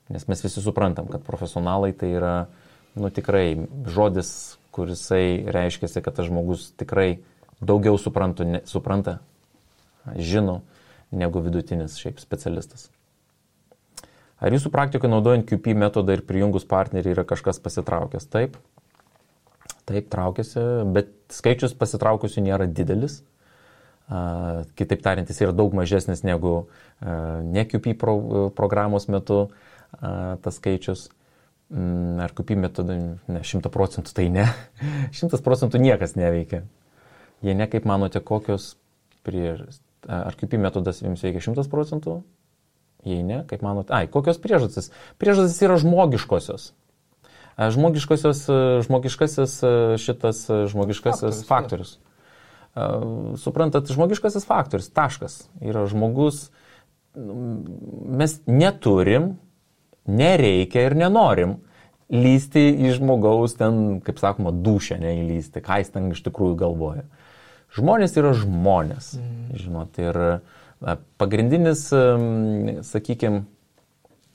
S2: Nes mes visi suprantam, kad profesionalai tai yra, tikrai žodis, kurisai reiškia, kad tas žmogus tikrai daugiau supranta, žino, negu vidutinis šiaip specialistas. Ar jūsų praktikoje naudojant QP metodą ir prijungus partnerį yra kažkas pasitraukęs? Taip, traukiasi, bet skaičius pasitraukusių nėra didelis. Kitaip tariant, jis yra daug mažesnis negu ne QP programos metu tas skaičius. Ar QP metodą, 100% tai ne. 100% niekas neveikia. Jei ne, kaip manote, kokios priežastys? Ar QP metodas jums veikia 100%? Jei ne, kaip manote? Kokios priežastys? Priežastys yra žmogiškosios. Žmogiškasis faktorius. Suprantat, žmogiškasis faktorius, taškas. Yra žmogus, mes neturim, nereikia ir nenorim lysti į žmogaus ten, kaip sakoma, dūšę neįlysti, ką jis ten iš tikrųjų galvoja. Žmonės yra žmonės, žinot, ir pagrindinis, sakykime,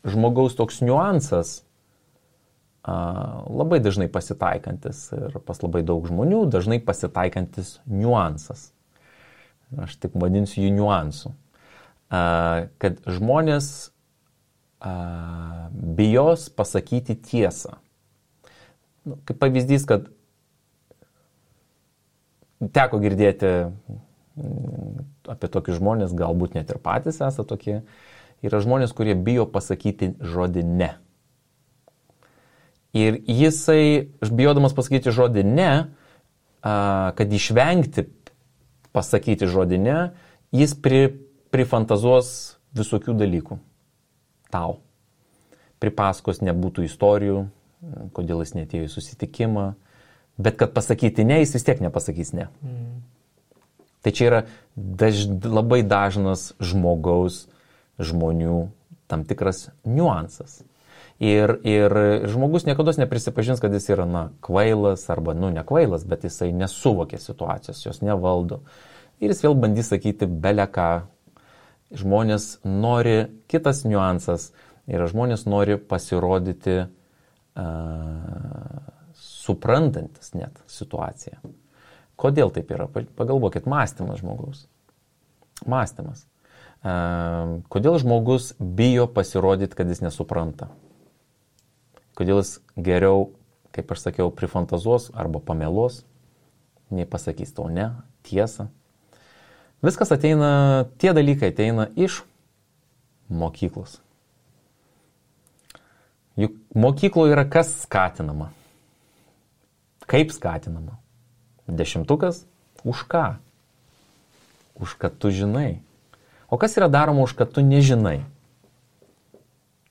S2: žmogaus toks niuansas, labai dažnai pasitaikantis ir pas labai daug žmonių dažnai pasitaikantis niuansas. Aš taip vadinsiu jų niuansų. Kad žmonės bijos pasakyti tiesą. Kaip pavyzdys, kad teko girdėti apie tokius žmonės, galbūt net ir patys esate tokie, yra žmonės, kurie bijo pasakyti žodį ne. Ir jisai, bijodamas pasakyti žodį ne, kad išvengti pasakyti žodį ne, jis prifantazuos visokių dalykų tau. Pripasakos nebūtų istorijų, kodėl jis neatėjo į susitikimą, bet kad pasakyti ne, jis vis tiek nepasakys ne. Tai čia yra labai dažnas žmonių tam tikras niuansas. Ir žmogus niekada neprisipažins, kad jis yra, kvailas arba, ne kvailas, bet jisai nesuvokia situacijos, jos nevaldo. Ir jis vėl bandys sakyti beleką. Žmonės nori, kitas niuansas, yra žmonės nori pasirodyti suprantantis net situaciją. Kodėl taip yra? Pagalvokit, mąstymas žmogaus. Mąstymas. Kodėl žmogus bijo pasirodyti, kad jis nesupranta? Kodėl jis geriau, kaip aš sakiau, prifantazuos arba pameluos, nei pasakys tau ne, tiesą. Viskas ateina, tie dalykai ateina iš mokyklos. Juk mokykloje yra kas skatinama? Kaip skatinama? 10? Už ką? Už kad tu žinai. O kas yra daroma už kad tu nežinai?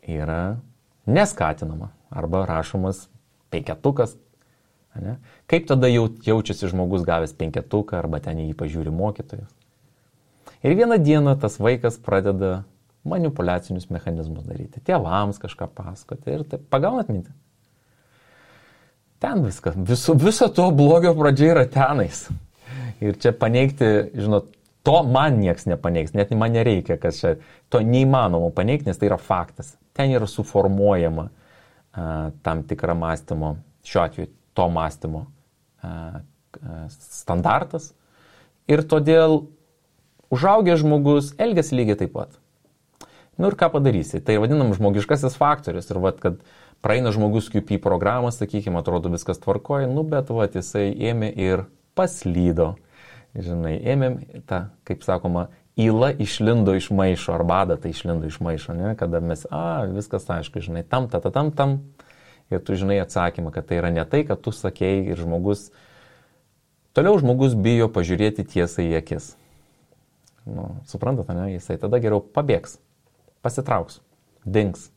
S2: Yra neskatinama. Arba rašomas 5. Ne? Kaip tada jaučiasi žmogus gavęs 5 arba ten jį pažiūri mokytojas? Ir vieną dieną tas vaikas pradeda manipuliacinius mechanizmus daryti. Tėvams kažką pasakoti ir taip. Pagaunat mintį? Ten viskas. Viso to blogio pradžia yra tenais. Ir čia paneigti, žinot, to man nieks nepaneigs, net man nereikia, kas čia, to neįmanoma paneigti, nes tai yra faktas. Ten yra suformuojama tam tikra mąstymo, šiuo atveju to mąstymo standartas. Ir todėl užaugęs žmogus elgiasi lygiai taip pat. Ir ką padarysi? Tai vadinam žmogiškasis faktorius. Ir kad praeina žmogus QP programą, sakykime, atrodo viskas tvarkoja, bet jisai ėmė ir paslydo. Žinai, ėmėm tą, kaip sakoma, įla išlindo iš maišo, ar badata išlindo iš maišo, ne? Kada mes, viskas aišku, žinai, tam, ir tu žinai atsakymą, kad tai yra ne tai, kad tu sakei ir toliau žmogus bijo pažiūrėti tiesą į akis. Suprantate, ne? Jisai tada geriau pabėgs, pasitrauks, dings,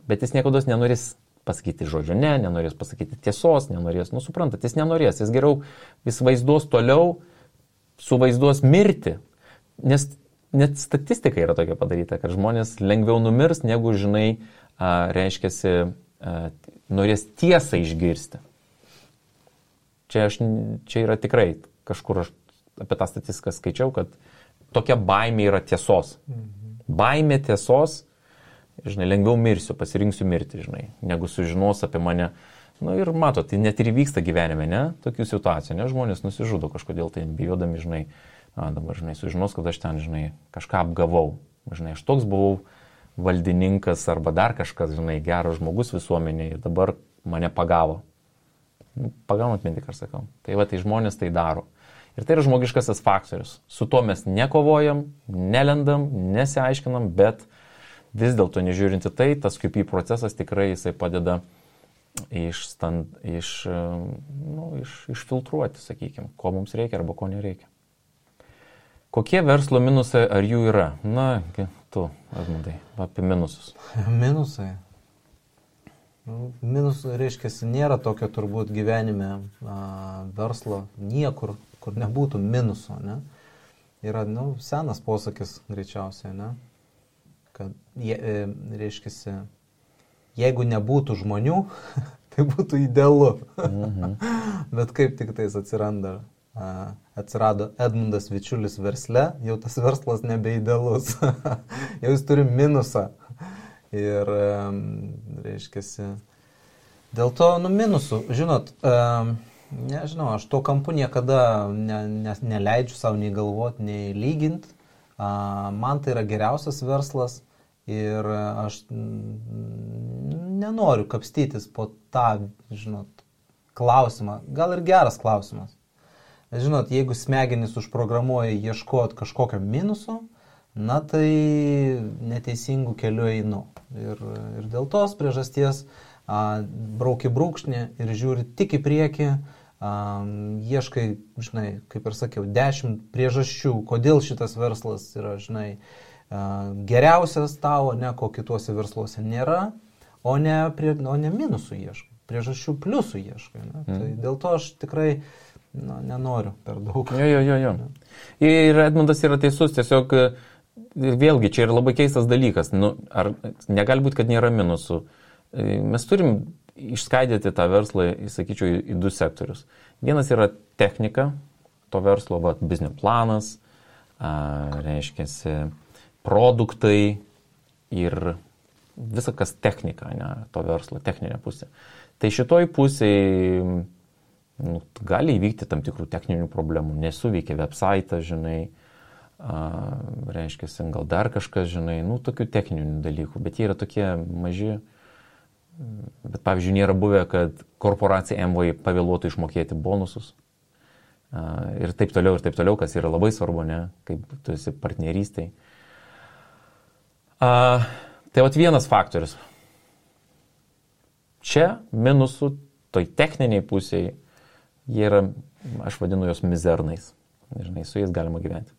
S2: bet jis niekados nenorės pasakyti žodžio, nenorės pasakyti tiesos, nenorės, suprantate, jis nenorės, jis vaizduos toliau, suvaizduos mirti, nes net statistika yra tokia padaryta, kad žmonės lengviau numirs, negu, žinai, reiškiasi, norės tiesą išgirsti. Čia yra tikrai, kažkur aš apie tą statistiką skaičiau, kad tokia baimė yra tiesos. Baimė tiesos, žinai, lengviau mirsiu, pasirinksiu mirti, žinai, negu sužinos apie mane. Ir matot, tai net ir vyksta gyvenime, ne? Tokių situacijų, ne? Žmonės nusižudo kažkodėl, tai bijodami, žinai, dabar, žinai, sužinos, kad aš ten, žinai, kažką apgavau. Žinai, aš toks buvau valdininkas arba dar kažkas, žinai, geras žmogus visuomenėje ir dabar mane pagavo. Pagaunat mintį, ką sakau. Tai tai žmonės tai daro. Ir tai yra žmogiškasis faktorius. Su tuo mes nekovojam, nelendam, nesiaiškinam, bet vis dėlto nežiūrinti tai, tas QP procesas tikrai jisai padeda išfiltruoti, sakykime, ko mums reikia arba ko nereikia. Kokie verslo minusai ar jų yra? Tu, Edmundai, apie minusus.
S3: Minusai. Minusai reiškia, nėra tokio turbūt gyvenime verslo niekur, kur nebūtų minuso, ne? Yra, senas posakis greičiausiai, ne? Kad, reiškia, jeigu nebūtų žmonių, tai būtų idealu. Bet kaip tik tais atsirado Edmundas Vičiulis versle, jau tas verslas nebeidealus. Jau jis turi minusą. Ir, reiškia, dėl to, minusų, žinot, nežinau, aš to kampu niekada neleidžiu savo nei galvoti, nei lyginti. Man tai yra geriausias verslas. Ir aš nenoriu kapstytis po tą, žinot, klausimą. Gal ir geras klausimas. Žinot, jeigu smegenys užprogramuoja ieškoti kažkokio minuso, tai neteisingų kelių einu. Ir dėl tos priežasties brauki brūkšnį ir žiūri tik į priekį, ieškai, žinai, kaip ir sakiau, 10 priežasčių, kodėl šitas verslas yra, žinai, geriausias tavo, ko kituose versluose nėra, o ne minusų ieškai, priežasčių pliusų ieškai. Tai dėl to aš tikrai nenoriu per daug.
S2: Jo. Ir Edmundas yra teisus, tiesiog vėlgi čia yra labai keistas dalykas. Ar negali būti, kad nėra minusų? Mes turim išskaidyti tą verslą, sakyčiau, į 2 sektorius. Vienas yra technika, to verslo, biznio planas, reiškia, produktai ir visa kas technika, to verslo, techninė pusė. Tai šitoj pusėje gali įvykti tam tikrų techninių problemų, nesuveikia website, žinai, reiškia, gal dar kažkas, žinai, tokių techninių dalykų, bet jie yra tokie maži. Bet, pavyzdžiui, nėra buvę, kad korporacija MVI pavėluotų išmokėti bonusus. Ir taip toliau, kas yra labai svarbu, ne, kaip tu esi partnerystai. Tai vienas faktorius. Čia minusų, toj techniniai pusėje, jie yra, aš vadinu jos mizernais. Žinai, su jais galima gyventi.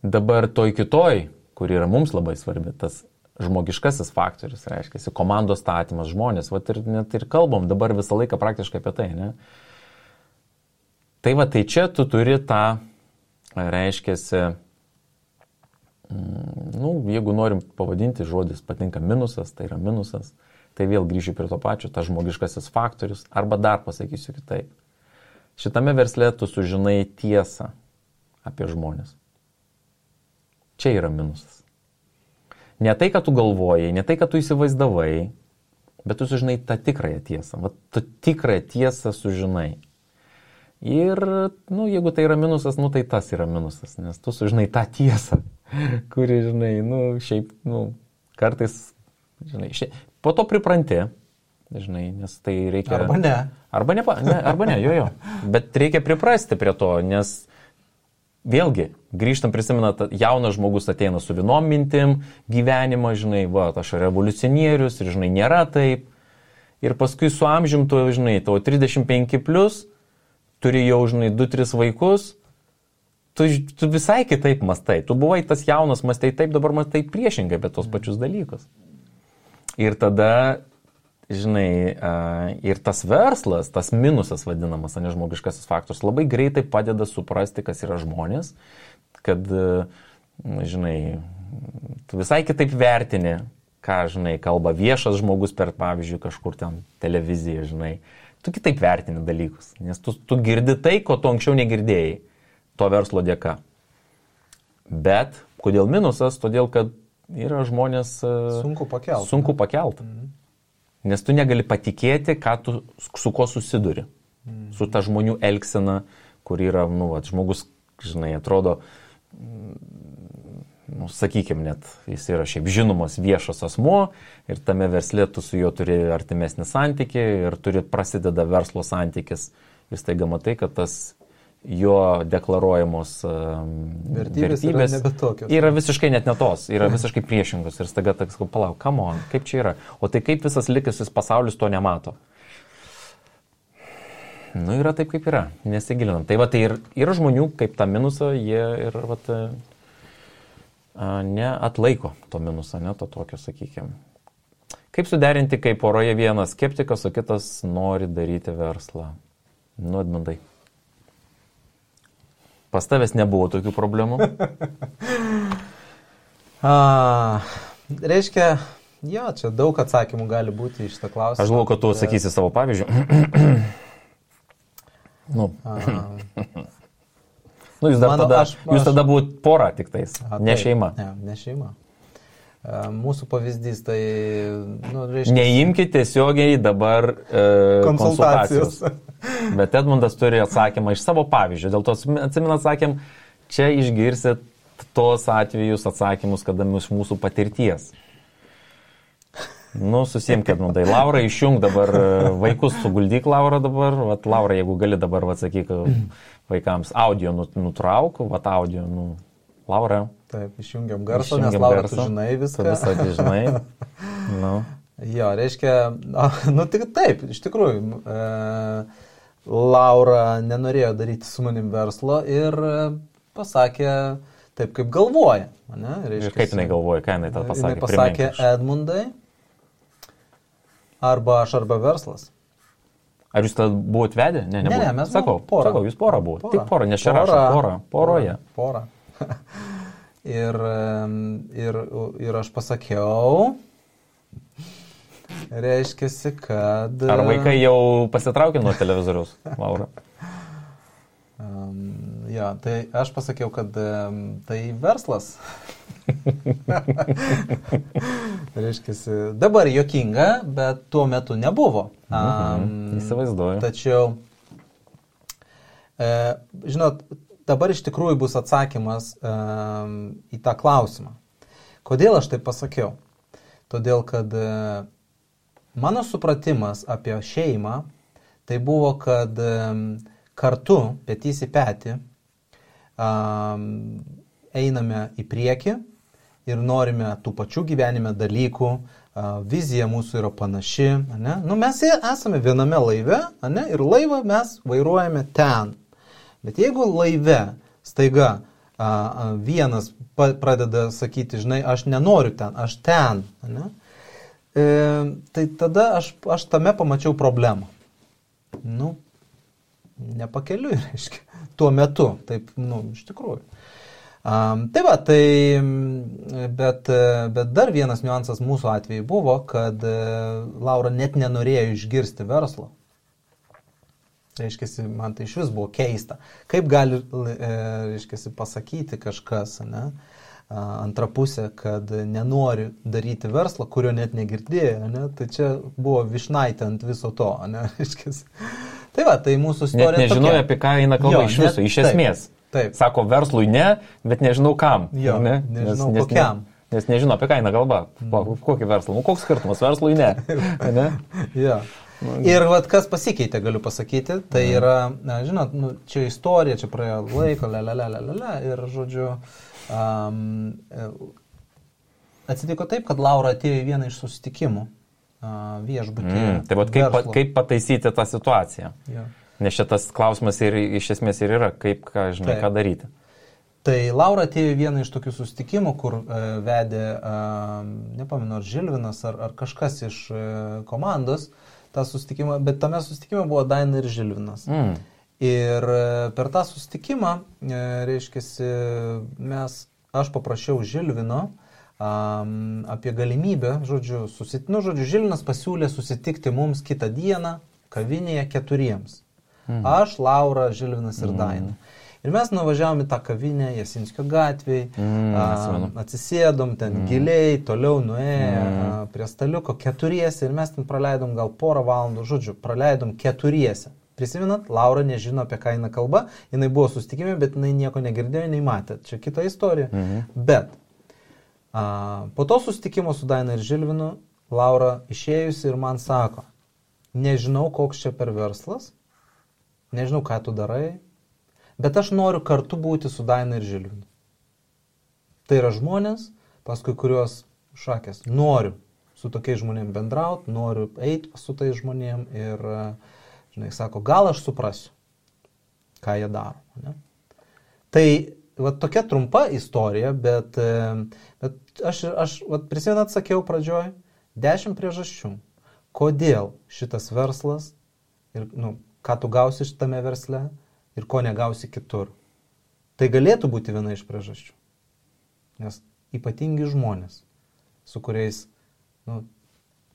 S2: Dabar toj kitoj, kur yra mums labai svarbi, tas žmogiškasis faktorius, reiškia, komandos statymas, žmonės, net ir kalbam dabar visą laiką praktiškai apie tai, ne? Tai tai čia tu turi tą, reiškia, jeigu norim pavadinti, žodis patinka minusas, tai yra minusas, tai vėl grįžiu prie to pačio, tas žmogiškasis faktorius, arba dar pasakysiu kitaip. Šitame versle tu sužinai tiesą apie žmonės. Čia yra minusas. Ne tai, kad tu galvojai, ne tai, kad tu įsivaizdavai, bet tu sužinai tą tikrąją tiesą. Tu tikrąją tiesą sužinai. Ir, jeigu tai yra minusas, tai tas yra minusas, nes tu sužinai tą tiesą, kuri, žinai, šiaip, kartais, žinai, po to pripranti, žinai, nes tai reikia...
S3: Arba ne.
S2: Arba ne, jo. Bet reikia priprasti prie to, nes vėlgi, grįžtam, prisimenat, jaunas žmogus ateina su vienom mintim gyvenimą, žinai, aš revoliucionierius ir, žinai, nėra taip. Ir paskui su amžium tu, žinai, tavo 35+, turi jau, žinai, 2-3 vaikus, tu visai kitaip mastai. Tu buvai tas jaunas, mastai taip, dabar mastai priešingai, bet tos pačius dalykus. Ir tada, žinai, ir tas verslas, tas minusas vadinamas, nežmogiškasis faktorius, labai greitai padeda suprasti, kas yra žmonės, kad, žinai, tu visai kitaip vertini, ką, žinai, kalba viešas žmogus per, pavyzdžiui, kažkur ten televiziją, žinai. Tu kitaip vertini dalykus, nes tu girdi tai, ko tu anksčiau negirdėjai, to verslo dėka. Bet, kodėl minusas? Todėl, kad yra žmonės... Sunku pakelt. Nes tu negali patikėti, su ko susiduri. Su ta žmonių elgsena, kur yra, žmogus, žinai, atrodo, sakykime, net jis yra šiaip žinomas viešas asmuo ir tame versle tu su juo turi artimesnį santykį ir prasideda verslo santykis. Ir staiga matai, kad tas jo deklaruojamos vertybės yra visiškai net ne tos, yra visiškai priešingos. Ir staiga tak, palauk, come on, kaip čia yra? O tai kaip visas likusis pasaulis to nemato? Yra taip, kaip yra, nesigilinam. Tai tai ir yra žmonių, kaip tą minusą, jie ir neatlaiko to minuso, ne to tokio, sakykime. Kaip suderinti, kai poroje vienas skeptikas, o kitas nori daryti verslą? Edmundai. Pas tavęs nebuvo tokių problemų?
S3: Reiškia, čia daug atsakymų gali būti iš šitą klausimą.
S2: Aš galvoju, kad tu sakysi savo pavyzdžių. Jūs tada buvot pora tik tais, ne šeima.
S3: Ne šeima. Mūsų pavyzdys, tai... reiškia...
S2: Neimkite tiesiogiai dabar konsultacijos. Bet Edmundas turi atsakymą iš savo pavyzdžio. Dėl to atsimenat, sakėm, čia išgirsit tos atvejus atsakymus, kada iš mūsų patirties. Susiimk, Edmundai. Laura, išjung dabar vaikus, suguldyk Laura dabar. Laura, jeigu gali dabar, sakyk vaikams, audio nutrauk, audio, Laura.
S3: Taip, išjungiam garsą, nes Laura, tu žinai viską.
S2: Tu visą žinai.
S3: Jo, reiškia, tik taip, iš tikrųjų, Laura nenorėjo daryti su manim verslo ir pasakė taip, kaip galvoja.
S2: Ir kaip jinai galvoja, ką jinai tą pasakė?
S3: Jinai pasakė, Edmundai, arba aš, arba verslas.
S2: Ar jūs tada buvot vedę? Ne,
S3: mes buvome pora.
S2: Sakau, jūs pora buvo. Tik pora, nes čia rašo poroje.
S3: Pora. Ir aš pasakiau, reiškiasi, kad...
S2: Ar vaikai jau pasitraukė nuo televizoriaus, Laura?
S3: Tai aš pasakiau, kad tai verslas. Reiškiasi, dabar juokinga, bet tuo metu nebuvo.
S2: Įsivaizduoju.
S3: Tačiau, žinot, dabar iš tikrųjų bus atsakymas į tą klausimą. Kodėl aš tai pasakiau? Todėl, kad mano supratimas apie šeimą tai buvo, kad kartu, petys į petį, einame į priekį ir norime tų pačių gyvenime dalykų, vizija mūsų yra panaši, ne? Nu, mes esame viename laive, ne? Ir laivą mes vairuojame ten. Bet jeigu laive staiga vienas pradeda sakyti, žinai, aš nenoriu ten, aš ten, ne? Tai tada aš tame pamačiau problemą. Nu, nepakeliui, reiškia, tuo metu, taip, nu, iš tikrųjų. Tai va, bet dar vienas niuansas mūsų atveju buvo, kad Laura net nenorėjo išgirsti verslo. Reiškiasi, man tai iš vis buvo keista. Kaip gali, reiškiasi, pasakyti kažkas, ne, antra pusė, kad nenori daryti verslą, kurio net negirdėjo, ne, tai čia buvo vyšnaitė ant viso to, ne, reiškiasi. Tai va, tai mūsų istorija
S2: net nežinojau, apie ką eina kalba iš viso, iš esmės.
S3: Taip.
S2: Sako, verslui ne, bet nežinau kam.
S3: Jo,
S2: ne?
S3: nežinau kokiam.
S2: Nes nežinau, apie ką eina kalba. Kokį verslą? Nu, koks skirtumas? Verslui ne. Ne?
S3: Jo. Ir vat, kas pasikeitė, galiu pasakyti, tai yra, žinot, nu, čia istorija, čia praėjo laiko, ir, žodžiu, atsitiko taip, kad Laura atėjo į vieną iš susitikimų viešbutyje.
S2: Tai vat kaip pataisyti tą situaciją?
S3: Jo.
S2: Nes šitas klausimas ir iš esmės ir yra, kaip, žinai, ką daryti.
S3: Tai Laura atėjo į vieną iš tokių susitikimų, kur vedė, nepamenu, ar Žilvinas, ar kažkas iš komandos tą susitikimą, bet tame susitikime buvo Daina ir Žilvinas. Ir per tą susitikimą, reiškiasi, aš paprašiau Žilvino apie galimybę, žodžiu, Žilvinas pasiūlė susitikti mums kitą dieną kavinėje 4. Aš, Laura, Žilvinas ir Daina. Ir mes nuvažiavom į tą kavinę Jasinskio gatvėj, atsisėdom ten giliai, toliau nuėjo prie staliuko 4 ir mes ten praleidom gal porą valandų, žodžiu, praleidom 4. Prisimenat, Laura nežino, apie ką eina kalba, jinai buvo susitikime, bet jinai nieko negirdėjo, jinai matė. Čia kita istorija. Bet po to susitikimo su Daina ir Žilvinu, Laura išėjusi ir man sako, nežinau, koks čia per verslas, nežinau, ką tu darai, bet aš noriu kartu būti su Daina ir Žilvinu. Tai yra žmonės, paskui kuriuos šakės. Noriu su tokiais žmonėm bendrauti, noriu eiti su tais žmonėm ir, žinai, sako, gal aš suprasiu, ką jie daro. Ne? Tai va, tokia trumpa istorija, bet aš prisimenat, sakiau pradžioj, 10 priežasčių, kodėl šitas verslas ir, nu, ką tu gausi šitame versle ir ko negausi kitur. Tai galėtų būti viena iš priežasčių. Nes ypatingi žmonės, su kuriais, nu,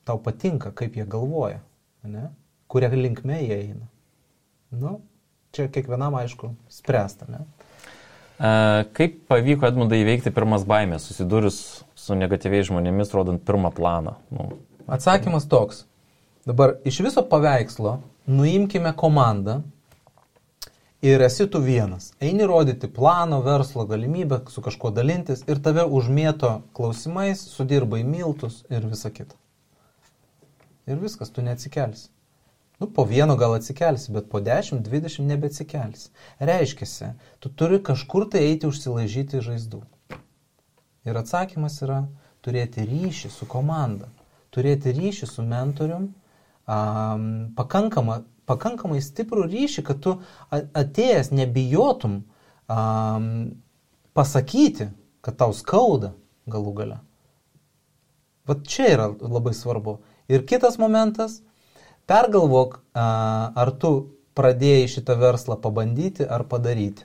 S3: tau patinka, kaip jie galvoja, ne? Kuria linkme jie eina. Nu, čia kiekvienam, aišku, spręsta, ne?
S2: Kaip pavyko Edmundai įveikti pirmas baimės, susidūrus su negatyviais žmonėmis, rodant pirmą planą? Nu.
S3: Atsakymas toks. Dabar iš viso paveikslo nuimkime komandą ir esi tu vienas. Eini rodyti plano, verslo galimybę, su kažkuo dalintis ir tave užmėto klausimais, sudirbai miltus ir visa kita. Ir viskas, tu neatsikelsi. Nu, po vieno gal atsikelsi, bet po 10-20 nebeatsikelsi. Reiškiasi, tu turi kažkur tai eiti užsilaižyti žaizdų. Ir atsakymas yra turėti ryšį su komanda, turėti ryšį su mentorium, pakankamai stiprų ryšį, kad tu atėjęs nebijotum pasakyti, kad tau skauda galų gale. Vat čia yra labai svarbu. Ir kitas momentas, pergalvok, ar tu pradėjai šitą verslą pabandyti ar padaryti.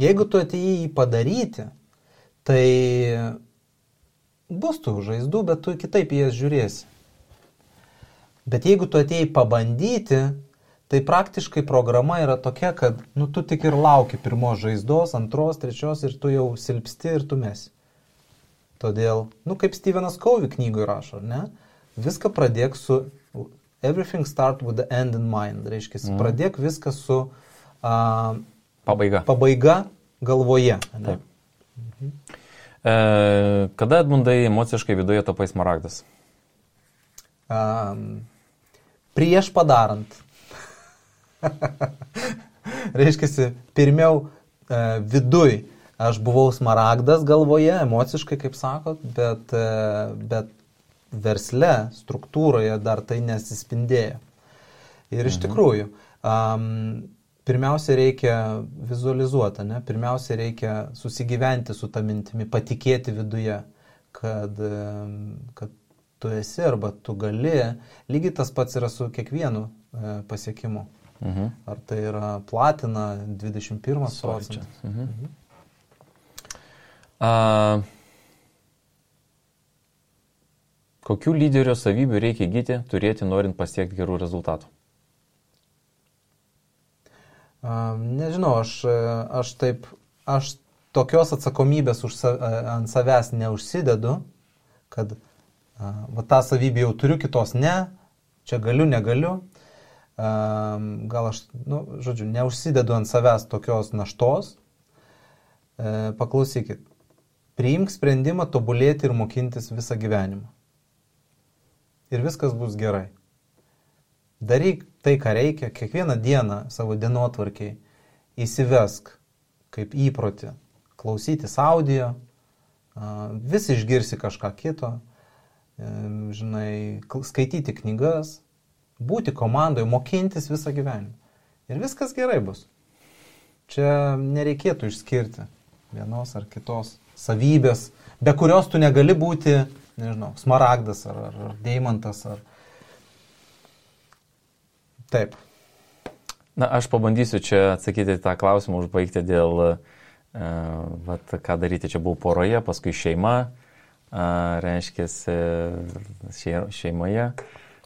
S3: Jeigu tu atėjai jį padaryti, tai bus tų žaizdų, bet tu kitaip jas žiūrėsi. Bet jeigu tu atėjai pabandyti, tai praktiškai programa yra tokia, kad nu, tu tik ir lauki pirmos žaizdos, antros, trečios ir tu jau silpsti ir tu mesi. Todėl, nu kaip Stevenas Covey knygoje rašo, ne? Viską pradėk su everything start with the end in mind. Reiškia, pradėk viską su pabaiga galvoje. Ne?
S2: Kada, Edmundai, emociškai viduje tapai smaragdas?
S3: Prieš padarant. Reiškia, pirmiau viduj aš buvau smaragdas galvoje, emociškai, kaip sakot, bet versle, struktūroje dar tai nesispindėjo. Ir iš tikrųjų, pirmiausia reikia vizualizuoti, ne? Pirmiausia reikia susigyventi su ta mintimi, patikėti viduje, kad tu esi arba tu gali. Lygiai tas pats yra su kiekvienu pasiekimu. Ar tai yra platina 21 procentas.
S2: Kokių lyderio savybių reikia įgyti, turėti, norint pasiekti gerų rezultatų?
S3: Nežinau, aš tokios atsakomybės ant savęs neužsidedu, kad tą savybę jau turiu, kitos ne, čia galiu, negaliu. Gal aš, neužsidedu ant savęs tokios naštos. Paklausykit, priimk sprendimą tobulėti ir mokintis visą gyvenimą. Ir viskas bus gerai. Daryk tai, ką reikia, kiekvieną dieną savo dienotvarkiai įsivesk kaip įprotį, klausytis audio, vis išgirsi kažką kito, skaityti knygas, būti komandoje, mokintis visą gyvenimą. Ir viskas gerai bus. Čia nereikėtų išskirti vienos ar kitos savybės, be kurios tu negali būti, smaragdas ar deimantas. Taip.
S2: Na, aš pabandysiu čia atsakyti tą klausimą, užbaigti dėl, ką daryti. Čia buvau poroje, paskui šeima, reiškia šeimoje.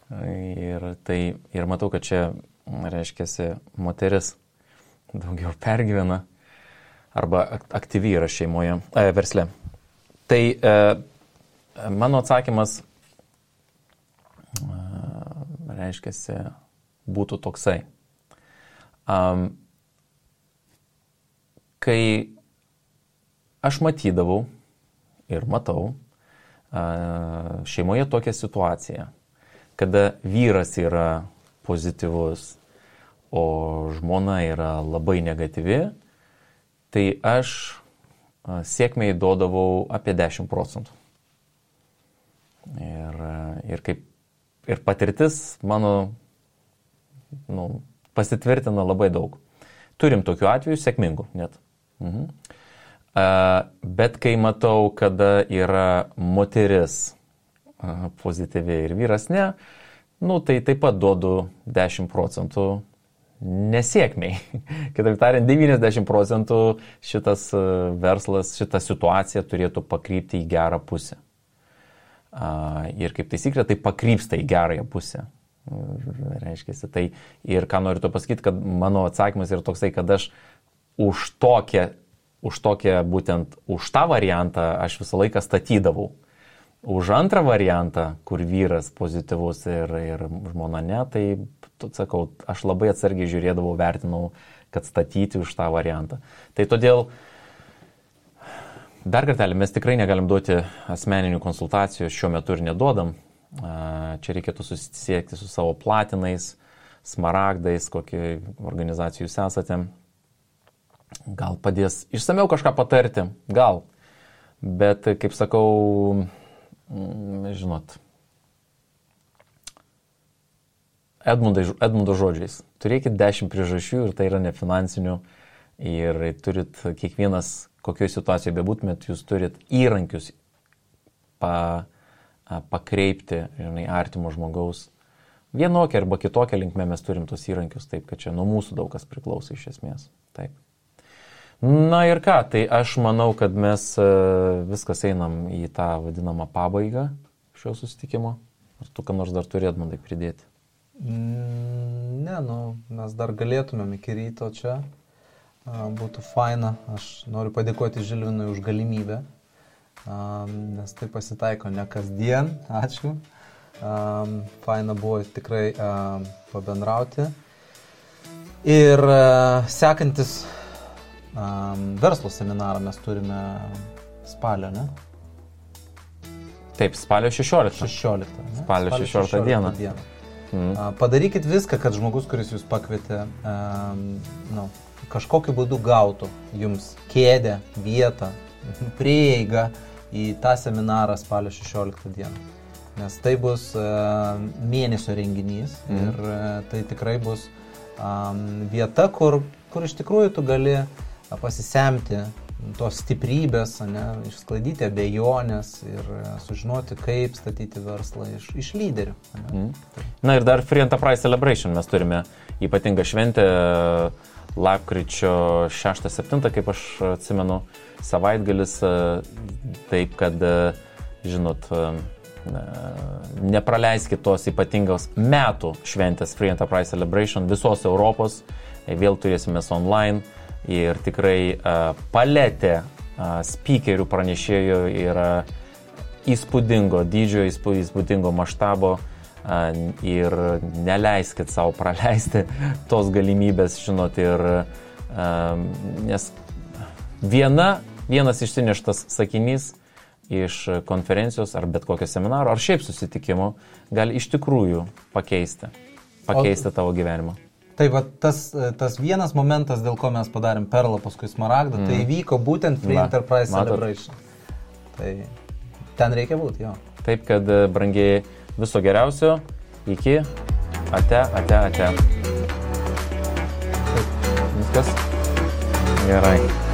S2: Ir matau, kad čia, reiškia, moteris daugiau pergyvena arba aktyvi yra šeimoje, versle. Tai mano atsakymas, reiškia, būtų toksai. Kai aš matydavau ir matau šeimoje tokią situaciją, kada vyras yra pozityvus, o žmona yra labai negatyvi, tai aš sėkmei duodavau apie 10%. Ir patirtis mano pasitvirtina labai daug. Turim tokių atvejų, sėkmingų net. Bet kai matau, kada yra moteris pozityviai ir vyras ne, tai taip pat duodu 10% nesėkmiai. Kitaip tariant, 90% šitas verslas, šita situacija turėtų pakrypti į gerą pusę. Ir kaip taisyklė, tai pakrypsta į gerąją pusę. Reiškia, tai ir ką noriu to pasakyti, kad mano atsakymas yra toksai, kad aš už tą variantą aš visą laiką statydavau. Už antrą variantą, kur vyras pozityvus ir žmona ne, tai, sakau, aš labai atsargiai žiūrėdavau, vertinau, kad statyti už tą variantą. Tai todėl, dar kartelį, mes tikrai negalim duoti asmeninių konsultacijų, šiuo metu ir neduodam. Čia reikėtų susisiekti su savo platinais, smaragdais, kokie organizacijų jūs esate. Gal padės išsamiau kažką patarti, gal. Bet, kaip sakau, žinot, Edmundo žodžiais, turėkit 10 priežasčių ir tai yra nefinansinių ir turit kiekvienas, kokioje situacijoje bebūtumėt, jūs turit įrankius pakreipti, artimo žmogaus. Vienokia arba kitokia linkme mes turim tos įrankius, taip, kad čia nuo mūsų daug kas priklauso iš esmės. Taip. Na ir ką, tai aš manau, kad mes viskas einam į tą vadinamą pabaigą šio susitikimo. Ar tu ką nors dar turi, Edmundai, pridėti?
S3: Ne, mes dar galėtumėm iki ryto čia. Būtų faina. Aš noriu padėkoti Žilvinui už galimybę, nes tai pasitaiko ne kasdien. Ačiū. Faina buvo tikrai pabendrauti. Ir sekantis verslo seminarą mes turime spalio, ne?
S2: Taip, spalio 16.
S3: 16. Ne?
S2: Spalio 16 dieną.
S3: Padarykit viską, kad žmogus, kuris jūs pakvietė, kažkokiu būdu gautų jums kėdę, vietą, prieigą į tą seminarą spalio 16 dieną. Nes tai bus mėnesio renginys ir tai tikrai bus vieta, kur iš tikrųjų tu gali pasisemti tos stiprybės, išsklaidyti abejonės ir sužinoti, kaip statyti verslą iš lyderių.
S2: Na ir dar Free Enterprise Celebration mes turime ypatingą šventę lapkričio 6-7, kaip aš atsimenu, savaitgalis, taip kad, žinot, nepraleiskit tos ypatingos metų šventės Free Enterprise Celebration visos Europos, vėl turėsime online. Ir tikrai paletė speakerių pranešėjų yra įspūdingo dydžio, įspūdingo maštabo ir neleiskit savo praleisti tos galimybės, žinot, ir nes vienas išsineštas sakinys iš konferencijos ar bet kokio seminaro ar šiaip susitikimo gali iš tikrųjų pakeisti tavo gyvenimą.
S3: Tai va, tas vienas momentas, dėl ko mes padarėm Perlą, paskui Smaragdą, tai įvyko būtent Free Enterprise Celebration. Tai ten reikia būti, jo.
S2: Taip, kad, brangiai, viso geriausio, iki, ate. Viskas? Gerai.